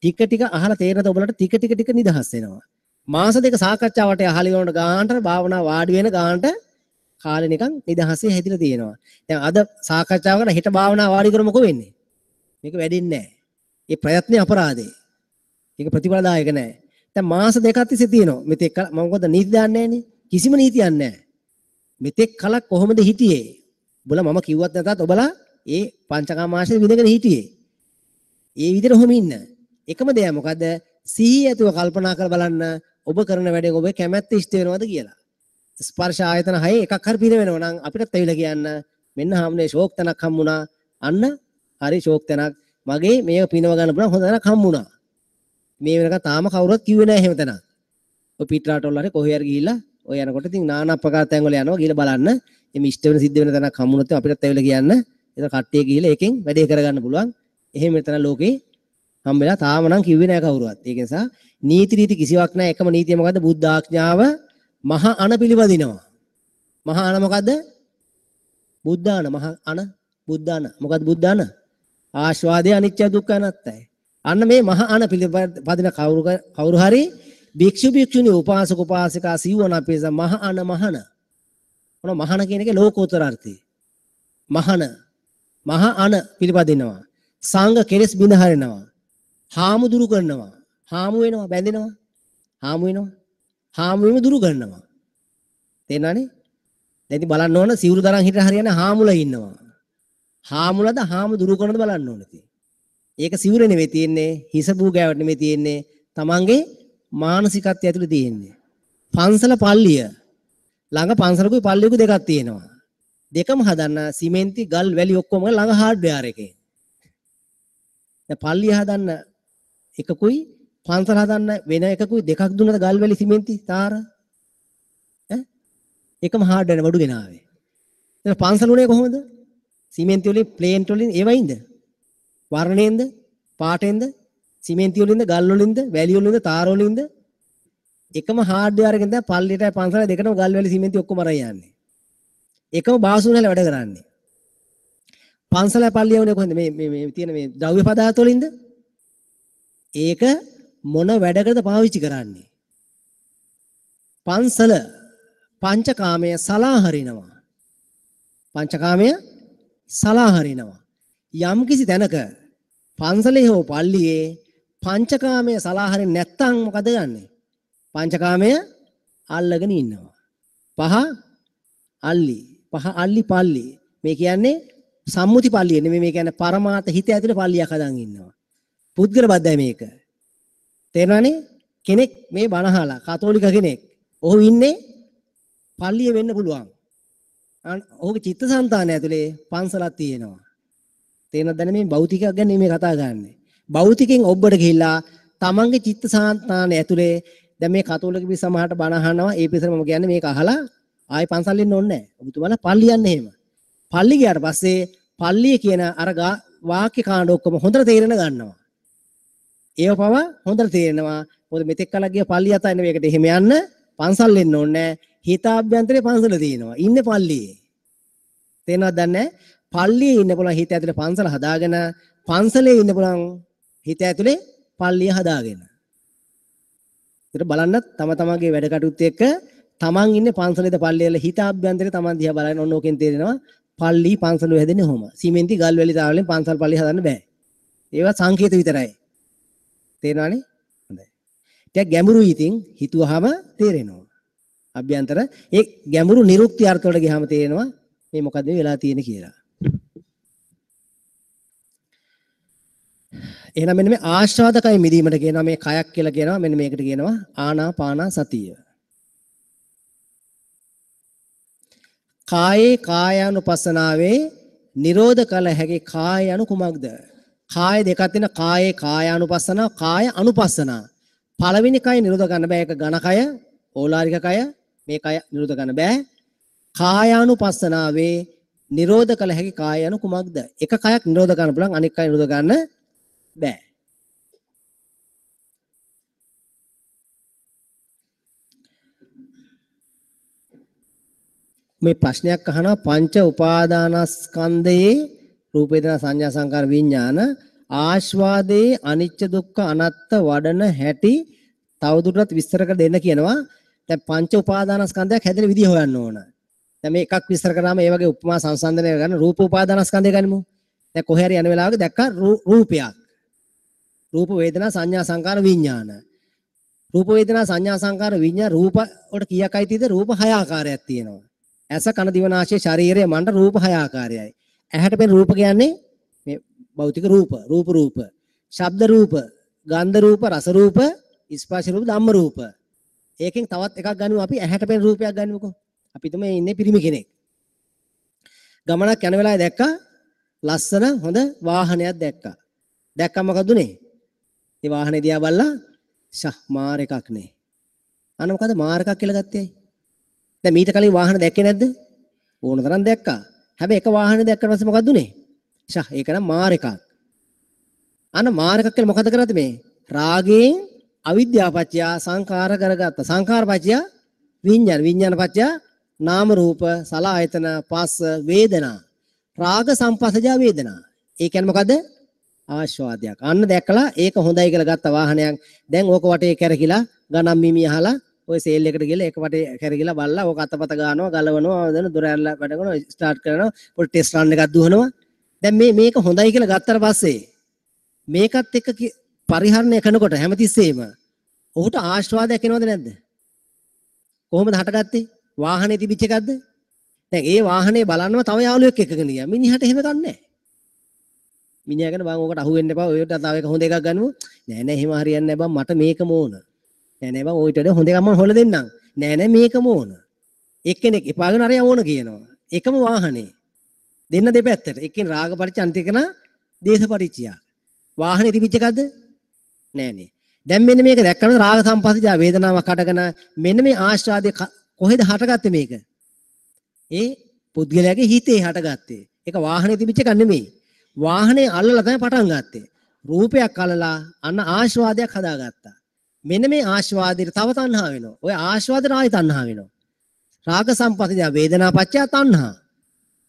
ටික ටික අහලා තේරෙනද ඔයාලට ටික ටික ටික නිදහස් වෙනවා. මාස දෙක සාකච්ඡාවට අහලා ඉවරනට ගානට භාවනා වාඩි වෙන ගානට කාලේ නිකන් නිදහසේ හැදිලා තියෙනවා. දැන් අද සාකච්ඡාව කරලා හෙට භාවනා වාඩි කරමු මොකෝ වෙන්නේ? මේක වැඩෙන්නේ නැහැ. ඒ ප්‍රයත්නේ අපරාධේ. ඒක ප්‍රතිඵලදායක නැහැ. දැන් මාස දෙකක් තිස්සේ තියෙනවා. මෙතෙක් මම මොකද නීති දාන්නේ නැහනේ. කිසිම නීතියක් නැහැ. මෙතෙක් කලක් කොහොමද හිටියේ? ඔබලා මම කිව්වත් නැතත් ඔබලා ඒ පංචකාම ආශ්‍රය විඳගෙන හිටියේ. ඒ විදිහට ඔහොම ඉන්න. එකම දෙය මොකද? සිහිය ඇතුව කල්පනා කරලා බලන්න ඔබ කරන වැඩෙන් ඔබේ කැමැත්ත ඉෂ්ට වෙනවද කියලා. ස්පර්ශ ආයතන හයේ එකක් හරි පින වෙනවා නම් අපිටත් ඇවිල්ලා කියන්න මෙන්න හාමුදුරනේ ෂෝක් තැනක් හම්බුණා. අන්න හරි ෂෝක් තැනක්. මගේ මේක පිනව ගන්න පුළුවන් හොඳ තැනක් හම්බුණා. මේ වෙනකන් තාම කවුරුවත් කිව්වේ නෑ එහෙම තැනක්. ඔය පිටරට වල හරි කොහේ හරි ගිහිල්ලා ඔය යනකොට ඉතින් නානා ප්‍රකාර තැන් වල යනවා ගිහිල්ලා බලන්න. එimhe ඉෂ්ට වෙන සිද්ධ වෙන තැනක් හම්බුනොත් අපිටත් ඇවිල්ලා කියන්න. ඒක කට්ටිය ගිහිල්ලා ඒකෙන් වැඩේ කරගන්න පුළුවන්. එහෙම තැන ලෝකේ හම්බෙලා තාම නම් කිව්වේ නෑ කවුරුවත්. ඒක නිසා නීති රීති කිසිවක් නෑ. එකම නීතිය මොකද්ද? බුද්ධ ආඥාව මහ අන පිළිපදිනවා. මහ අන මොකද්ද? බුද්ධාන මහ අන බුද්ධාන. මොකද්ද බුද්ධාන? ආස්වාදේ අනිත්‍ය දුක්ඛ අනාත්තයි. අන්න මේ මහ අන පිළිපදින කවුරු හරි භික්ෂු භික්ෂුණී උපාසක උපාසිකා සිව්වන අපේස මහ අන මහන. මොන මහන කියන එකේ ලෝකෝත්තර අර්ථය. මහන මහ අන පිළිපදිනවා. සංඝ කෙලෙස් බිඳ හරිනවා. හාමු දුරු කරනවා. හාමු වෙනවා බැඳෙනවා. හාමු වෙනවා. හාමු වීම දුරු කරනවා. තේරෙනවනේ? දැන් ඉතින් බලන්න ඕන සිවුරු දරන් හිටලා හරියන්නේ හාමුලා ඉන්නවා. හාමුලද හාමු දුරු කරනද බලන්න ඕනේ ඉතින්. ඒක සිවුර නෙවෙයි තියෙන්නේ, හිස බූ ගෑවට නෙවෙයි තියෙන්නේ, තමන්ගේ මානසිකත්වය ඇතුලේ තියෙන්නේ. පන්සල පල්ලිය ළඟ පන්සලකුයි පල්ලියකුයි දෙකක් තියෙනවා. දෙකම හදන්න සිමෙන්ති ගල් වැලි ඔක්කොම ළඟ හાર્ඩ්වෙයාර් එකේ. දැන් පල්ලිය හදන්න එකකුයි පන්සල හදන්න වෙන එකකුයි දෙකක් දුන්නද ගල් වැලි සිමෙන්ති තාර ඈ එකම හાર્ඩ්වෙයාර් බඩු ගෙනාවේ. දැන් පන්සල උනේ කොහොමද? සිමෙන්ති වලින් ප්ලේන්ට් වලින් ඒවයින්ද? වර්ණයෙන්ද? පාටෙන්ද? සිමෙන්ති වලින්ද ගල් වලින්ද වැලි වලින්ද තාර වලින්ද? එකම හાર્ඩ්වෙයාර් එකෙන් තමයි පල්ලියටයි පන්සලයි දෙකටම ගල් වැලි සිමෙන්ති ඔක්කොම අරන් යන්නේ. එකම බාසුන් වල වැඩ කරන්නේ. පන්සලයි පල්ලිය වුණේ කොහෙන්ද? මේ මේ මේ තියෙන මේ ද්‍රව්‍ය පදාර්ථ වලින්ද? ඒක මොන වැඩකටද පාවිච්චි කරන්නේ? පන්සල පංචකාමය සලාහරිනවා. පංචකාමය සලාහරිනවා. යම් කිසි තැනක පන්සලේ හෝ පල්ලියේ පංචකාමය සලාහරින්නේ නැත්තම් මොකද ගන්නෙ? පංචකාමය අල්ලගෙන ඉන්නවා. පහ අල්ලි, පහ අල්ලි පල්ලි. මේ කියන්නේ සම්මුති පල්ලිය නෙමෙයි, මේ කියන්නේ පරමාර්ථ හිත ඇතුලේ පල්ලියක් හදන් ඉන්නවා. පුද්ගල බද්ධයි මේක. තේරෙනවනේ? කෙනෙක් මේ බණ අහලා කතෝලික කෙනෙක්. ඔහු ඉන්නේ පල්ලිය වෙන්න පුළුවන්. ඔහුගේ චිත්තසංතානය ඇතුලේ පන්සලක් තියෙනවා. තේරෙනවද දැන් මේ භෞතිකයක් ගැන මේ කතා කරන්නේ. භෞතිකෙන් ඔබට ගිහිල්ලා තමන්ගේ චිත්තසංතානය ඇතුලේ දැන් මේ කතෝලික පිරිස සමහරට බණ අහනවා. ඒ පිරිසට මම කියන්නේ මේක අහලා ආයෙ පන්සල් එන්න ඕනේ නැහැ. ඔබතුමාලා පල්ලි යන්න එහෙම. පල්ලි ගියාට පස්සේ පල්ලිය කියන අර වාක්‍ය කාණ්ඩ ඔක්කොම හොඳට තේරෙන ගන්නවා. ඒව පව හොඳට තේරෙනවා. මොකද මෙතෙක් කලක් ගිය පල්ලිය අතරින් මේකට එහෙම යන්න පන්සල් එන්න ඕනේ නැහැ. හිතාභ්‍යන්තරේ පන්සල තියෙනවා. ඉන්නේ පල්ලියේ. තේරෙනවද දන්නේ නැහැ? පල්ලියේ ඉන්න පුළුවන් හිත ඇතුලේ පන්සල හදාගෙන, පන්සලේ ඉන්න පුළුවන් හිත ඇතුලේ පල්ලිය හදාගෙන. ඒතර බලන්න තම තමන්ගේ වැඩ කටයුතු එක්ක තමන් ඉන්නේ පන්සලේද පල්ලියේද හිතාභ්‍යන්තරේ තමන් දිහා බලන ඔන්න ඕකෙන් තේරෙනවා පල්ලි පන්සල හැදෙන්නේ කොහොම. සිමෙන්ති ගල් වැලි තාවලෙන් පන්සල් පල්ලි හදන්න බෑ. ඒවා සංකේත විතරයි. තේරෙනවනේ? හොඳයි. ටිකක් ගැඹුරුයි ඉතින් හිතුවාම තේරෙනවා. අභ්‍යන්තර ඒ ගැඹුරු නිරුක්ති අර්ථ වලට ගියාම තේරෙනවා මේ මොකද්ද මේ වෙලා තියෙන්නේ කියලා. එහෙනම් මෙන්න මේ ආස්වාදකය මිදීමට කියනවා මේ කයක් කියලා කියනවා. මෙන්න මේකට කියනවා ආනාපාන සතිය. කායේ කායානුපස්සනාවේ නිරෝධ කළ හැකි කාය යනු කුමක්ද? කාය දෙකක් තියෙන, කායේ කායානුපස්සනාව, කාය අනුපස්සනාව. පළවෙනි කය නිරෝධ කරන්න බෑ. ඒක ඝන කය, ඕලාරික කය, මේ කය නිරෝධ කරන්න බෑ. කායානුපස්සනාවේ නිරෝධ කළ හැකි කාය යනු කුමක්ද? එක කයක් නිරෝධ කරන්න පුළුවන්, අනෙක් කය නිරෝධ කරන්න බෑ. මේ ප්‍රශ්නයක් අහනවා පංච උපාදානස්කන්ධයේ රූප වේදනා සංඥා සංකාර විඥාන ආස්වාදයේ අනිච්ච දුක්ඛ අනාත්ත වඩන හැටි තවදුරටත් විස්තර කර දෙන්න කියනවා. දැන් පංච උපාදානස්කන්ධයක් හැදෙන විදිය හොයන්න ඕන. දැන් මේ එකක් විස්තර කරාම ඒ වගේ උපමා සංසන්දනය කරගන්න රූප උපාදානස්කන්ධය ගනිමු. දැන් කොහේ හරි යන වෙලාවක දැක්කා රූපයක්. රූප වේදනා සංඥා සංකාර විඥාන. රූප වේදනා සංඥා සංකාර විඥාන රූප වලට කීයක් අයිතිද? රූප හය ආකාරයක් තියෙනවා. ඇස කන දිව නාසය ශරීරය මන්ට රූප හය ආකාරයයි. ඇහැට පෙනෙන රූප කියන්නේ මේ භෞතික රූප, රූප රූප, ශබ්ද රූප, ගන්ධ රූප, රස රූප, ස්පර්ශ රූප, ධම්ම රූප. ඒකෙන් තවත් එකක් ගනිමු අපි ඇහැට පෙනෙන රූපයක් ගනිමුකෝ. අපි තුමේ මේ ඉන්නේ පිරිමි කෙනෙක්. ගමනක් යන වෙලාවේ දැක්කා ලස්සන හොඳ වාහනයක් දැක්කා. දැක්කම මොකද උනේ? ඒ වාහනේ දිහා බලලා ෂා මාර එකක් නේ. අන්න මොකද මාර එකක් කියලා ගත්තේ? දැන් මීට කලින් වාහන දැක්කේ නැද්ද? ඕන තරම් දැක්කා. හැබැයි එක වාහනේ දැක්කට පස්සේ මොකද උනේ? ෂා ඒක නම් මාර එකක්. අන්න මාර එකක් කියලා මොකද කරන්නේ මේ? රාගයෙන් අවිද්‍යාව පත්‍ය සංඛාර කරගත්ත. සංඛාර පත්‍ය විඥාන, විඥාන පත්‍ය නාම රූප සලආයතන පස්ස වේදනා. රාග සම්පස්සජා වේදනා. ඒ කියන්නේ මොකද? ආස්වාදයක්. අන්න දැකලා ඒක හොඳයි කියලා ගත්ත වාහනයක්. දැන් ඕක වටේ කැරකිලා ගණන් මිමි අහලා ඔය සේල් එකට ගිහලා ඒක වටේ කැරකිලා බලලා ඕක අතපත ගන්නවා, ගලවනවා, දැන් දොර ඇරලා වැඩ කරනවා, ස්ටාර්ට් කරනවා, පොඩි ටෙස්ට් රන් එකක් දුවනවා. දැන් මේ මේක හොඳයි කියලා ගත්තට පස්සේ මේකත් එක්ක පරිහරණය කරනකොට හැමතිස්සෙම ඔහුට ආස්වාදයක් එනවද නැද්ද? කොහොමද හටගත්තේ? වාහනේ තිබිච්ච එකක්ද? දැන් ඒ වාහනේ බලන්නම තව යාළුවෙක් එක්කගෙන ගියා. මිනිහට එහෙම ගන්නෑ. මිනිහා කියන බං ඕකට අහු වෙන්න එපා. ඔයට තව එක හොඳ එකක් ගන්නමු. නෑ නෑ එහෙම හරියන්නේ නෑ බං මට මේකම ඕන. නෑ නෑ බං ඔයිට වඩා හොඳ එකක් මම හොයලා දෙන්නම්. නෑ නෑ මේකම ඕන. එක්කෙනෙක් එපාගෙන අරයා ඕන කියනවා. එකම වාහනේ. දෙන්න දෙපැත්තට. එක්කෙනෙක් රාග පරිච්ඡ අනිත් එකන දේශ පරිච්ඡය. වාහනේ තිබිච්ච එකක්ද? නෑ නේ. දැන් මෙන්න මේක දැක්කම රාග සම්පස්සජා වේදනාවක් හටගෙන මෙන්න මේ ආස්වාදයේ කොහෙද හටගත්තේ මේක? ඒ පුද්ගලයාගේ හිතේ හටගත්තේ. ඒක වාහනේ තිබිච්ච එකක් නෙමෙයි. වාහනේ අල්ලලා තමයි පටන් ගත්තේ. රූපයක් අල්ලලා අන්න ආස්වාදයක් හදාගත්තා. මෙන්න මේ ආස්වාදයට තව තණ්හා වෙනවා. ඔය ආස්වාදයට ආයි තණ්හා වෙනවා. රාග සම්පස්සජා වේදනා පච්චය තණ්හා.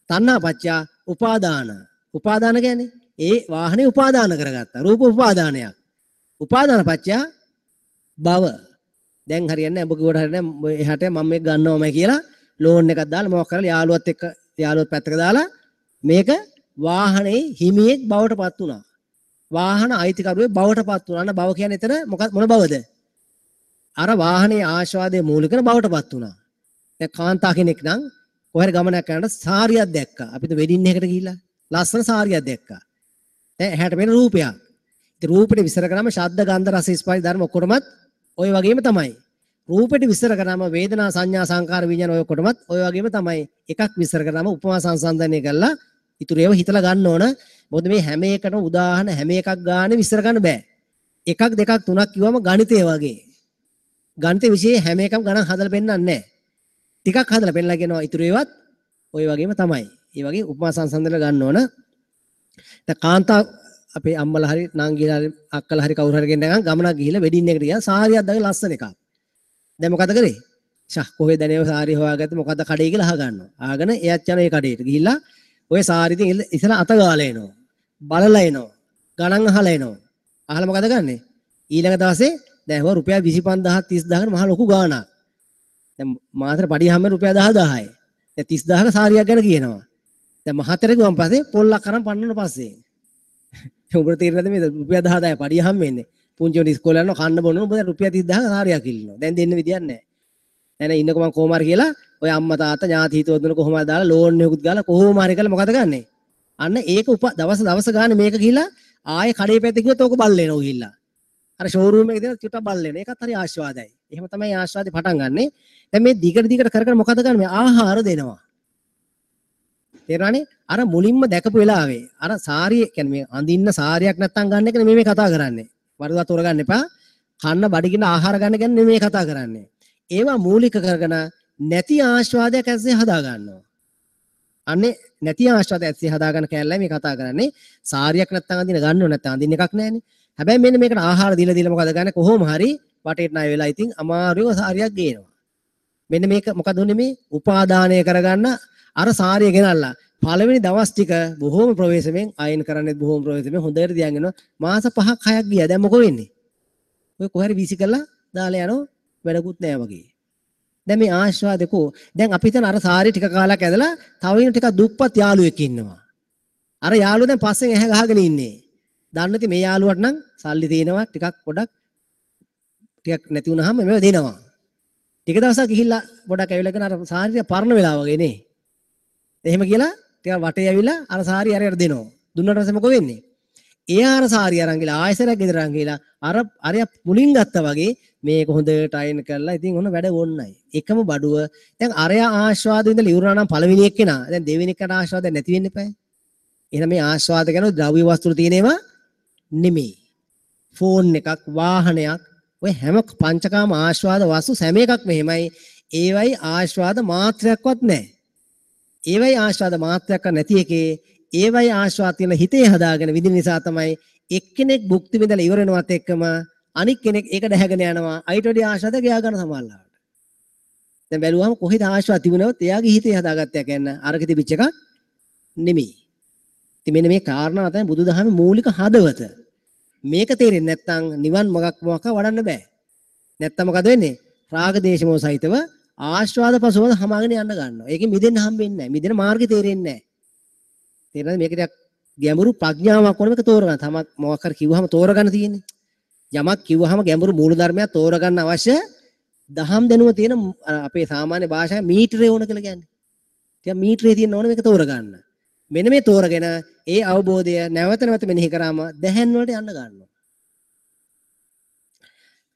තණ්හා පච්චය උපාදාන. උපාදාන කියන්නේ ඒ වාහනේ උපාදාන කරගත්තා. රූප උපාදානයක්. උපාදාන පච්චය භව. දැන් හරියන්නේ නැහැ. ඔබ කිව්වට හරියන්නේ නැහැ. එහාට මම මේක ගන්නවමයි කියලා ලෝන් එකක් දාලා මොකක් කරලා යාළුවත් එක්ක යාළුවත් පැත්තක දාලා මේක වාහනේ හිමියෙක් බවට පත් වුණා. වාහන අයිතිකරුවෙක් බවට පත් වුණා. අන්න භව කියන්නේ එතන මොකක් මොන භවද? අර වාහනේ ආස්වාදයේ මූලික කරන බවට පත් වුණා. දැන් කාන්තා කෙනෙක් නම් කොහේ හරි ගමනක් යනකොට සාරියක් දැක්කා. අපිට වෙඩින් එකකට ගිහිල්ලා ලස්සන සාරියක් දැක්කා. දැන් ඇහැට පෙනෙන රූපයක්. ඉතින් රූපෙට විස්තර කරාම ශබ්ද ගන්ධ රස ස්පර්ශ ධර්ම ඔක්කොටමත් ඔය වගේම තමයි. රූපෙට විස්තර කරාම වේදනා සංඥා සංකාර විඥාන ඔය ඔක්කොටමත් ඔය වගේම තමයි. එකක් විස්තර කරාම උපමා සංසන්දනය කරලා ඉතුරු ඒවා හිතලා ගන්න ඕන. මොකද මේ හැම එකටම උදාහරණ හැම එකක් ගානේ විස්තර කරන්න බෑ. එකක් දෙකක් තුනක් කිව්වම ගණිතය වගේ. ගණිත විෂයේ හැම එකම ගණන් හදලා පෙන්නන්නේ නැහැ. ටිකක් හදලා පෙන්නලා කියනවා ඉතුරු ඒවත් ඔය වගේම තමයි. ඒ වගේ උපමා සංසන්දනය ගන්න ඕන. දැන් කාන්තා අපේ අම්මලා හරි නංගිලා හරි අක්කලා හරි කවුරු හරි කෙනෙක් ගමනක් ගිහිල්ලා වෙඩින් එකට ගියා සාරියක් දාගෙන ලස්සන එකක්. දැන් මොකද කරේ? ෂා කොහෙද නේ ඔය සාරිය හොයාගත්තේ මොකද කඩේ කියලා අහ ගන්නවා. ආගෙන එයාත් යන ඒ කඩේට ගිහිල්ලා ඔය සාරිය ඉතින් ඉතල අත ගාලා එනවා. බලලා එනවා. ගණන් අහලා එනවා. අහලා මොකද ගන්නෙ? ඊළඟ දවසේ දැන් හොර රුපියල් 25000 30000 මහ ලොකු ගාණක්. දැන් මාසෙට පඩිය හැම රුපියල් 10000යි. දැන් 30000ක සාරියක් ගැන කියනවා. දැන් මහතර ගියන් පස්සේ පොල්ලක් අරන් පන්නන පස්සේ උඹට තේරෙනවද මේ රුපියල් 10000 පඩිය හම් වෙන්නේ? පුංචි උන් ඉස්කෝලේ යනවා කන්න බොන්න උඹ දැන් රුපියල් 30000ක සාරියක් ඉල්ලනවා. දැන් දෙන්න විදියක් නැහැ. දැන් ඉන්නකො මං කොහොම හරි කියලා ඔය අම්මා තාත්තා ඥාති හිතවතුන් දුන්න කොහොම හරි දාලා ලෝන් එකකුත් ගාලා කොහොම හරි කරලා මොකද ගන්නෙ? අන්න ඒක දවස දවස ගානේ මේක ගිහිලා ආයේ කඩේ පැත්තේ ගියොත් ඕක බල්ල එනවා ගිහිල්ලා. අර ෂෝරූම් එකේ තියෙන චුට්ටක් බල්ල එනවා. ඒකත් හරි ආස්වාදයි. එහෙම තමයි ආස්වාදේ පටන් ගන්නෙ. දැන් මේ දිගට දිගට කර කර මොකද ගන්න මේ ආහාර දෙනවා. තේරුණානේ? අර මුලින්ම දැකපු වෙලාවේ අර සාරිය කියන්නේ මේ අඳින්න සාරියක් නැත්තම් ගන්න එක නෙමෙයි මේ කතා කරන්නේ. වරදවා තෝරගන්න එපා. කන්න බඩගින්න ආහාර ගන්න ගැන නෙමෙයි මේ කතා කරන්නේ. ඒවා මූලික කරගෙන නැති ආස්වාදයක් ඇස්සේ හදා ගන්නවා. අනේ නැති ආස්වාදයක් ඇස්සේ හදා ගන්න කැලලයි මේ කතා කරන්නේ. සාරියක් නැත්තම් අඳින ගන්න ඕන නැත්තම් අඳින්න එකක් නෑනේ. හැබැයි මෙන්න මේකට ආහාර දීලා දීලා මොකද ගන්න කොහොම හරි වටේට ණය වෙලා ඉතින් අමාරුව සාරියක් ගේනවා. මෙන්න මේක මොකද උනේ මේ උපාදානය කරගන්න අර සාරිය ගෙනල්ලා පළවෙනි දවස් ටික බොහොම ප්‍රවේශමෙන් අයන් කරන්නේත් බොහොම ප්‍රවේශමෙන් හොඳට තියන් යනවා. මාස 5ක් 6ක් ගියා. දැන් මොකෝ වෙන්නේ? ඔය කොහේ හරි වීසි කරලා දාලා යනවා වැඩකුත් නෑ වගේ. දැන් මේ ආස්වාදකෝ දැන් අපි හිතන අර සාරිය ටික කාලයක් ඇදලා තව ඉන්න ටිකක් දුප්පත් යාළුවෙක් ඉන්නවා. අර යාළුවා දැන් පස්සෙන් ඇහැ ගහගෙන ඉන්නේ. දන්නේ නැති මේ යාළුවට නම් සල්ලි තියෙනවා ටිකක් පොඩක් ටිකක් නැති වුණාම මේව දෙනවා. ටික දවසක් ගිහිල්ලා පොඩක් ඇවිල්ලා කරන අර සාරිය පරණ වෙලා වගේ නේ. එහෙම කියලා ටිකක් වටේ ඇවිල්ලා අර සාරිය අරයට දෙනවා. දුන්නාට පස්සේ මොකෝ වෙන්නේ? එයා අර සාරිය අරන් ගිහලා ආයෙසරක් ගෙදර අරන් ගිහලා අර අරයා මුලින් ගත්තා වගේ මේක හොඳට අයන් කරලා ඉතින් ඔන්න වැඩ ඕන්නයි. එකම බඩුව දැන් අරයා ආස්වාද විඳලා ඉවරනා නම් පළවෙනි එක්කෙනා දැන් දෙවෙනි එකට ආස්වාද නැති වෙන්න එපායි. එහෙනම් මේ ආස්වාද ගැන ද්‍රව්‍ය වස්තු තියෙන ඒවා නෙමෙයි. ෆෝන් එකක් වාහනයක් ඔය හැම පංචකාම ආස්වාද වස්තු හැම එකක්ම එහෙමයි. ඒවයි ආස්වාද මාත්‍රයක්වත් නැහැ. ඒවයි ආස්වාද මාත්‍රයක් නැති එකේ ඒවයි ආස්වාද තියෙන හිතේ හදාගෙන විඳින නිසා තමයි එක්කෙනෙක් භුක්ති විඳලා ඉවර වෙනවත් එක්කම අනික් කෙනෙක් ඒක දැහැගෙන යනවා. අයිට වැඩි ආස්වාද ගියා ගන්න සමහරලාට. දැන් බැලුවම කොහෙද ආස්වාද තිබුණවත් එයාගේ හිතේ හදාගත්තා කියන්නේ අරක තිබිච්ච එකක් නෙමෙයි. ඉතින් මෙන්න මේ කාරණා තමයි බුදුදහමේ මූලික හදවත. මේක තේරෙන්නේ නැත්නම් නිවන් මගක් මොකක් වඩන්න බෑ. නැත්නම් මොකද වෙන්නේ? රාග දේශ මොහ සහිතව ආස්වාද පසුවද හමාගෙන යන්න ගන්නවා. ඒකෙන් මිදෙන්න හම්බෙන්නේ නැහැ. මිදෙන මාර්ගය තේරෙන්නේ නැහැ. තේරෙනවද? මේක ටිකක් ගැඹුරු ප්‍රඥාවක් ඕන මේක තෝරගන්න. තමක් මොකක් හරි කිව්වහම තෝරගන්න තියෙන්නේ. යමක් කිව්වහම ගැඹුරු මූල ධර්මයක් තෝරගන්න අවශ්‍ය දහම් දැනුම තියෙන අපේ සාමාන්‍ය භාෂාවේ මීටරේ ඕන කියලා කියන්නේ. ටිකක් මීටරේ තියෙන ඕන මේක තෝරගන්න. මෙන්න මේ තෝරගෙන ඒ අවබෝධය නැවත නැවත මෙනෙහි කරාම දැහැන් වලට යන්න ගන්නවා.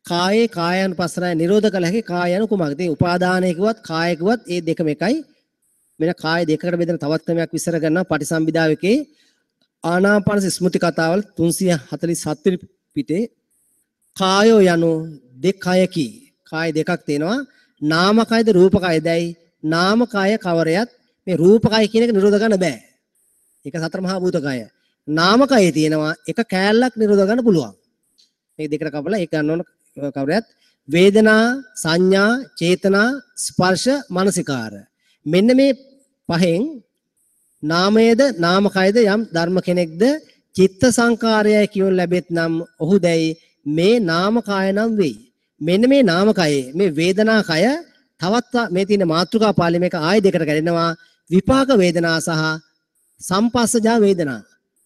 කායේ කායानुපස්සනාව නිරෝධ කළ හැකි කාය යනු කුමක්ද? ඉතින් උපාදානය කිව්වත් කාය කිව්වත් ඒ දෙකම එකයි. මෙන්න කාය දෙකකට බෙදෙන තවත් ක්‍රමයක් විස්තර කරනවා පටිසම්භිදාව එකේ ආනාපාන ස්මෘති කතාවල 347 වෙනි පිටේ කායෝ යනු දෙකයකි. කාය දෙකක් තියෙනවා. නාමකයද රූපකයදයි. නාමකය කවරයත් මේ රූපකය කියන එක නිරෝධ කරන්න බෑ. ඒක සතර මහා භූත කය. නාමකයේ තියෙනවා එක කෑල්ලක් නිරෝධ කරන්න පුළුවන්. මේ දෙකට කපලා ඒක ගන්න ඕන කවරයත් වේදනා, සංඥා, චේතනා, ස්පර්ශ, මනසිකාර. මෙන්න මේ පහෙන් නාමයේද නාමකයද යම් ධර්ම කෙනෙක්ද චිත්ත සංකාරයයි කියොන් ලැබෙත් නම් ඔහු දැයි මේ නාමකාය නම් වෙයි. මෙන්න මේ නාමකයේ මේ වේදනා කය තවත් මේ තියෙන මාතෘකා පාළි මේක ආය දෙකට කැඩෙනවා. විපාක වේදනා සහ සම්පස්සජා වේදනා.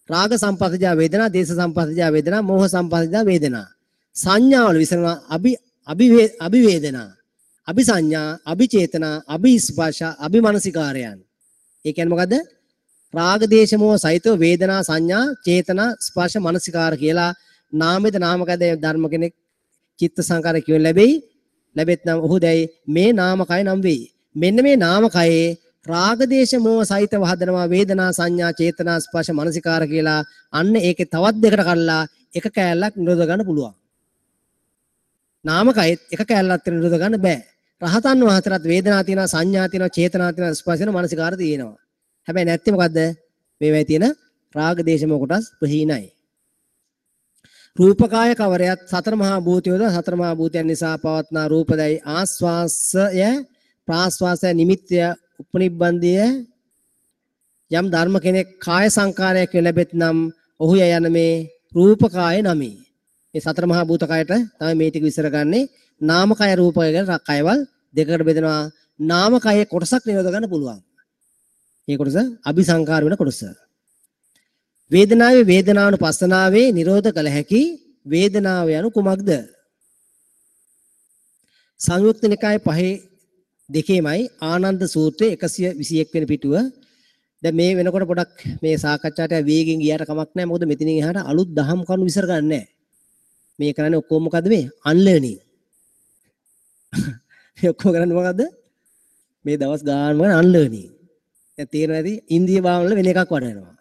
රාග සම්පස්සජා වේදනා, දේශ සම්පස්සජා වේදනා, මෝහ සම්පස්සජා වේදනා. සංඥාවල විසරනවා අභි අභි අභිවේදනා, අභිසංඥා, අභිචේතනා, අභිස්පර්ශ, අභිමනසිකාරයන්. ඒ කියන්නේ මොකද්ද? රාග දේශ මොහ සහිතව වේදනා, සංඥා, චේතනා, ස්පර්ශ, මනසිකාර කියලා නාමෙද නාමකද ධර්ම කෙනෙක් චිත්ත සංකාර කියොන් ලැබෙයි. ලැබෙත් නම් ඔහු දැයි මේ නාමකය නම් වෙයි. මෙන්න මේ නාමකයේ රාග දේශ මොහ සහිතව හදනවා වේදනා, සංඥා, චේතනා, ස්පර්ශ, මනසිකාර කියලා. අන්න ඒකේ තවත් දෙකට කඩලා එක කෑල්ලක් නිරෝධ ගන්න පුළුවන්. නාමකයෙත් එක කෑල්ලක් නිරෝධ ගන්න බෑ. රහතන් වහන්සේටත් වේදනා තියෙනවා, සංඥා තියෙනවා, චේතනා තියෙනවා, ස්පර්ශ තියෙනවා, මනසිකාර තියෙනවා. හැබැයි නැත්තේ මොකද්ද? මේවයි තියෙන රාග දේශ මොහ කොටස් ප්‍රහීනයි. රූපකාය කවරයත් සතර මහා භූතයෝද සතර මහා භූතයන් නිසා පවත්නා රූපදයි ආස්වාසය ප්‍රාස්වාසය නිමිත්තය උපනිබ්බන්ධය යම් ධර්ම කෙනෙක් කාය සංකාරයක් ලැබෙත් නම් ඔහු යන මේ රූපකාය නමි. මේ සතර මහා භූත කයට තමයි මේ ටික විස්තර ගන්නේ. නාමකය රූපකය කියලා කයවල් දෙකකට බෙදෙනවා. නාමකයේ කොටසක් නිරෝධ ගන්න පුළුවන්. මේ කොටස අபிසංකාර වෙන කොටස. වේදනාවේ වේදනානුපස්සනාවේ නිරෝධ කළ හැකි වේදනාව යනු කුමක්ද? සංයුක්ත නිකාය 5 දෙකේමයි ආනන්ද සූත්‍රයේ 121 වෙනි පිටුව. දැන් මේ වෙනකොට පොඩක් මේ සාකච්ඡාට වේගෙන් ගියාට කමක් නැහැ. මොකද මෙතනින් එහාට අලුත් දහම් කරුණු විසර ගන්න නැහැ. මේ කරන්නේ ඔක්කොම මොකද්ද මේ? අන්ලර්නින්. මේ ඔක්කොම කරන්නේ මොකද්ද? මේ දවස් ගානම කරන්නේ අන්ලර්නින්. දැන් තේරෙනවා ඇති ඉන්දිය භාවන වල වෙන එකක් වඩනවා.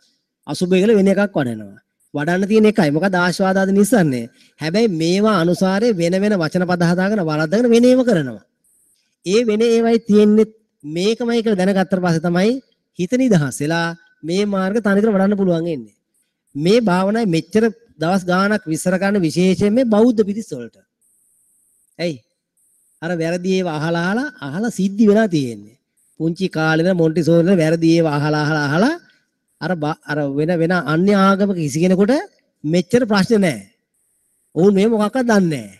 අසුභය කියලා වෙන එකක් වඩනවා. වඩන්න තියෙන එකයි. මොකද ආස්වාදාද නිස්සන්නේ. හැබැයි මේවා අනුසාරයේ වෙන වෙන වචන පද හදාගෙන වරද්දාගෙන වෙන ඒවා කරනවා. ඒ වෙන ඒවයි තියෙන්නේ මේකමයි කියලා දැනගත්තට පස්සේ තමයි හිත නිදහස් වෙලා මේ මාර්ග තනිකර වඩන්න පුළුවන් වෙන්නේ. මේ භාවනාවේ මෙච්චර දවස් ගාණක් විස්තර කරන්න විශේෂයෙන් මේ බෞද්ධ පිරිස් වලට. ඇයි? අර වැරදි ඒවා අහලා අහලා අහලා සිද්ධි වෙලා තියෙන්නේ. පුංචි කාලේ ඉඳන් මොන්ටිසෝරි වල වැරදි ඒවා අහලා අහලා අහලා අර අර වෙන වෙන අන්‍ය ආගමක කිසි කෙනෙකුට මෙච්චර ප්‍රශ්න නැහැ. ඔවුන් මේ මොකක්වත් දන්නේ නැහැ.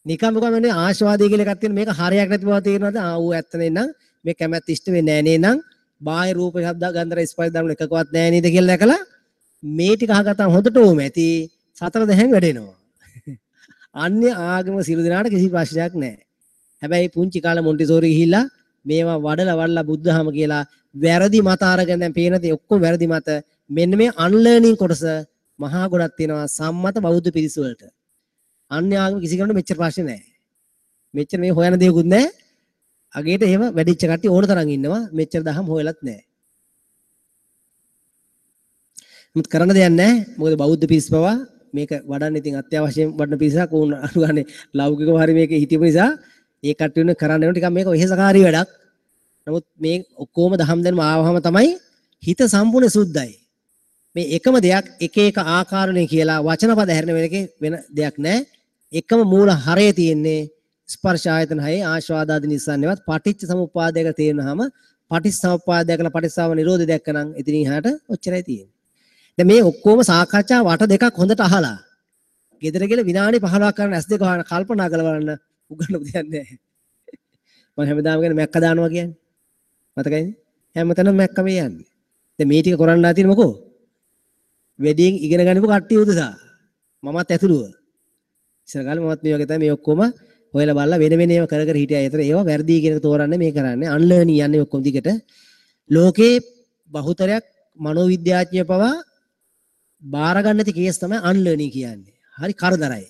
නිකම් මොකක් වෙන්නේ ආශාවාදී කියලා එකක් තියෙන මේක හරයක් නැති බව තේරෙනවද? ආ ඌ ඇත්ත නේනම් මේ කැමැත්ත ඉෂ්ට වෙන්නේ නැහැ නේනම් බාහිර රූප ශබ්ද ගන්ධ රස ස්පර්ශ ධර්ම එකකවත් නැහැ නේද කියලා දැකලා මේ ටික අහගත්තම හොඳට ඕම ඇති සතර දැහැන් වැඩෙනවා. අන්‍ය ආගම සියලු දෙනාට කිසි ප්‍රශ්නයක් නැහැ. හැබැයි පුංචි කාලේ මොන්ටිසෝරි ගිහිල්ලා මේවා වඩලා වඩලා බුද්ධහම කියලා වැරදි මත අරගෙන දැන් පේන දේ ඔක්කොම වැරදි මත. මෙන්න මේ අන්ලර්නින් කොටස මහා ගොඩක් තියෙනවා සම්මත බෞද්ධ පිරිස වලට. අන්‍ය ආගම කිසි කෙනෙකුට මෙච්චර ප්‍රශ්න නැහැ. මෙච්චර මේ හොයන දේකුත් නැහැ. අගේට එහෙම වැඩිච්ච කට්ටිය ඕන තරම් ඉන්නවා. මෙච්චර දහම් හොයලත් නැහැ. නමුත් කරන්න දෙයක් නැහැ. මොකද බෞද්ධ පිරිස පවා මේක වඩන්න ඉතින් අත්‍යවශ්‍යයෙන් වඩන පිරිසක් වුණ අනුගානේ ලෞකිකව හරි මේක හිතපු නිසා ඒ කට්ටිය වෙන කරන්න වෙන ටිකක් මේක වෙහෙසකාරී වැඩක්. නමුත් මේ ඔක්කොම දහම් දැනුම ආවහම තමයි හිත සම්පූර්ණ සුද්ධයි. මේ එකම දෙයක් එක එක ආකාරණේ කියලා වචන පද හැරෙන වෙන එකේ වෙන දෙයක් නෑ. එකම මූල හරය තියෙන්නේ ස්පර්ශ ආයතන හයේ ආස්වාදාදි නිස්සාරණේවත් පටිච්ච සමුප්පාදයක තේරෙනහම පටිච්චසමුප්පාදය කළ පටිච්චසමුප්පාද නිරෝධය දැක්කනම් ඉතින් එහාට ඔච්චරයි තියෙන්නේ. දැන් මේ ඔක්කොම සාකච්ඡා වට දෙකක් හොඳට අහලා ගෙදර ගිහලා විනාඩි 15ක් කරන ඇස් දෙක වහන කල්පනා කරලා බලන්න උගන්නපු දෙයක් නෑ. මම හැමදාම කියන්නේ මැක්ක දානවා කියන්නේ. මතකයිනේ? හැමතැනම මැක්ක මේ යන්නේ. දැන් මේ ටික කරන්න ආ තියෙන්නේ මොකෝ? වැඩියෙන් ඉගෙන ගන්නපු කට්ටිය උදෙසා. මමත් ඇතුළුව. ඉස්සර කාලේ මමත් මේ වගේ තමයි මේ ඔක්කොම හොයලා බලලා වෙන වෙන ඒවා කර කර හිටියා. ඒතර ඒවා වැරදි කියන එක තෝරන්නේ මේ කරන්නේ. අන්ලර්නින් යන්නේ ඔක්කොම දිගට. ලෝකේ බහුතරයක් මනෝවිද්‍යාඥයෝ පවා බාර ගන්න නැති කේස් තමයි අන්ලර්නින් කියන්නේ. හරි කරදරයි.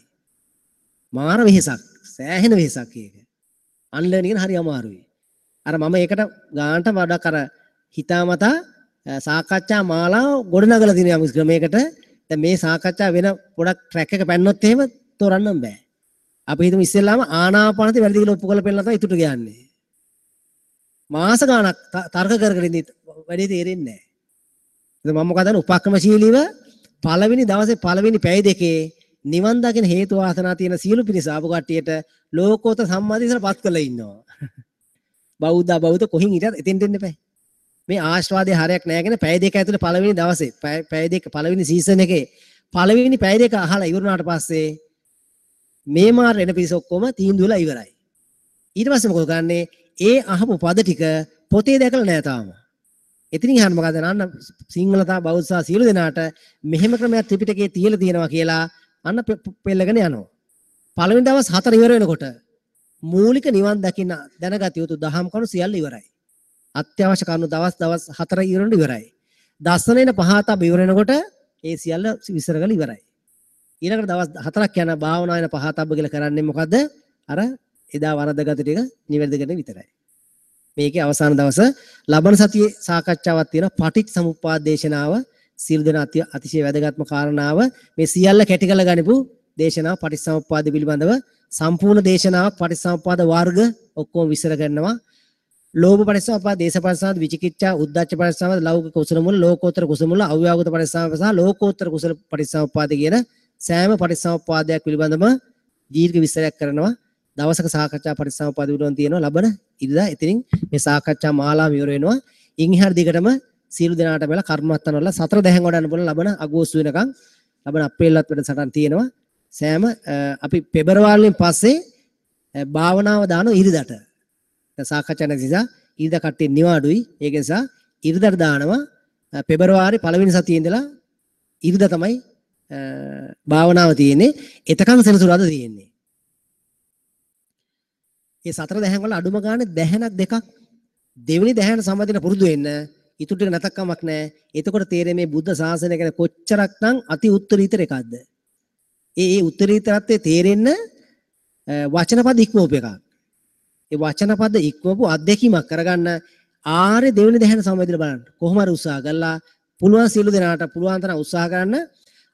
මාර වෙහෙසක්. සෑහෙන වෙහෙසක් ඒක. අන්ලර්නින් කියන හරි අමාරුයි. අර මම ඒකට ගානට වඩා අර හිතාමතා සාකච්ඡා මාලාව ගොඩනගලා තියෙන යම් ක්‍රමයකට. දැන් මේ සාකච්ඡා වෙන පොඩක් ට්‍රැක් එක පැන්නොත් එහෙම තෝරන්නම් බෑ. අපි හිතමු ඉස්සෙල්ලාම ආනාපානසති වැරදි කියලා ඔප්පු කරලා පෙන්නලා තමයි ඉතුරු කියන්නේ. මාස ගාණක් තර්ක කර කර ඉඳි වැඩේ තේරෙන්නේ නැහැ. ඉතින් මම මොකද කරන්නේ උපක්‍රමශීලීව පළවෙනි දවසේ පළවෙනි පැය දෙකේ නිවන් දකින හේතු වාසනා තියෙන සියලු පිරිස ආපු කට්ටියට ලෝකෝත්තර සම්මාදිට්ඨියට පත් කරලා ඉන්නවා. බෞද්ධ බෞද්ධ කොහින් හිටියත් එතෙන්ට එන්න එපා. මේ ආශ්වාදයේ හරයක් නෑ කියන පැය දෙක ඇතුළේ පළවෙනි දවසේ පැය දෙක පළවෙනි සීසන් එකේ පළවෙනි පැය දෙක අහලා ඉවර වුණාට පස්සේ මේ මාර එන පිරිස ඔක්කොම තීන්දුව වෙලා ඉවරයි. ඊට පස්සේ මොකද කරන්නේ? ඒ අහපු පද ටික පොතේ දැකලා නෑ තාම. එතනින් අහන්න මොකද අන්න සිංහල තා බෞද්ධ සහ සියලු දෙනාට මෙහෙම ක්‍රමයක් ත්‍රිපිටකයේ තියලා තියෙනවා කියලා අන්න පෙළගෙන යනවා. පළවෙනි දවස් 4 ඉවර වෙනකොට මූලික නිවන් දකින්න දැනගත යුතු දහම් කරුණු සියල්ල ඉවරයි. අත්‍යවශ්‍ය කරුණු දවස් දවස් 4 ඉවර වෙනකොට ඉවරයි. දස්සනේන පහතබ ඉවර වෙනකොට ඒ සියල්ල විස්තර කරලා ඉවරයි. ඊළඟට දවස් 4ක් යන භාවනා වෙන පහතබ කියලා කරන්නේ මොකද්ද? අර එදා වරදගත ටික නිවැරදි කරන විතරයි. මේකේ අවසාන දවස ලබන සතියේ සාකච්ඡාවක් තියෙනවා පටිච්චසමුප්පාද දේශනාව. සියලු දෙනා අතිශය වැදගත්ම කාරණාව මේ සියල්ල කැටි කරලා ගනිපු දේශනාව පටිච්චසමුප්පාද පිළිබඳව සම්පූර්ණ දේශනාවක් පටිච්චසමුප්පාද වර්ග ඔක්කොම විස්තර කරනවා. ලෝභ පටිච්චසමුප්පාද, දේශ පටිච්චසමුප්පාද, විචිකිච්ඡා, උද්ධච්ච පටිච්චසමුප්පාද, ලෞකික කුසල මූල, ලෝකෝත්තර කුසල මූල, අව්‍යාකෘත පටිච්චසමුප්පාද සහ ලෝකෝත්තර කුසල පටිච්චසමුප්පාද කියන සෑම පටිච්චසමුප්පාදයක් පිළිබඳව දීර්ඝ විස්තරයක් කරනවා. දවසක සාකච්ඡා පටිච්චසමුප්පාද පිළිබඳව තියෙනවා ලබන ඉරිදා. ඉතින් මේ සාකච්ඡා මාලාව ඉවර වෙනවා. ඉන් එහාට දිගටම සියලු දෙනාට මෙලා කර්මස්ථාන වල සතර දැහැන් වඩන්න පුළුවන් ලබන අගෝස්තු වෙනකන් ලබන අප්‍රේල්වත් වැඩසටහන් තියෙනවා. සෑම අපි පෙබරවාරියෙන් පස්සේ භාවනාව දාන ඉරිදට. දැන් සාකච්ඡා නැති නිසා ඉරිදා කට්ටිය නිවාඩුයි. ඒක නිසා ඉරිදට දානවා. පෙබරවාරි පළවෙනි සතියේ ඉඳලා ඉරිදා තමයි භාවනාව තියෙන්නේ. එතකන් සෙනසුරාදා තියෙන්නේ. මේ සතර දැහැන් වල අඩුම ගානේ දැහැනක් දෙකක් දෙවෙනි දැහැන සම්බන්ධ පුරුදු වෙන්න. ඉතුරු ටික නැතක් කමක් නැහැ. එතකොට තේරෙන්නේ මේ බුද්ධ ශාසනය ගැන කොච්චරක්නම් අති උත්තරීතර එකක්ද. ඒ ඒ උත්තරීතරත්වයේ තේරෙන්න වචන පද ඉක්මවපු එකක්. ඒ වචන පද ඉක්මවපු අත්දැකීමක් කරගන්න ආර්ය දෙවෙනි දැහැන සම්බන්ධව බලන්න. කොහොම හරි උත්සාහ කළා පුළුවන් සියලු දෙනාට පුළුවන් තරම් උත්සාහ කරන්න.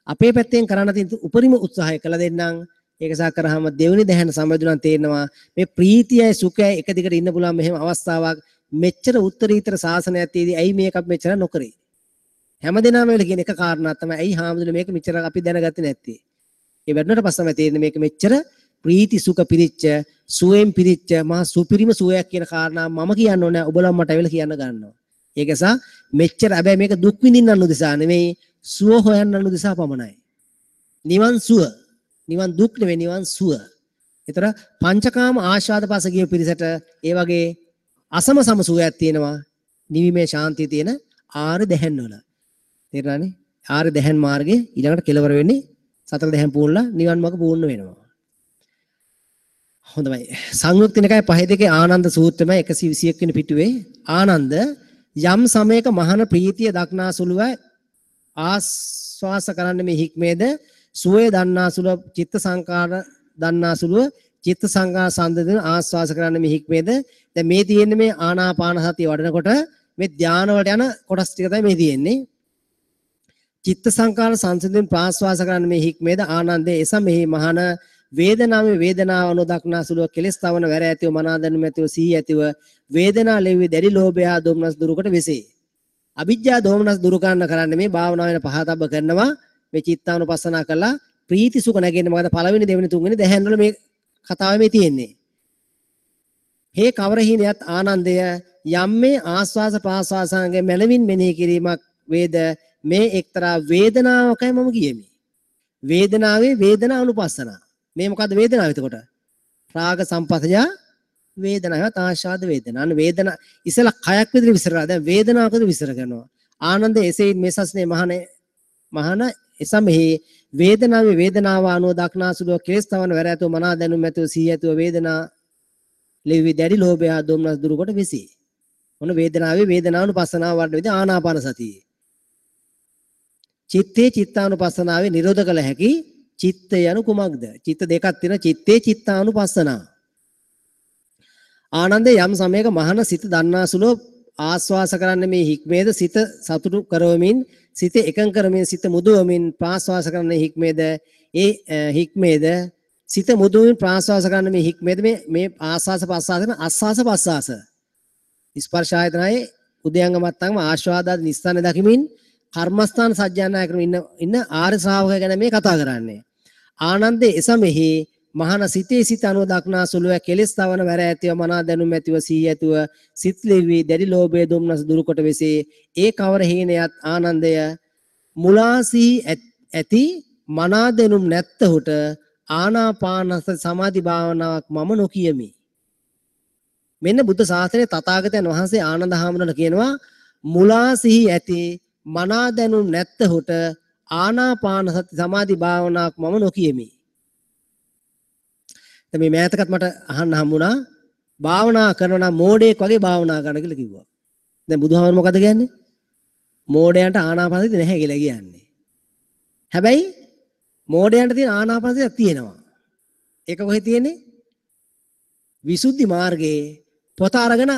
අපේ පැත්තෙන් කරන්න තියෙන උපරිම උත්සාහය කළ දෙන්නම්. ඒක සා කරාම දෙවෙනි දැහැන සම්බන්ධව තේරෙනවා මේ ප්‍රීතියයි සුඛයයි එක දිගට ඉන්න පුළුවන් මෙහෙම අවස්ථාවක් මෙච්චර උත්තරීතර ශාසනයක් තියදී ඇයි මේක අපි මෙච්චර නොකරේ? හැමදෙනාම වෙල කියන එක කාරණා තමයි ඇයි හාමුදුරුවෝ මේක මෙච්චර අපි දැනගත්තේ නැත්තේ? ඒ වැඩුණාට පස්සේ තමයි තේරෙන්නේ මේක මෙච්චර ප්‍රීති සුඛ පිරිච්ච සුවයෙන් පිරිච්ච මහා සුපිරිම සුවයක් කියන කාරණා මම කියන්න ඕනේ ඔබලා මට ඇවිල්ලා කියන්න ගන්නවා. ඒක නිසා මෙච්චර හැබැයි මේක දුක් විඳින්නන් උදෙසා නෙමෙයි සුව හොයන්නන් උදෙසා පමණයි. නිවන් සුව, නිවන් දුක් නෙමෙයි නිවන් සුව. ඒතර පංචකාම ආශාද පස ගිය පිරිසට ඒ වගේ අසම සම සුවයක් තියෙනවා. නිවිමේ ශාන්තිය තියෙන ආර්ය දැහැන් වල. තේරුණානේ? ආර්ය දැහැන් මාර්ගයේ ඊළඟට කෙලවර වෙන්නේ සතර දැහැන් පූර්ණලා නිවන් මාර්ග පූර්ණ වෙනවා. හොඳයි. සංයුක්ත නිකාය 5 2 ආනන්ද සූත්‍රමයි 121 වෙනි පිටුවේ ආනන්ද යම් සමයක මහාන ප්‍රීතිය දක්නා සුළුව ආස්වාස කරන්න මේ හික්මේද සුවය දන්නා සුළුව චිත්ත සංකාර දන්නා සුළුව චිත්ත සංකාර සම්දෙන ආස්වාස කරන්න මේ හික්මේද. දැන් මේ තියෙන්නේ මේ ආනාපාන සතිය වඩනකොට මේ ධාන වලට යන කොටස් ටික තමයි මේ තියෙන්නේ. චිත්ත සංකාර සංසිඳෙන් ප්‍රාස්වාස කරන්න මේ හික්මේද ආනන්දේ එසමෙහි මහාන වේදනාවේ වේදනාව අනුදක්නා සුළුව කෙලස් තවන වැර ඇතිව මනා දැනුම ඇතිව සිහි ඇතිව වේදනා ලෙවි දැඩි ලෝභය හා දෝමනස් දුරුකොට වෙසේ. අවිජ්ජා දෝමනස් දුරු කරන්න කරන්නේ මේ භාවනාව වෙන පහතබ්බ කරනවා. මේ චිත්තානුපස්සනා කළා ප්‍රීති සුඛ නැගෙන්නේ මොකද පළවෙනි දෙවෙනි තුන්වෙනි දැහැන් වල මේ කතාව මේ තියෙන්නේ. හේ කවර හීනයත් ආනන්දය යම් මේ ආස්වාස ප්‍රාස්වාසංගේ මනවින් මෙනෙහි කිරීමක් වේද මේ එක්තරා වේදනාවකයි මම කියමි. වේදනාවේ වේදනා අනුපස්සනා. මේ මොකද්ද වේදනාව එතකොට? රාග සම්පස්සය වේදනාවත් ආශාද වේදනා. අන්න වේදනා ඉස්සලා කයක් විතර විස්තර කරා. දැන් වේදනාවක් විතර විස්තර කරනවා. ආනන්ද එසේ මේ සස්නේ මහාන එසමෙහි වේදනාවේ වේදනාව අනුව දක්නා සුළුව කෙලස් තවන වැර ඇතුව මනා දැනුම් ඇතුව සිහි ඇතුව වේදනා ලෙවි දැඩි ලෝභය හා දොම්නස් දුරු කොට වෙසී. මොන වේදනාවේ වේදනානුපස්සනාව වඩන විදිහ ආනාපාන සතිය. චිත්තේ චිත්තානුපස්සනාවේ නිරෝධ කළ හැකි චිත්ත යනු කුමක්ද? චිත්ත දෙකක් තියෙනවා. චිත්තේ චිත්තානුපස්සනා. ආනන්දේ යම් සමයක මහාන සිත දන්නාසුලෝ ආස්වාස කරන්නේ මේ හික්මේද? සිත සතුටු කරවමින් සිත එකඟ කරමින් සිත මුදවමින් ප්‍රාස්වාස කරන්නේ හික්මේද? ඒ හික්මේද? සිත මුදවමින් ප්‍රාස්වාස කරන්නේ මේ හික්මේද? මේ මේ ආස්වාස පස්වාස කරන ආස්වාස පස්වාස ස්පර්ශ ආයතනයේ උදයංග මත්තංගම ආස්වාදාදි නිස්සාන දකිමින් කර්මස්ථාන සජ්ජායනා කරමින් ඉන්න ඉන්න ආර්ය ශ්‍රාවකය ගැන මේ කතා කරන්නේ. ආනන්දේ එසමෙහි මහාන සිතේ සිත අනුව දක්නා සුළුව කෙලෙස් තවන වැර ඇතිව මනා දැනුම් ඇතිව සිහි ඇතිව සිත් ලිවි දැඩි ලෝභය දුම්නස දුරු කොට වෙසේ. ඒ කවර හීනයත් ආනන්දය මුලා සිහි ඇති මනා දැනුම් නැත්තහුට ආනාපානස සමාධි භාවනාවක් මම නොකියමි. මෙන්න බුද්ධ ශාසනයේ තථාගතයන් වහන්සේ ආනන්ද හාමුදුරන් කියනවා මුලා සිහි ඇති මනා දැනුම් නැත්තහුට ආනාපාන සති සමාධි භාවනාවක් මම නොකියමි. දැන් මේ මෑතකත් මට අහන්න හම්බුණා භාවනා කරනවා නම් මෝඩයෙක් වගේ භාවනා කරන්න කියලා කිව්වා. දැන් බුදුහාමුදුරුවෝ මොකද කියන්නේ? මෝඩයන්ට ආනාපාන සතිය නැහැ කියලා කියන්නේ. හැබැයි මෝඩයන්ට තියෙන ආනාපාන සතියක් තියෙනවා. ඒක කොහෙද තියෙන්නේ? විසුද්ධි මාර්ගයේ පොත අරගෙන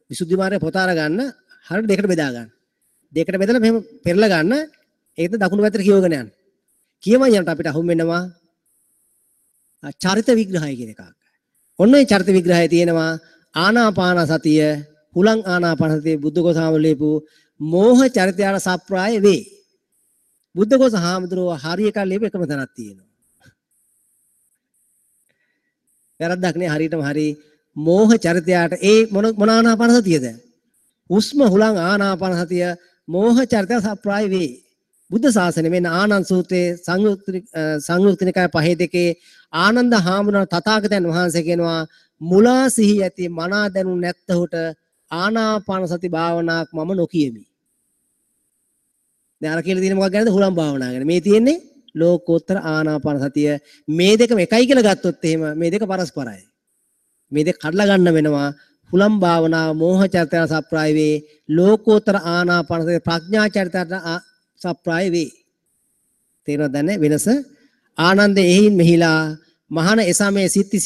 විසුද්ධි මාර්ගයේ පොත අරගන්න හරියට දෙකට බෙදා ගන්න. දෙකට බෙදලා මෙහෙම පෙරලා ගන්න. ඒකද දකුණු පැත්තට කියවගෙන යන්න. කියවන් යනකොට අපිට අහුම් වෙනවා චරිත විග්‍රහය කියන එකක්. ඔන්න ඔය චරිත විග්‍රහය තියෙනවා ආනාපාන සතිය, හුලං ආනාපාන සතිය බුද්ධඝෝස හාමුදුරුවෝ ලියපු මෝහ චරිතයට සප්‍රාය වේ. බුද්ධඝෝස හාමුදුරුවෝ හරි එකක් ලියපු එකම තැනක් තියෙනවා. වැරද්දක් නේ, හරියටම හරි. මෝහ චරිතයට ඒ මොන මොන ආනාපාන සතියද? හුස්ම හුලං ආනාපාන සතිය මෝහ චරිතය සප්‍රාය වේ. බුද්ධ ශාසනය මෙන්න ආනන්ද සූත්‍රයේ සංයුක්ත නිකාය 5:2 ආනන්ද හාමුදුරන් තථාගතයන් වහන්සේ කියනවා මුලා සිහි ඇති මනා දැනුම් නැත්තහුට ආනාපාන සති භාවනාවක් මම නොකියමි. දැන් අර කියලා තියෙන මොකක් ගැනද? හුලම් භාවනාව ගැන. මේ තියෙන්නේ ලෝකෝත්තර ආනාපාන සතිය. මේ දෙකම එකයි කියලා ගත්තොත් එහෙම මේ දෙක පරස්පරයි. මේ දෙක කඩලා ගන්න වෙනවා. හුලම් භාවනාව මෝහ චරිතය සප්‍රාය වේ. ලෝකෝත්තර ආනාපාන සතිය ප්‍රඥා චරිතයට සප්‍රාය වේ. තේරෙනවද දැන් වෙනස? ආනන්ද එහින් මෙහිලා මහාන එසමේ සිත්ති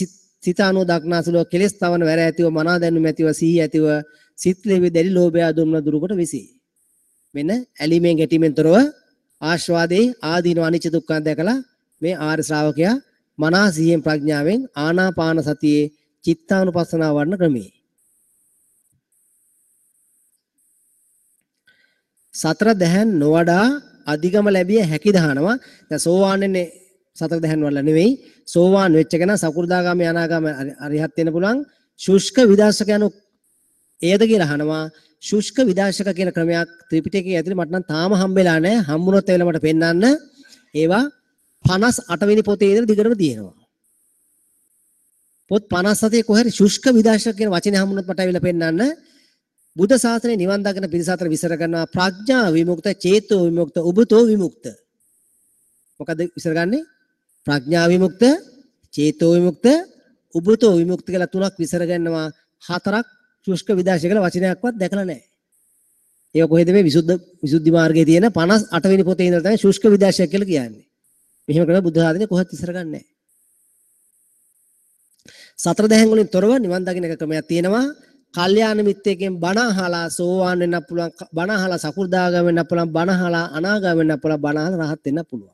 සිත අනුව දක්නාසුලව කෙලෙස් තවන වැර ඇතිව මනා දැනුම ඇතිව සිහි ඇතිව සිත් ලෙවි දැඩි ලෝභය දුම්න දුරු කොට විසී. මෙන්න ඇලීමෙන් ගැටීමෙන් තොරව ආස්වාදේ ආදීනව අනිච්ච දුක්ඛ දැකලා මේ ආර්ය ශ්‍රාවකයා මනා සිහියෙන් ප්‍රඥාවෙන් ආනාපාන සතියේ චිත්තානුපස්සනාව වඩන ක්‍රමේ. සතර දැහැන් නොවඩා අධිගම ලැබිය හැකි දහනවා. දැන් සෝවාන් වෙන්නේ සතර දැහැන් වල නෙවෙයි. සෝවාන් වෙච්ච කෙනා සකු르දාගාමී අනාගාමී අරිහත් වෙන්න පුළුවන්. ශුෂ්ක විදර්ශක යනු එයද කියලා අහනවා. ශුෂ්ක විදර්ශක කියන ක්‍රමයක් ත්‍රිපිටකයේ ඇතුලේ මට නම් තාම හම්බෙලා නැහැ. හම්බුනොත් එවෙල මට පෙන්වන්න. ඒවා 58 වෙනි පොතේ ඉඳලා දිගටම තියෙනවා. පොත් 57 කොහේ හරි ශුෂ්ක විදර්ශක කියන වචනේ හම්බුනොත් මට ඇවිල්ලා පෙන්වන්න. බුද්ධ ශාසනය නිවන් දකින පිරිස අතර විසර කරනවා ප්‍රඥා විමුක්ත, චේතෝ විමුක්ත, උබතෝ විමුක්ත. මොකද විසර ගන්නේ? ප්‍රඥා විමුක්ත, චේතෝ විමුක්ත, උබතෝ විමුක්ත කියලා තුනක් විසර ගන්නවා. හතරක් ශුෂ්ක විදර්ශක කියලා වචනයක්වත් දැකලා නැහැ. ඒක කොහෙද මේ විසුද්ධි මාර්ගයේ තියෙන 58 වෙනි පොතේ ඉඳලා තමයි ශුෂ්ක විදර්ශක කියලා කියන්නේ. මෙහෙම කරලා බුද්ධ ශාසනය කොහෙවත් විසර ගන්නෑ නැහැ. සතර දැහැන් වලින් තොරව නිවන් දකින එක ක්‍රමයක් තියෙනවා. කල්යාණ මිත්‍රයෙක්ගෙන් බණ අහලා සෝවාන් වෙන්න පුළුවන්, බණ අහලා සකු르දාගාම වෙන්න පුළුවන්, බණ අහලා අනාගාම වෙන්න පුළුවන්, බණ අහලා රහත් වෙන්න පුළුවන්.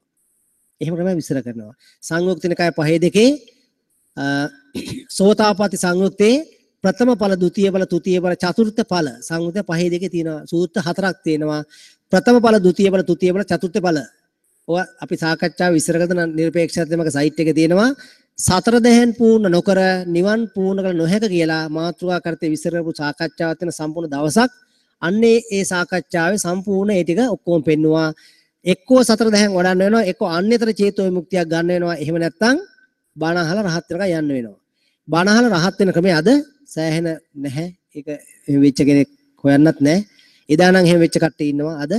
එහෙම ක්‍රමයක් විස්තර කරනවා. සංයුක්ත නිකාය 5:2 සෝතාපට්ටි සංයුත්තේ ප්‍රථම ඵල, ද්විතීය ඵල, තෘතීය ඵල, චතුර්ථ ඵල සංයුක්ත 5:2 තියෙනවා. සූත්‍ර හතරක් තියෙනවා. ප්‍රථම ඵල, ද්විතීය ඵල, තෘතීය ඵල, චතුර්ථ ඵල. ඔවා අපි සාකච්ඡාව විස්තර කරන නිර්පේක්ෂාත්මක සයිට් එකේ තියෙනවා. සතර දැහැන් පූර්ණ නොකර නිවන් පූර්ණ කළ නොහැක කියලා මාතෘකා කරතේ විස්තර කරපු සාකච්ඡාවක් තියෙන සම්පූර්ණ දවසක්. අන්නේ ඒ සාකච්ඡාවේ සම්පූර්ණ ඒ ටික ඔක්කොම පෙන්නවා. එක්කෝ සතර දැහැන් වඩන්න වෙනවා, එක්කෝ අන්‍යතර චේතෝ විමුක්තියක් ගන්න වෙනවා. එහෙම නැත්නම් බණ අහලා රහත් වෙනකන් යන්න වෙනවා. බණ අහලා රහත් වෙන ක්‍රමය අද සෑහෙන නැහැ. ඒක එහෙම වෙච්ච කෙනෙක් හොයන්නත් නැහැ. එදා නම් එහෙම වෙච්ච කට්ටිය ඉන්නවා. අද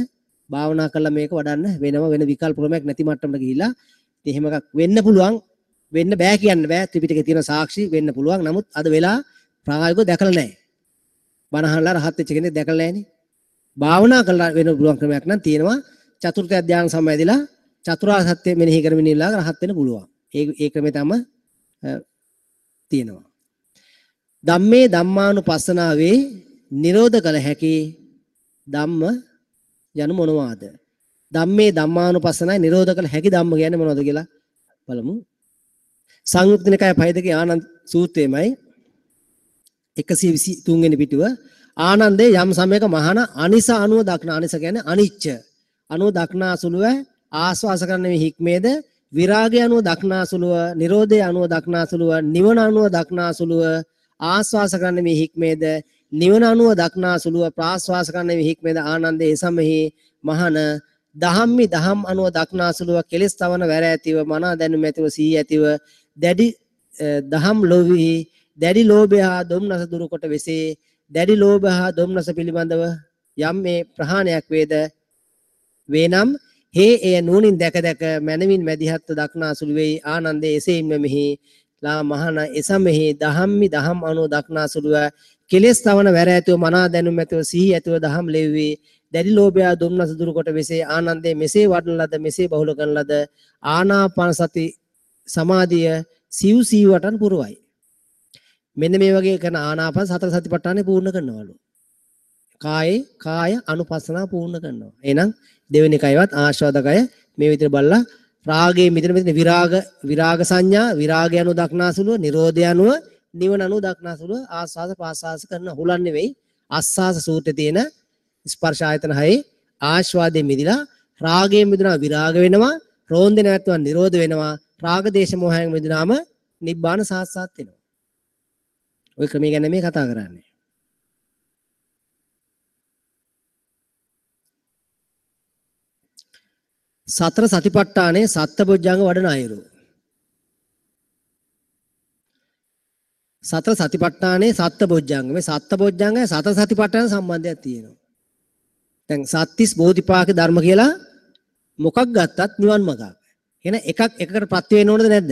භාවනා කරලා මේක වඩන්න වෙනම වෙන විකල්ප ක්‍රමයක් නැති මට්ටමට ගිහිල්ලා ඉතින් එහෙම එකක් වෙන්න පුළුවන්. වෙන්න බෑ කියන්න බෑ. ත්‍රිපිටකේ තියෙන සාක්ෂි වෙන්න පුළුවන්. නමුත් අද වෙලා ප්‍රායෝගිකව දැකලා නැහැ. බණ අහලා රහත් වෙච්ච කෙනෙක් දැකලා නැහැනේ. භාවනා කරලා වෙන්න පුළුවන් ක්‍රමයක් නම් තියෙනවා. චතුර්ථ ධ්‍යාන සමවැදිලා චතුරාර්ය සත්‍ය මෙනෙහි කරමින් ඉල්ලා රහත් වෙන්න පුළුවන්. ඒ ඒ ක්‍රමය තමයි තියෙනවා. ධම්මේ ධම්මානුපස්සනාවේ නිරෝධ කළ හැකි ධම්ම යනු මොනවාද? ධම්මේ ධම්මානුපස්සනාවේ නිරෝධ කළ හැකි ධම්ම කියන්නේ මොනවද කියලා බලමු. සංයුක්ත නිකාය 5 ආනන්ද සූත්‍රයේමයි 123 වෙනි පිටුව. ආනන්දේ යම් සමයක මහාන අනිස අනුව දක්න, අනිස කියන්නේ අනිච්ච අනුව දක්නා සුළුව ආස්වාස කරන මේ හික්මේද, විරාගය අනුව දක්නා සුළුව, නිරෝධය අනුව දක්නා සුළුව, නිවන අනුව දක්නා සුළුව ආස්වාස කරන මේ හික්මේද, නිවන අනුව දක්නා සුළුව ප්‍රාස්වාස කරන මේ හික්මේද ආනන්දේ එසමෙහි මහාන දහම්මි දහම් අනුව දක්නා සුළුව කෙලස් තවන වැර ඇතිව මනා දැනුම ඇතිව සිහි ඇතිව දැඩි දහම් ලෝභී දැඩි ලෝභය හා දොම්නස දුරු කොට වෙසේ. දැඩි ලෝභ හා දොම්නස පිළිබඳව යම් මේ ප්‍රහාණයක් වේද වේනම් හේ එය නුවණින් දැක දැක මනවින් මැදිහත්ව දක්නා සුළු වෙයි. ආනන්දේ එසේින්ම මෙහි ලා මහන එසමෙහි දහම්මි දහම් අනුව දක්නා සුළුව කෙලස් තවන වැර ඇතිව මනා දැනුම ඇතිව සිහි ඇතිව දහම් ලෙව්වේ දැඩි ලෝභය දොම්නස දුරු කොට වෙසේ. ආනන්දේ මෙසේ වඩන ලද මෙසේ බහුල කරන ලද ආනාපාන සති සමාධිය සිව් සිව් වටන් පුරවයි. මෙන්න මේ වගේ කරන ආනාපාන සතර සතිපට්ඨානෙ පූර්ණ කරනවලු. කායේ කාය අනුපස්සනාව පූර්ණ කරනවා. එහෙනම් දෙවෙනි කයවත් ආස්වාදකය මේ විදිහට බලලා රාගයේ මෙතන මෙතන විරාග විරාග සංඥා, විරාගය අනුව දක්නාසුලුව, නිරෝධය අනුව, නිවන අනුව දක්නාසුලුව ආස්වාද පාස්වාස කරන හුලන් නෙවෙයි. ආස්වාස සූත්‍රයේ තියෙන ස්පර්ශ ආයතන හයේ ආස්වාදයෙන් මිදිලා රාගයෙන් මිදුණා විරාග වෙනවා, රෝන්දේ නැත්නම් නිරෝධ වෙනවා, රාග දේශ මොහයෙන් මිදුනාම නිබ්බාන සාක්ෂාත් වෙනවා. ඔය ක්‍රමය ගැන මේ කතා කරන්නේ. සතර සතිපට්ඨානයේ සත්බොජ්ජංග වඩන අයුරු. සතර සතිපට්ඨානයේ සත්බොජ්ජංග, මේ සත්බොජ්ජංගය සතර සතිපට්ඨාන සම්බන්ධයක් තියෙනවා. දැන් සත්‍තිස් බෝධිපාක ධර්ම කියලා මොකක් ගත්තත් නිවන් මඟක්. එහෙනම් එකක් එකකට ප්‍රත්‍ය වෙන්න ඕනද නැද්ද?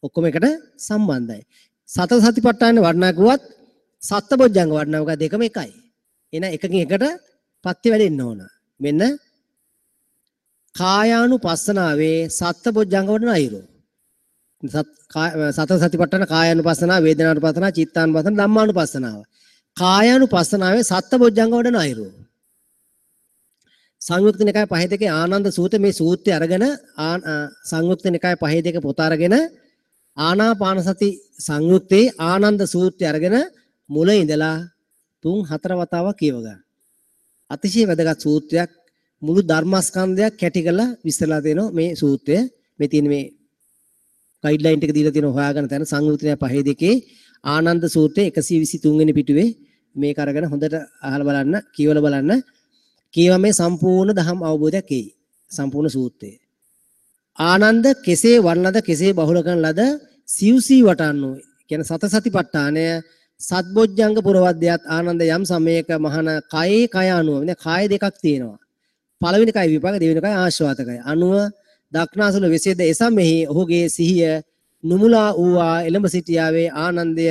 ඔක්කොම එකට සම්බන්ධයි. සතර සතිපට්ඨාන වඩනා කිව්වත් සත්බොජ්ජංග වඩනා කිව්වත් දෙකම එකයි. එහෙනම් එකකින් එකට ප්‍රත්‍ය වැඩෙන්න ඕන. මෙන්න කායානුපස්සනාවේ සත්බොජ්ජංග වඩන අයුරු. සතර සතිපට්ඨාන කායානුපස්සනාව, වේදනානුපස්සනාව, චිත්තානුපස්සනාව, ධම්මානුපස්සනාව. කායානුපස්සනාවේ සත්බොජ්ජංග වඩන අයුරු. සංයුක්ත නිකාය 5 ආනන්ද සූත්‍ර මේ සූත්‍රය අරගෙන සංයුක්ත නිකාය 5 පොත අරගෙන ආනාපාන සති සංයුත්තේ ආනන්ද සූත්‍රය අරගෙන මුල ඉඳලා 3-4 වතාවක් කියව ගන්න. අතිශය වැදගත් සූත්‍රයක්. මුළු ධර්මස්කන්ධයක් කැටි කරලා විස්තරලා දෙනවා මේ සූත්‍රය. මේ තියෙන මේ ගයිඩ්ලයින් ටික දීලා තියෙනවා හොයාගන්න තැන සංයුක්ත නිකාය 5 ආනන්ද සූත්‍රයේ 123 වෙනි පිටුවේ මේක අරගෙන හොඳට අහලා බලන්න, කියවලා බලන්න. කියවා මේ සම්පූර්ණ ධම් අවබෝධයක් එයි. සම්පූර්ණ සූත්‍රය. ආනන්ද කෙසේ වර්ණද කෙසේ බහුල කරන ලද සිව්සී වටන්නෝ කියන සත සතිපට්ඨානය සත්බොජ්ජංග පුරවද්‍යත් ආනන්ද යම් සමයක මහන කයේ කය අනුව, මෙන්න කාය දෙකක් තියෙනවා. පළවෙනි කය විපාක, දෙවෙනි කය ආශ්වාදකය අනුව දක්නාසුල වෙසේද එසමෙහි ඔහුගේ සිහිය නුමුලා වූවා එළඹ සිටියාවේ. ආනන්දය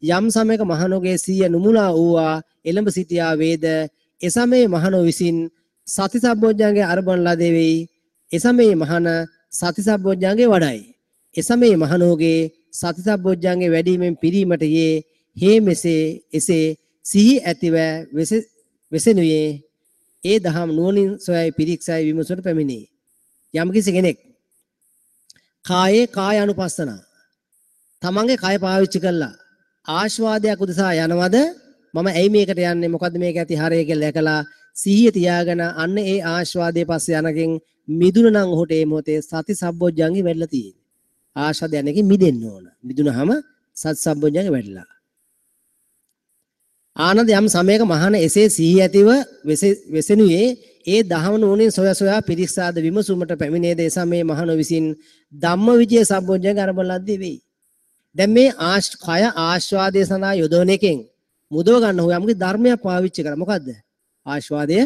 යම් සමයක මහණෝගේ සිහිය නුමුලා වූවා එළඹ සිටියා වේද එසමේ මහණෝ විසින් සති සම්බොජ්ජංගේ අරබන ලදේ වෙයි. එසමේ මහණ සති සම්බොජ්ජංගේ වඩයි. එසමේ මහණෝගේ සති සම්බොජ්ජංගේ වැඩිමෙන් පිරීමට යේ හේ මෙසේ එසේ සිහි ඇතිව වෙසෙනුයේ ඒ දහම් නුවණින් සොයයි පිරික්සයි විමසුවට පැමිණේ. යම්කිසි කෙනෙක් කායේ කාය අනුපස්සනා තමන්ගේ කය පාවිච්චි කළා ආස්වාදයක් උදෙසා යනවද, මම ඇයි මේකට යන්නේ, මොකද්ද මේක ඇති හරය කියලා දැකලා සිහිය තියාගෙන අන්න ඒ ආස්වාදයේ පස්සේ යනකින් මිදුණ නම් ඔහුට ඒ මොහොතේ සති සම්බොජ්ජංගේ වැඩිලා තියෙන්නේ. ආස්වාද යනකින් මිදෙන්න ඕන. මිදුනහම සති සම්බොජ්ජංගේ වැඩිලා. ආනන්ද යම් සමයක මහාන එසේ සිහිය ඇතිව වෙසෙනුයේ ඒ දහම නුවණින් සොය සොයා පිරික්සාද විමසුමට පැමිණේද එසමේ මහණ විසින් ධම්මවිජය සම්බොජ්ජංග අරඹන ලද්දේ වෙයි. දැන් මේ කය ආස්වාදයේ සඳහා යොදවන එකෙන් මුදව ගන්න හොය යම්කි ධර්මයක් පාවිච්චි කරා. මොකද්ද? ආස්වාදය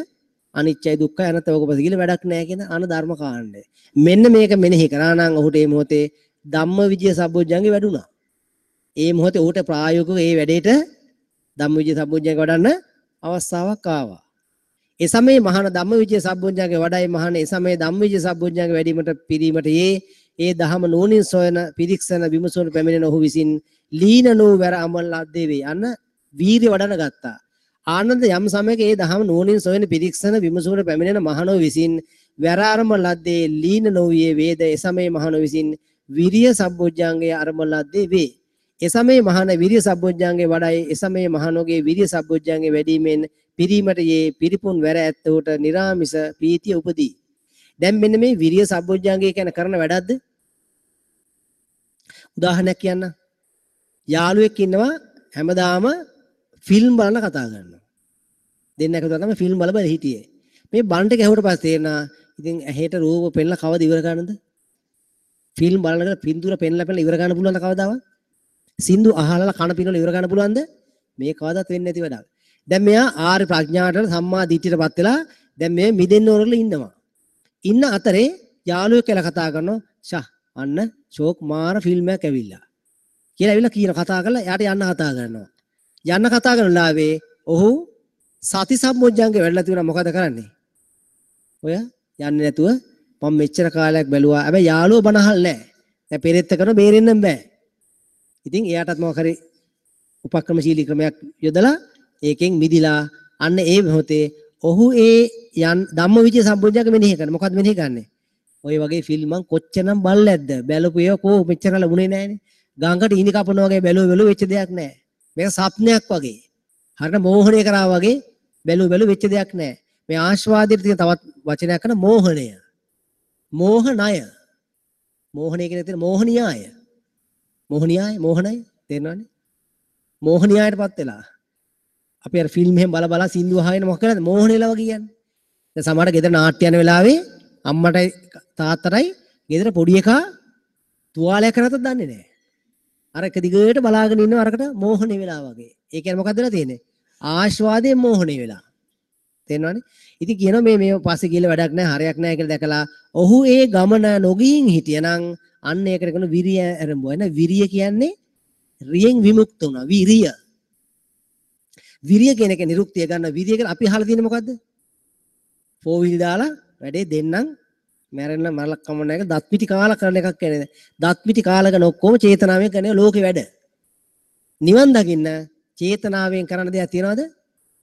අනිත්‍යයි දුක්ඛයි අනාත්මයි ඔක පස්සේ කියලා වැඩක් නෑ කියන අන ධර්ම කාණ්ඩය. මෙන්න මේක මෙනෙහි කරා නම් ඔහුට මේ මොහොතේ ධම්මවිජය සම්බොජ්ජංගේ වැඩුණා. ඒ මොහොතේ ඔහුට ප්‍රායෝගිකව ඒ වැඩේට ධම්මවිජය සම්බොජ්ජංගේ වඩන්න අවස්ථාවක් ආවා. ඒ සමයේ මහාන ධම්මවිචය සම්බොජ්ජංගේ වඩයි. මහාන ඒ සමයේ ධම්මවිචය සම්බොජ්ජංගේ වැඩිවීමට පිරීමට යේ ඒ දහම නුවණින් සොයන පිරික්සන විමසුන පැමිණෙන ඔහු විසින් ලීන නූ වැර අමල ලද්දේ වේ. අන්න වීර්ය වඩන ගත්තා. ආනන්ද යම් සමයක ඒ දහම නුවණින් සොයන පිරික්සන විමසුන පැමිණෙන මහණෝ විසින් වැර අරම ලද්දේ ලීන නොවියේ වේද. ඒ සමයේ මහණෝ විසින් විරිය සම්බොජ්ජංගේ අරම ලද්දේ වේ. ඒ සමයේ මහණ විරිය සම්බොජ්ජංගේ වඩයි. ඒ සමයේ මහණෝගේ විරිය සම්බොජ්ජංගේ වැඩිමෙන් පිරීමට යේ පිරිපුන් වැර ඇත්තහුට නිරාමිස ප්‍රීතිය උපදී. දැන් මෙන්න මේ විරිය සම්බොජ්ජංගේ කියන කරන වැඩක්ද? උදාහරණයක් කියන්න. යාළුවෙක් ඉන්නවා හැමදාම ෆිල්ම් බලන කතා කරනවා. දෙන්න එකතු තමයි ෆිල්ම් බල බල හිටියේ. මේ බන්ට ගැහුවට පස්සේ තේරෙනවා ඉතින් ඇහෙට රූප පෙන්නලා කවද ඉවර කරන්නද? ෆිල්ම් බලනකොට පින්තූර පෙන්නලා පෙන්නලා ඉවර කරන්න පුළුවන්ද කවදාවත්? සින්දු අහලා කන පිනවල ඉවර කරන්න පුළුවන්ද? මේ කවදාවත් වෙන්නේ නැති වැඩක්. දැන් මෙයා ආර්ය ප්‍රඥාවට සම්මා දිට්ඨියටපත් වෙලා දැන් මේ මිදෙන්න ඕන කරලා ඉන්නවා. ඉන්න අතරේ යාළුවෙක් කියලා කතා කරනවා. ෂා අන්න ෂෝක් මාර ෆිල්ම් එකක් ඇවිල්ලා කියලා ඇවිල්ලා කියන කතා කරලා එයාට යන්න කතා කරනවා. යන්න කතා කරන ලාවේ ඔහු සති සම්බොජ්ජංගේ වැඩලා තිබුණා. මොකද කරන්නේ? ඔය යන්නේ නැතුව මම මෙච්චර කාලයක් බැලුවා. හැබැයි යාළුවෝ බන අහල් නැහැ. දැන් පෙරෙත්ත කරන බේරෙන්නම් බෑ. ඉතින් එයාටත් මොකක් හරි උපක්‍රමශීලී ක්‍රමයක් යොදලා ඒකෙන් මිදිලා අන්න ඒ මොහොතේ ඔහු ඒ යන් ධම්මවිචය සම්බොජ්ජංග මෙනෙහි කරන. මොකද්ද මෙනෙහි කරන්නේ? ඔය වගේ ෆිල්ම් මං කොච්චරනම් බලලා ඇද්ද? බැලපු ඒවා කෝ මෙච්චර ලැබුණේ නෑනේ. ගංගට ඉනි කපනවා වගේ බැලුව බැලුව වෙච්ච දෙයක් නෑ. මේක සප්නයක් වගේ. හරියට මෝහණය කරා වගේ බැලුව බැලුව වෙච්ච දෙයක් නෑ. මේ ආස්වාදයට තියෙන තවත් වචනයක් කරන මෝහණය. මෝහණය. මෝහණය කියන තියෙන මෝහණියාය. මෝහණියාය මෝහණය තේරෙනවනේ. මෝහණියායටපත් වෙලා. අපි අර ෆිල්ම් එහෙම බල බල සින්දු අහගෙන මොකක් කරන්නේ? මෝහණේලා වගේ කියන්නේ. දැන් සමහර ගෙදර නාට්‍ය යන වෙලාවේ අම්මටයි තාත්තටයි ගෙදර පොඩි එකා තුවාලයක් කරගත්තත් දන්නේ නැහැ. අර එක දිගට බලාගෙන ඉන්නවා අරකට මෝහණේ වෙලා වගේ. ඒ කියන්නේ මොකද්ද වෙලා තියෙන්නේ? ආස්වාදයෙන් මෝහණේ වෙලා. තේරෙනවනේ? ඉතින් කියනවා මේ මේ පස්සේ ගිහලා වැඩක් නැහැ, හරයක් නැහැ කියලා දැකලා ඔහු ඒ ගමන නොගිහින් හිටියනම් අන්න ඒකට කියන විරිය ආරම්භ වෙන. විරිය කියන්නේ රියෙන් විමුක්ත වුණා. විරිය. විරිය කියන එක නිරුක්තිය ගන්න. විරිය කියලා අපි අහලා තියෙන්නේ මොකද්ද? ෆෝ වීල් දාලා වැඩේ දෙන්නම් මැරෙන්න මරලක් කම නැහැ කියලා දත් පිටි කාලා කරන එකක් කියන්නේ. දත් පිටි කාලා කරන ඔක්කොම චේතනාවෙන් කරන ලෝකේ වැඩ. නිවන් දකින්න චේතනාවෙන් කරන දෙයක් තියනවද?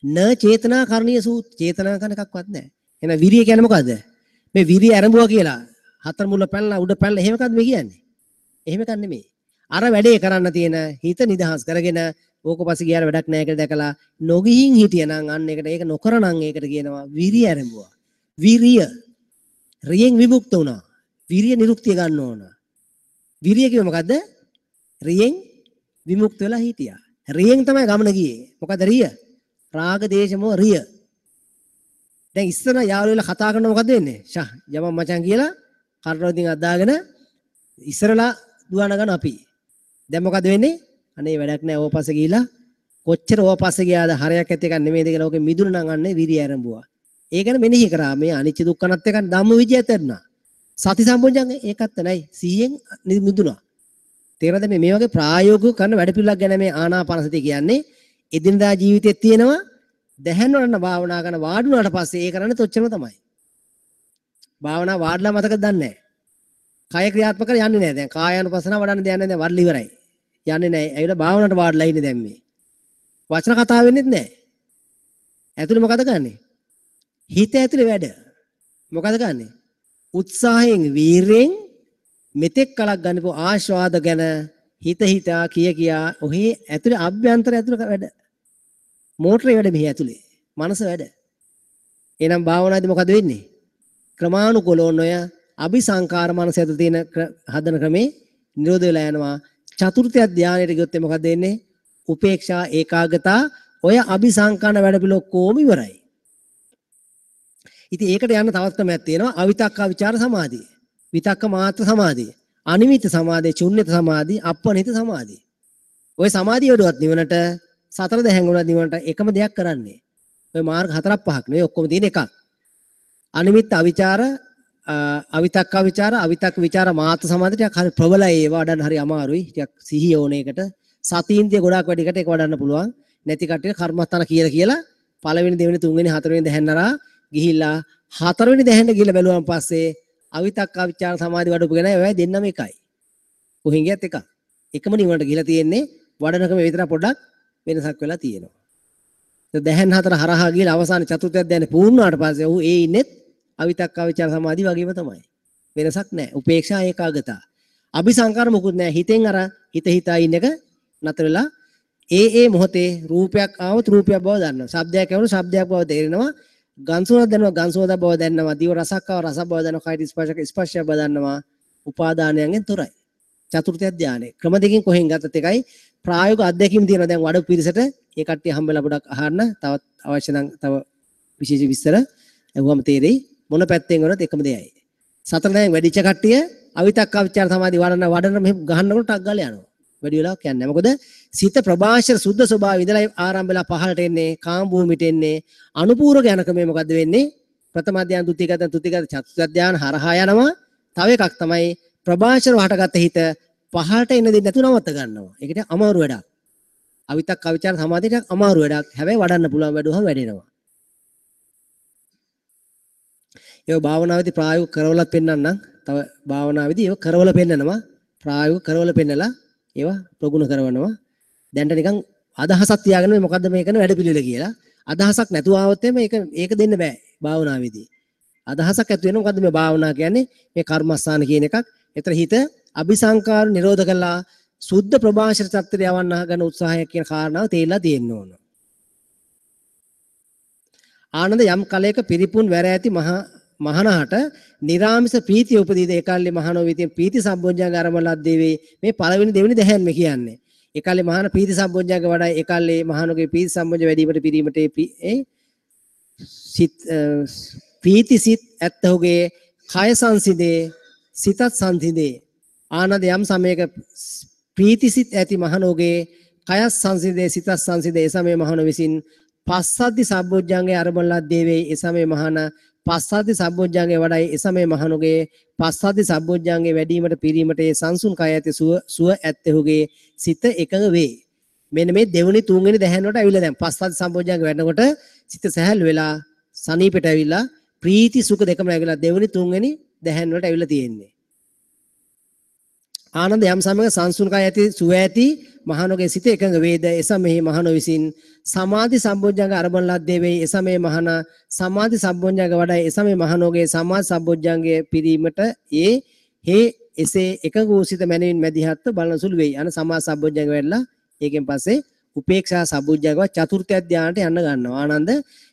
න චේතනා කරණීය සූත්. චේතනා කරන එකක්වත් නැහැ. එහෙනම් විරිය කියන්නේ මොකද්ද? මේ විරිය ආරම්භුවා කියලා හතර මුල පැනලා උඩ පැනලා එහෙම එකක්ද මේ කියන්නේ? එහෙම එකක් නෙමෙයි. අර වැඩේ කරන්න තියෙන හිත නිදහස් කරගෙන ඕක පස්සේ ගියාර වැඩක් නැහැ කියලා දැකලා නොගිහින් හිටියනම් අන්න ඒකට ඒක නොකරනම් ඒකට කියනවා විරිය ආරම්භුවා. විරිය රියෙන් විමුක්ත වුණා. විරිය නිරුක්තිය ගන්න ඕන. විරිය කිව්ව මොකද්ද? රියෙන් විමුක්ත වෙලා හිටියා. රියෙන් තමයි ගමන ගියේ. මොකද්ද රිය? රාග දේශ මොහ රිය. දැන් ඉස්සර යාළුවෝ වෙලා කතා කරන මොකද්ද වෙන්නේ? ෂා යමන් මචං කියලා කරරෝදින් අදාගෙන ඉස්සරලා දුවන ගන්න අපි. දැන් මොකද්ද වෙන්නේ? අනේ වැඩක් නෑ ඕව පස්සේ ගිහිලා කොච්චර ඕව පස්සේ ගියාද හරයක් ඇති එකක් නෙමෙයිද කියලා ඕකේ මිදුණ නම් අන්නේ විරිය ආරම්භුවා. ඒ ගැන මෙනෙහි කරා. මේ අනිච්ච දුක්ඛ අනාත්ම එක ධම්ම විජයත් ඇරුණා. සති සම්බොජ්ජංග ඒකත් නැයි. සිහියෙන් මිදුණා. තේරෙනවද මේ වගේ ප්‍රායෝගිකව කරන වැඩ පිළිවෙලක් ගැන මේ ආනාපාන සතිය කියන්නේ එදිනදා ජීවිතයේ තියෙනවා. දැහැන් වඩන භාවනා කරන වාඩි වුණාට පස්සේ ඒ කරන්නේ තොච්චරම තමයි. භාවනා වාඩිලා මතකද දන්නේ නැහැ. කය ක්‍රියාත්මක කර යන්නේ නැහැ. දැන් කායානුපස්සනාව වඩන්න දෙයක් නැහැ. දැන් වඩලා ඉවරයි. යන්නේ නැහැ. ඇවිල්ලා භාවනාවට වාඩිලා ඉන්නේ දැන් මේ. වචන කතා වෙන්නෙත් නැහැ. ඇතුලේ මොකද කරන්නේ? හිත ඇතුලේ වැඩ. මොකද කරන්නේ? උත්සාහයෙන් වීරයෙන් මෙතෙක් කලක් ගන්නපු ආස්වාද ගැන හිත හිතා කිය කියා ඔහේ ඇතුලේ අභ්‍යන්තර ඇතුලේ වැඩ. මෝටරේ වැඩ මෙහි ඇතුලේ. මනස වැඩ. එහෙනම් භාවනාවේදී මොකද වෙන්නේ? ක්‍රමානුකූලව ඔය අபிසංකාර මනස ඇතුලේ තියෙන හදන ක්‍රමේ නිරෝධ වෙලා යනවා. චතුර්ථ ධානයට ගියොත් මොකද වෙන්නේ? උපේක්ෂා ඒකාග්‍රතා ඔය අபிසංකාන වැඩ පිළ ඔක්කොම ඉවරයි. ඉතින් ඒකට යන්න තවත් ක්‍රමයක් තියෙනවා. අවිතක්ක විචාර සමාධිය. විතක්ක මාත්‍ර සමාධිය. අනිමිත සමාධිය, ශුන්්‍යත සමාධිය, අප්පනිත සමාධිය. ඔය සමාධිය වඩුවත් නිවනට සතර දැහැන් වුණත් නිවනට එකම දෙයක් කරන්නේ. ඔය මාර්ග හතරක් පහක් නෙවෙයි ඔක්කොම තියෙන එකක්. අනිමිත් අවිචාර, අවිතක්ක විචාර, අවිතක්ක විචාර මාත්‍ර සමාධිය ටිකක් හරි ප්‍රබලයි. ඒවා වඩන්න හරි අමාරුයි. ටිකක් සිහිය ඕන එකට. සතීන්ද්‍රිය ගොඩාක් වැඩි එකට ඒක වඩන්න පුළුවන්. නැති කට්ටිය කර්මස්ථාන කියලා කියලා පළවෙනි දෙවෙනි තුන්වෙනි හතරවෙනි දැහැන් අරා ගිහිල්ලා හතරවෙනි දැහැන්ට ගිහිල්ලා බැලුවම පස්සේ අවිතක්ක අවිචාර සමාධි වඩපු කෙනා ඒවයි දෙන්නම එකයි. කොහෙන් ගියත් එකක්. එකම නිවනට ගිහිලා තියෙන්නේ වඩනකම විතර පොඩ්ඩක් වෙනසක් වෙලා තියෙනවා. දැහැන් හතර හරහා ගිහලා අවසාන චතුර්ථ ධ්‍යානෙ පූර්ණ වුණාට පස්සේ ඔහු ඒ ඉන්නෙත් අවිතක්ක අවිචාර සමාධි වගේම තමයි. වෙනසක් නැහැ. උපේක්ෂා ඒකාගතා. අபிසංකාර මොකුත් නැහැ. හිතෙන් අර හිත හිතා ඉන්න එක නතර වෙලා ඒ ඒ මොහොතේ රූපයක් ආවොත් රූපයක් බව දන්නවා. ශබ්දයක් ඇහුණොත් ශබ්දයක් බව තේරෙනවා. ගන් සුවඳක් දැනෙනවා ගන් සුවඳක් බව දන්නවා. දිව රසක් ආව රසක් බව දන්නවා. කයට ස්පර්ශක ස්පර්ශයක් බව දන්නවා. උපාදානයන්ගෙන් තොරයි. චතුර්ථ ධ්‍යානෙ. ක්‍රම දෙකකින් කොහෙන් ගත්තත් එකයි. ප්‍රායෝගික අත්දැකීම් තියෙනවා දැන් වඩ පිරිසට. ඒ කට්ටිය හම්බෙලා පොඩක් අහන්න. තවත් අවශ්‍ය නම් තව විශේෂ විස්තර ඇහුවම තේරෙයි. මොන පැත්තෙන් වුණත් එකම දෙයයි. සතර දැන් වැඩිච්ච කට්ටිය අවිතක්ක අවිචාර සමාධි වඩන වඩන මෙහෙම ගහන්නකොට ටක් ගාලා යනවා. වැඩි වෙලාවක් යන්නේ නැහැ. මොකද සිත ප්‍රභාෂර සුද්ධ ස්වභාවය ඉඳලා ආරම්භ වෙලා පහළට එන්නේ, කාම භූමියට එන්නේ. අනුපූර්වක යන ක්‍රමය මොකද්ද වෙන්නේ? ප්‍රථම ධ්‍යාන, ද්විතීය ධ්‍යාන, තෘතීය ධ්‍යාන, චතුර්ථ ධ්‍යාන හරහා යනවා. තව එකක් තමයි ප්‍රභාෂරව හටගත්ත හිත පහළට එන්න දෙන්නේ නැතුව නවත්ත ගන්නවා. ඒකට අමාරු වැඩක්. අවිතක්ක අවිචාර සමාධියට අමාරු වැඩක්. හැබැයි වඩන්න පුළුවන් වැඩුවහම වැඩෙනවා. ඒව භාවනාවේදී ප්‍රායෝගික කරවලත් පෙන්වන්නම්. තව භාවනාවේදී ඒව කරවල පෙන්නනවා. ප්‍රායෝගික කරවල පෙන්නලා ඒවා ප්‍රගුණ කරවනවා. දැන්ට නිකන් අදහසක් තියාගෙන මේ මොකද්ද මේ කරන වැඩ පිළිවෙල කියලා. අදහසක් නැතුව ආවොත් එimhe ඒක දෙන්න බෑ භාවනාවේදී. අදහසක් ඇති වෙනවා මොකද්ද මේ භාවනා කියන්නේ? මේ කර්මස්ථාන කියන එකක්. ඒතර හිත අபிසංකාර නිරෝධ කළා සුද්ධ ප්‍රභාෂර තත්ත්වයට යවන්න ගන්න උත්සාහය කියන කාරණාව තේරිලා තියෙන්න ඕන. ආනන්ද යම් කලයක පිරිපුන් වැර ඇති මහනහට නිරාමිස ප්‍රීතිය උපදීද ඒකල්ලි මහනෝ විතින් ප්‍රීති සම්බොජ්ජංග ආරම්භ ලද්දේ වේ. මේ පළවෙනි දෙවෙනි දැහැන් මේ කියන්නේ. ඒකල්ලි මහන ප්‍රීති සම්බොජ්ජංග වඩා ඒකල්ලි මහනෝගේ ප්‍රීති සම්බොජ්ජ වැඩිවීමට පිරීමට ඒ සිත් ප්‍රීති සිත් ඇත්තහුගේ කය සංසිඳේ සිතත් සංසිඳේ. ආනන්ද යම් සමයක ප්‍රීති සිත් ඇති මහනෝගේ කයත් සංසිඳේ සිතත් සංසිඳේ. ඒ සමයේ මහනෝ විසින් පස්සද්ධි සම්බොජ්ජංගේ ආරම්භ ලද්දේ වේ. ඒ සමයේ මහන පස්සද්ධි සම්බොජ්ජංගේ වඩයි. ඒ සමයේ මහනුගේ පස්සද්ධි සම්බොජ්ජංගේ වැඩිවීමට පිරීමට ඒ සංසුන් කය ඇති සුව ඇත්තහුගේ සිත එකඟ වේ. මෙන්න මේ දෙවෙනි තුන්වෙනි දැහැන් වලට ඇවිල්ලා දැන් පස්සද්ධි සම්බොජ්ජංගේ වැඩනකොට සිත සැහැල්ලු වෙලා සනීපෙට ඇවිල්ලා ප්‍රීති සුඛ දෙකම ඇවිල්ලා දෙවෙනි තුන්වෙනි දැහැන් වලට ඇවිල්ලා තියෙන්නේ. ආනන්ද යම් සමයක සංසුන් කය ඇති සුව ඇති මහනුගේ සිත එකඟ වේද. ඒ සමයෙහි මහනෝ විසින් සමාධි සම්බොජ්ජංග අරබන ලද්දේ වෙයි. ඒ සමයේ මහන සමාධි සම්බොජ්ජංග වඩයි. ඒ සමයේ මහනෝගේ සමාධි සම්බොජ්ජංගයේ පිරීමට ඒ හේ එසේ එකඟ වූ සිත මැනවින් මැදිහත්ව බලන සුළු වෙයි. අන සමාධි සම්බොජ්ජංග වැඩලා ඒකෙන් පස්සේ උපේක්ෂා සම්බොජ්ජංගව චතුර්ථ ධ්‍යානට යන්න ගන්නවා. ආනන්ද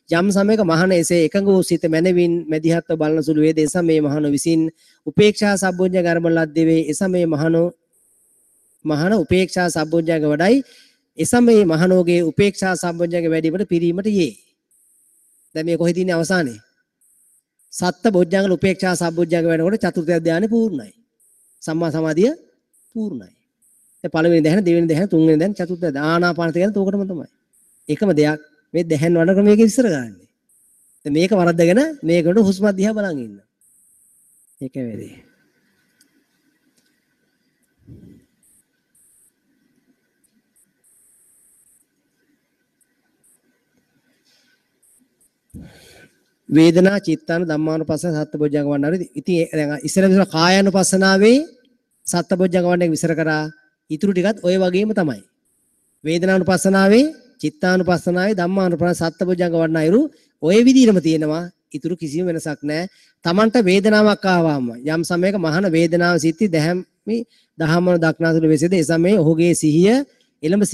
යම් සමයක මහන එසේ එකඟ වූ සිත මැනවින් මැදිහත්ව බලන සුළු වේද. ඒ සමයේ මහනෝ විසින් උපේක්ෂා සම්බොජ්ජංග අරබන ලද්දේ වෙයි. ඒ සමයේ මහන උපේක්ෂා සම්බොජ්ජංග වඩයි. එසමයේ මහනෝගේ උපේක්ෂා සම්බොජ්ජංග වැඩිවීමට පිරීමට යේ. දැන් මේ කොහෙද ඉන්නේ අවසානයේ? සත්ත බොජ්ජංග උපේක්ෂා සම්බොජ්ජංග වෙනකොට චතුර්ථ ධ්‍යානෙ පූර්ණයි. සම්මා සමාධිය පූර්ණයි. දැන් පළවෙනි දැහැන, දෙවෙනි දැහැන, තුන්වෙනි දැහැන, චතුර්ථ ධ්‍යාන ආනාපානසති කියන්නේ තෝකටම තමයි. එකම දෙයක් මේ දැහැන් වඩන ක්‍රමයක විස්තර කරන්නේ. දැන් මේක වරද්දගෙන මේකට හුස්ම දිහා බලන් ඉන්න. ඒකයි වැඩේ. වේදනා චිත්තාන ධම්මානුපස්සන සත්බොජ්ජංග වඩන. ඉතින් දැන් ඉස්සර විතර කායානුපස්සනාවේ සත්බොජ්ජංග වඩන එක විස්තර කරා. ඊටු ටිකත් ඔය වගේම තමයි. වේදනානුපස්සනාවේ චිත්තානුපස්සනාවේ ධම්මානුපස්සන සත්බොජ්ජංග වඩන අයුරු ඔය විදිහටම තියෙනවා. ඊටු කිසිම වෙනසක් නැහැ. Tamanට වේදනාවක් ආවම යම් සමයක මහාන වේදනාව සිටි දැහැමි දහමන දක්නාසුළු වෙසේද ඒ සමයේ ඔහුගේ සිහිය එළඹ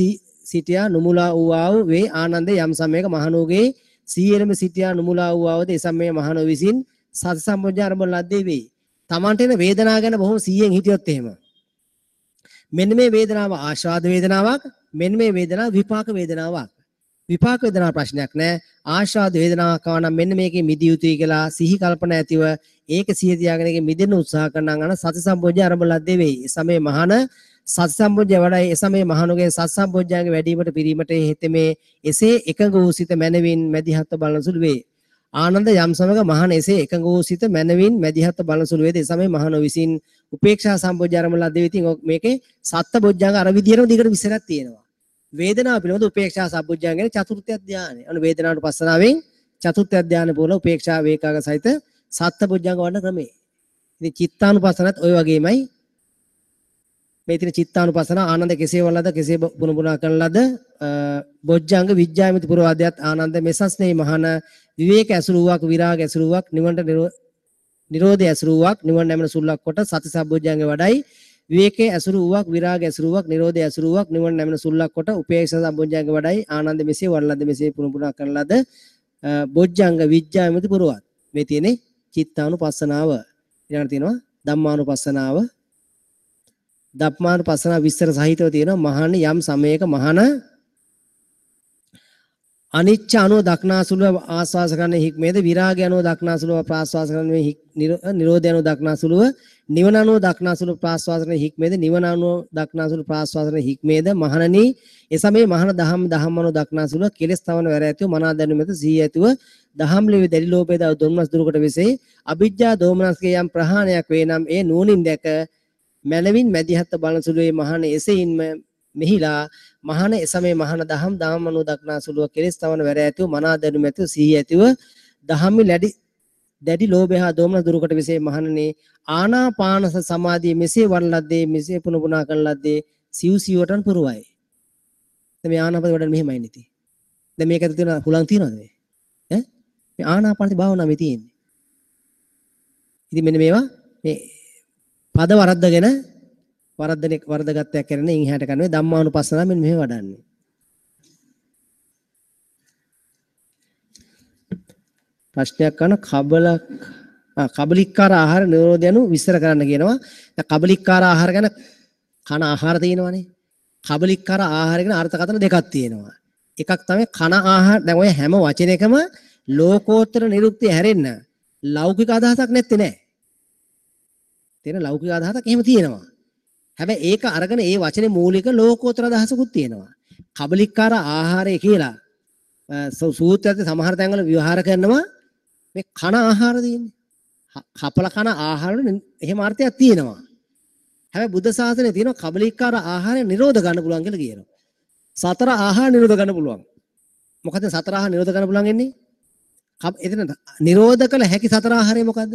සිටියා නුමුලා වූ ආ වේ. ආනන්දේ යම් සමයක මහණෝගේ සිහිය එළඹ සිටියා නුමුලා වූ ආවද ඒ සමයේ මහණෝ විසින් සති සම්බොජ්ජ ආරම්භ ලද්දේ වෙයි. Tamanට එන වේදනාව ගැන බොහොම සිහියෙන් හිටියොත් එහෙම මෙන්න මේ වේදනාව ආශාද වේදනාවක්, මෙන්න මේ වේදනාව විපාක වේදනාවක්. විපාක වේදනාව ප්‍රශ්නයක් නෑ. ආශාද වේදනාවක් ආව නම් මෙන්න මේකේ මිදිය යුතුයි කියලා සිහි කල්පනා ඇතිව ඒක සිහිය තියාගෙන ඒකේ මිදෙන්න උත්සාහ කරනවා නම් සති සම්බොජ්ජ ආරම්භ ලද්දේ වෙයි. ඒ සමයේ මහණ සති සම්බොජ්ජ වඩයි. ඒ සමයේ මහණුගේ සති සම්බොජ්ජංගේ වැඩිවීමට පිරීමට හේතෙමේ එසේ එකඟ වූ සිත මැනවින් මැදිහත්ව බලන සුළු වේ. ආනන්ද යම් සමග මහණ එසේ එකඟ වූ සිත මැනවින් මැදිහත්ව බලන සුළු වේද ඒ සමයේ මහණෝ විසින් උපේක්ෂා සම්බොජ්ජ ආරම්භ ලද්දේ. ඉතින් මේකේ සත්ත බොජ්ජංග අර විදියටම දිගට විස්තරයක් තියෙනවා. වේදනාව පිළිබඳ උපේක්ෂා සම්බුද්ධංග කියන චතුර්ථ ධානය. අනු වේදනානුපස්සනාවෙන් චතුර්ථ ධානය පුරලා උපේක්ෂා වේකාග සහිත සත්‍ය බොජ්ජංග වඩන ක්‍රමය. ඉතින් චිත්තානුපස්සනත් ඔය වගේමයි. මේ තියෙන චිත්තානුපස්සන ආනන්ද කෙසේ වලද කෙසේ පුන පුනා කරන ලද බොජ්ජංග විඥාමිත පුරවාදයත් ආනන්ද මෙසස්නේ මහාන විවේක ඇසුරු වූවක් විරාග ඇසුරු වූවක් නිවනට නිරෝධය ඇසුරු වූවක් නිවන නැමෙන සුල්ලක් කොට සති සම්බොජ්ජංග වඩයි. විවේකයේ ඇසුරු වූවක් විරාග ඇසුරු වූවක් නිරෝධය ඇසුරු වූවක් නිවන නැමෙන සුල්ලක් කොට උපේක්ෂා සම්බොජ්ජංග වඩයි. ආනන්ද මෙසේ වඩලද මෙසේ පුන පුනා කරන ලද බොජ්ජංග විඥාමිත පුරවාද. මේ තියෙන්නේ චිත්තානුපස්සනාව. ඊළඟට තියෙනවා ධම්මානුපස්සනාව. ධම්මානුපස්සනාව විස්තර සහිතව තියෙනවා. මහණ යම් සමයක මහණ අනිච්ච අනුව දක්නාසුලුව ආස්වාස කරන හික්මේද, විරාගය අනුව දක්නාසුලුව ප්‍රාස්වාස කරන නිරෝධය අනුව දක්නාසුලුව නිවන අනුව දක්නාසුලුව ප්‍රාස්වාස කරන හික්මේද, නිවන අනුව දක්නාසුලුව ප්‍රාස්වාස කරන හික්මේද මහණනි එසමයේ මහණ දහම් දහම් අනුව දක්නාසුලුව කෙලස් තවන වැර ඇතිව මනා දැනුම ඇත සිහිය ඇතිව දහම් ලිවි දැඩි ලෝභය දව දොම්නස් දුරුකොට වෙසේ අවිජ්ජා දෝමනස්ගේ යම් ප්‍රහාණයක් වේ නම් ඒ නුවණින් දැක මැනවින් මැදිහත් බලන සුළුවේ මහණ එසෙයින්ම මෙහිලා මහණ එසමයේ මහණ දහම් දහම් අනුව දක්නාසුලුව කෙලස් තවන වැර ඇතිව මනා දැනුම ඇතිව සිහිය ඇතිව දහම්මි දැඩි ලෝභය හා දෝමනස් දුරුකොට වෙසේ මහණනි ආනාපාන සමාධිය මෙසේ වඩන ලද්දේ මෙසේ පුන පුනා කරන ලද්දේ සිව් සිව්වටන් පුරවයි. දැන් මේ ආනාපාන වඩන මෙහෙමයි නේ. දැන් මේක ඇතුළේ තියෙන හුලං තියෙනවද මේ? ඈ මේ ආනාපානසති භාවනාව මේ තියෙන්නේ. ඉතින් මෙන්න මේවා මේ පද වරද්දගෙන වරද්දගත්තයක් කරන ඉන් එහාට කරන්නේ ධම්මානුපස්සනාව මෙන්න මෙහෙම වඩන්නේ. ප්‍රශ්නයක් කරන කබලික්කාර ආහාර නිරෝධ යනු විස්තර කරන්න කියනවා. දැන් කබලික්කාර ආහාර ගැන කන ආහාර තියෙනවනේ. කබලික්කාර ආහාර ගැන අර්ථකථන දෙකක් තියෙනවා. එකක් තමයි කන ආහාර. දැන් ඔය හැම වචනයකම ලෝකෝත්තර නිරුක්තිය හැරෙන්න ලෞකික අදහසක් නැත්තේ නෑ. තියෙන ලෞකික අදහසක් එහෙම තියෙනවා. හැබැයි ඒක අරගෙන ඒ වචනේ මූලික ලෝකෝත්තර අදහසකුත් තියෙනවා. කබලික්කාර ආහාරය කියලා සූත්‍රයත් සමහර තැන්වල විවහාර කරනවා මේ කන ආහාර තියෙන්නේ. කපල කන ආහාර වල එහෙම අර්ථයක් තියෙනවා. හැබැයි බුද්ධ ශාසනයේ තියෙනවා කබලික්කාර ආහාරය නිරෝධ ගන්න පුළුවන් කියලා කියනවා. සතර ආහාර නිරෝධ ගන්න පුළුවන්. මොකද සතර ආහාර නිරෝධ ගන්න පුළුවන් වෙන්නේ? එතන නිරෝධ කළ හැකි සතර ආහාරය මොකද්ද?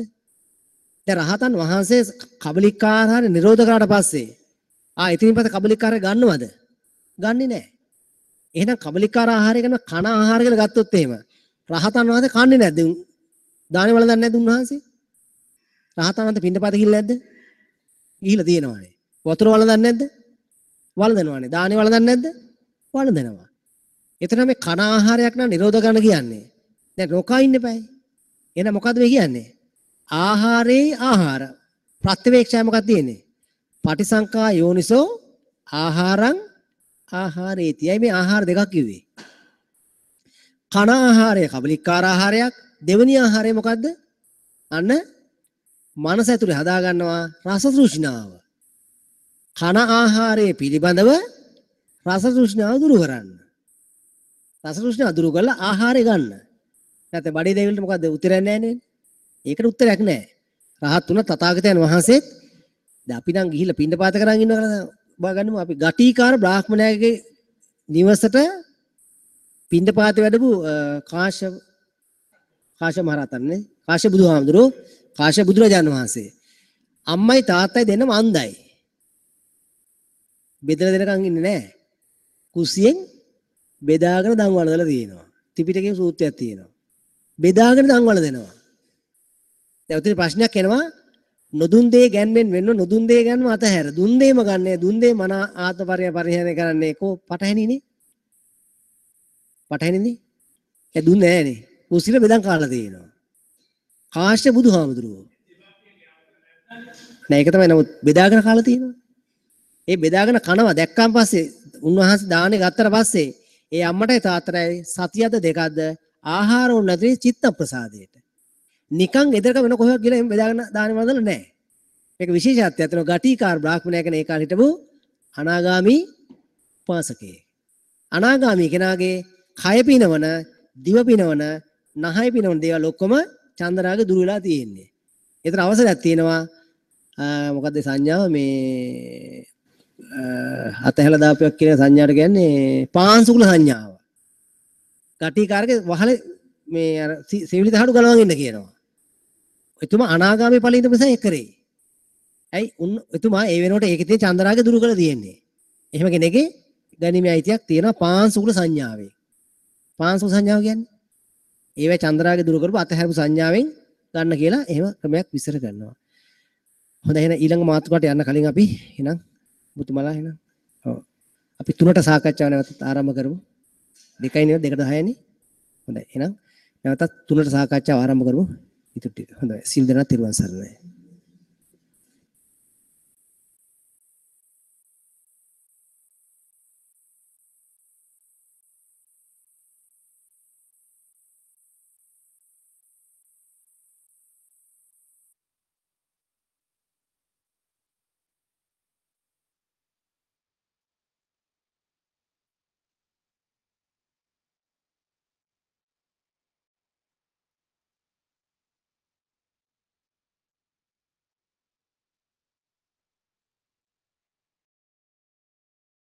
දැන් රහතන් වහන්සේ කබලික්කාර ආහාරය නිරෝධ කරාට පස්සේ එතනින් පස්සේ කබලික්කාරය ගන්නවද? ගන්නෙ නෑ. එහෙනම් කබලික්කාර ආහාරය ගැන කන ආහාර කියලා ගත්තොත් එහෙම රහතන් වහන්සේ කන්නේ නැද්ද? දානේ වළඳන්නේ නැද්ද උන්වහන්සේ? රහතන් වහන්සේ පිණ්ඩපාත ගිහිල්ලා නැද්ද? ගිහිල්ලා තියෙනවානේ. වතුර වළඳන්නේ නැද්ද? වළඳනවානේ. දානේ වළඳන්නේ නැද්ද? වළඳනවා. එතන මේ කන ආහාරයක් නම් නිරෝධ කරන්න කියන්නේ. දැන් නොකා ඉන්න එපායි. එහෙනම් මොකද්ද මේ කියන්නේ? ආහාරේ ආහාර. ප්‍රත්‍යවේක්ෂාව මොකක්ද තියෙන්නේ? පටිසංකා යෝනිසෝ ආහාරං ආහාරේති. ඇයි මේ ආහාර දෙකක් කිව්වේ? කන ආහාරය කබලික්කාර ආහාරයක්. දෙවෙනි ආහාරය මොකද්ද? අන්න මනස ඇතුලේ හදා ගන්නවා රස තෘෂ්ණාව. කන ආහාරයේ පිළිබඳව රස තෘෂ්ණාව දුරු කරන්න. රස තෘෂ්ණාව දුරු කරලා ආහාරය ගන්න. නැත්නම් බඩේ දෙවිලට මොකද්ද උත්තරයක් නැහැ නේද? ඒකට උත්තරයක් නැහැ. රහත් වුණ තථාගතයන් වහන්සේත් දැන් අපි නම් ගිහිල්ලා පිණ්ඩපාත කරන් ඉන්නවා කියලා බාගන්නමු. අපි ගටීකාර බ්‍රාහ්මණයාගේ නිවසට පිණ්ඩපාත වැඩපු කාශ්‍යප මහරහතන් නේ. කාශ්‍යප බුදුහාමුදුරුවෝ, කාශ්‍යප බුදුරජාණන් වහන්සේ. අම්මයි තාත්තයි දෙන්නම අන්ධයි. බෙදලා දෙනකන් ඉන්නේ නැහැ. කුස්සියෙන් බෙදාගෙන දන් වළඳලා තියෙනවා. ත්‍රිපිටකයේ සූත්‍රයක් තියෙනවා. බෙදාගෙන දන් වළඳනවා. දැන් උතන ප්‍රශ්නයක් එනවා. නොදුන් දේ ගැන්වෙන් වෙන්න නොදුන් දේ ගැන්ව අතහැර. දුන් දේම ගන්නේ දුන් දේ මන ආත්ම පරිහරණය කරන්නේ කො පටහැනිනේ. පටහැනිනේ. ඒ දුන්නේ නෑනේ. කුස්සිල බෙදන් කාලා තියෙනවා. කාශ්‍යප බුදුහාමුදුරුවෝ. නෑ ඒක තමයි. නමුත් බෙදාගෙන කාලා තියෙනවා. ඒ බෙදාගෙන කනවා දැක්කන් පස්සේ උන්වහන්සේ දානේ ගත්තට පස්සේ ඒ අම්මටයි තාත්තටයි සතියද දෙකක්ද ආහාර උන් නැති චිත්ත ප්‍රසාදයට. නිකන් ගෙදරක වෙන කොහෙවත් ගිහලා එහෙම බෙදාගෙන දානේ වළඳලා නෑ. මේක විශේෂත්වයක් තියෙනවා. ගටීකාර බ්‍රාහ්මණයා කියන ඒ කාලේ හිටපු අනාගාමී උපාසකයෙක්. අනාගාමී කෙනාගේ කය පිනවන, දිව පිනවන, නහය පිනවන දේවල් ඔක්කොම චන්දරාග දුර වෙලා තියෙන්නේ. ඒතර අවසරයක් තියෙනවා. මොකද්ද සංඥාව මේ අතහැලා දාපුවක් කියන සංඥාට කියන්නේ පාංශුකුල සංඥාව. ගටිකාරගේ වහලේ මේ අර සෙවිලි තහඩු ගලවන් ඉන්න කියනවා. එතුමා අනාගාමී ඵලෙ ඉඳපු නිසා ඒක කරේ. ඇයි උන් එතුමා ඒ වෙනකොට ඒකේ තියෙන චන්දරාගය දුරු කරලා තියෙන්නේ. එහෙම කෙනෙක්ගේ ගැනීමේ අයිතියක් තියෙනවා පාංශුකුල සංඥාවේ. පාංශුකුල සංඥාව කියන්නේ ඒවැ චන්දරාගය දුරු කරපු අතහැරපු සංඥාවෙන් ගන්න කියලා එහෙම ක්‍රමයක් විස්තර කරනවා. හොඳයි, එහෙනම් ඊළඟ මාතෘකාවට යන්න කලින් අපි එහෙනම් මුතුමලා එහෙනම් ඔව් අපි තුනට සාකච්ඡාව නැවතත් ආරම්භ කරමු. 2යි නේද? 2:10 නේ. හොඳයි, එහෙනම් නැවතත් තුනට සාකච්ඡාව ආරම්භ කරමු. ඉතුරු ටික. හොඳයි. සිල් දෙනා තෙරුවන් සරණයි.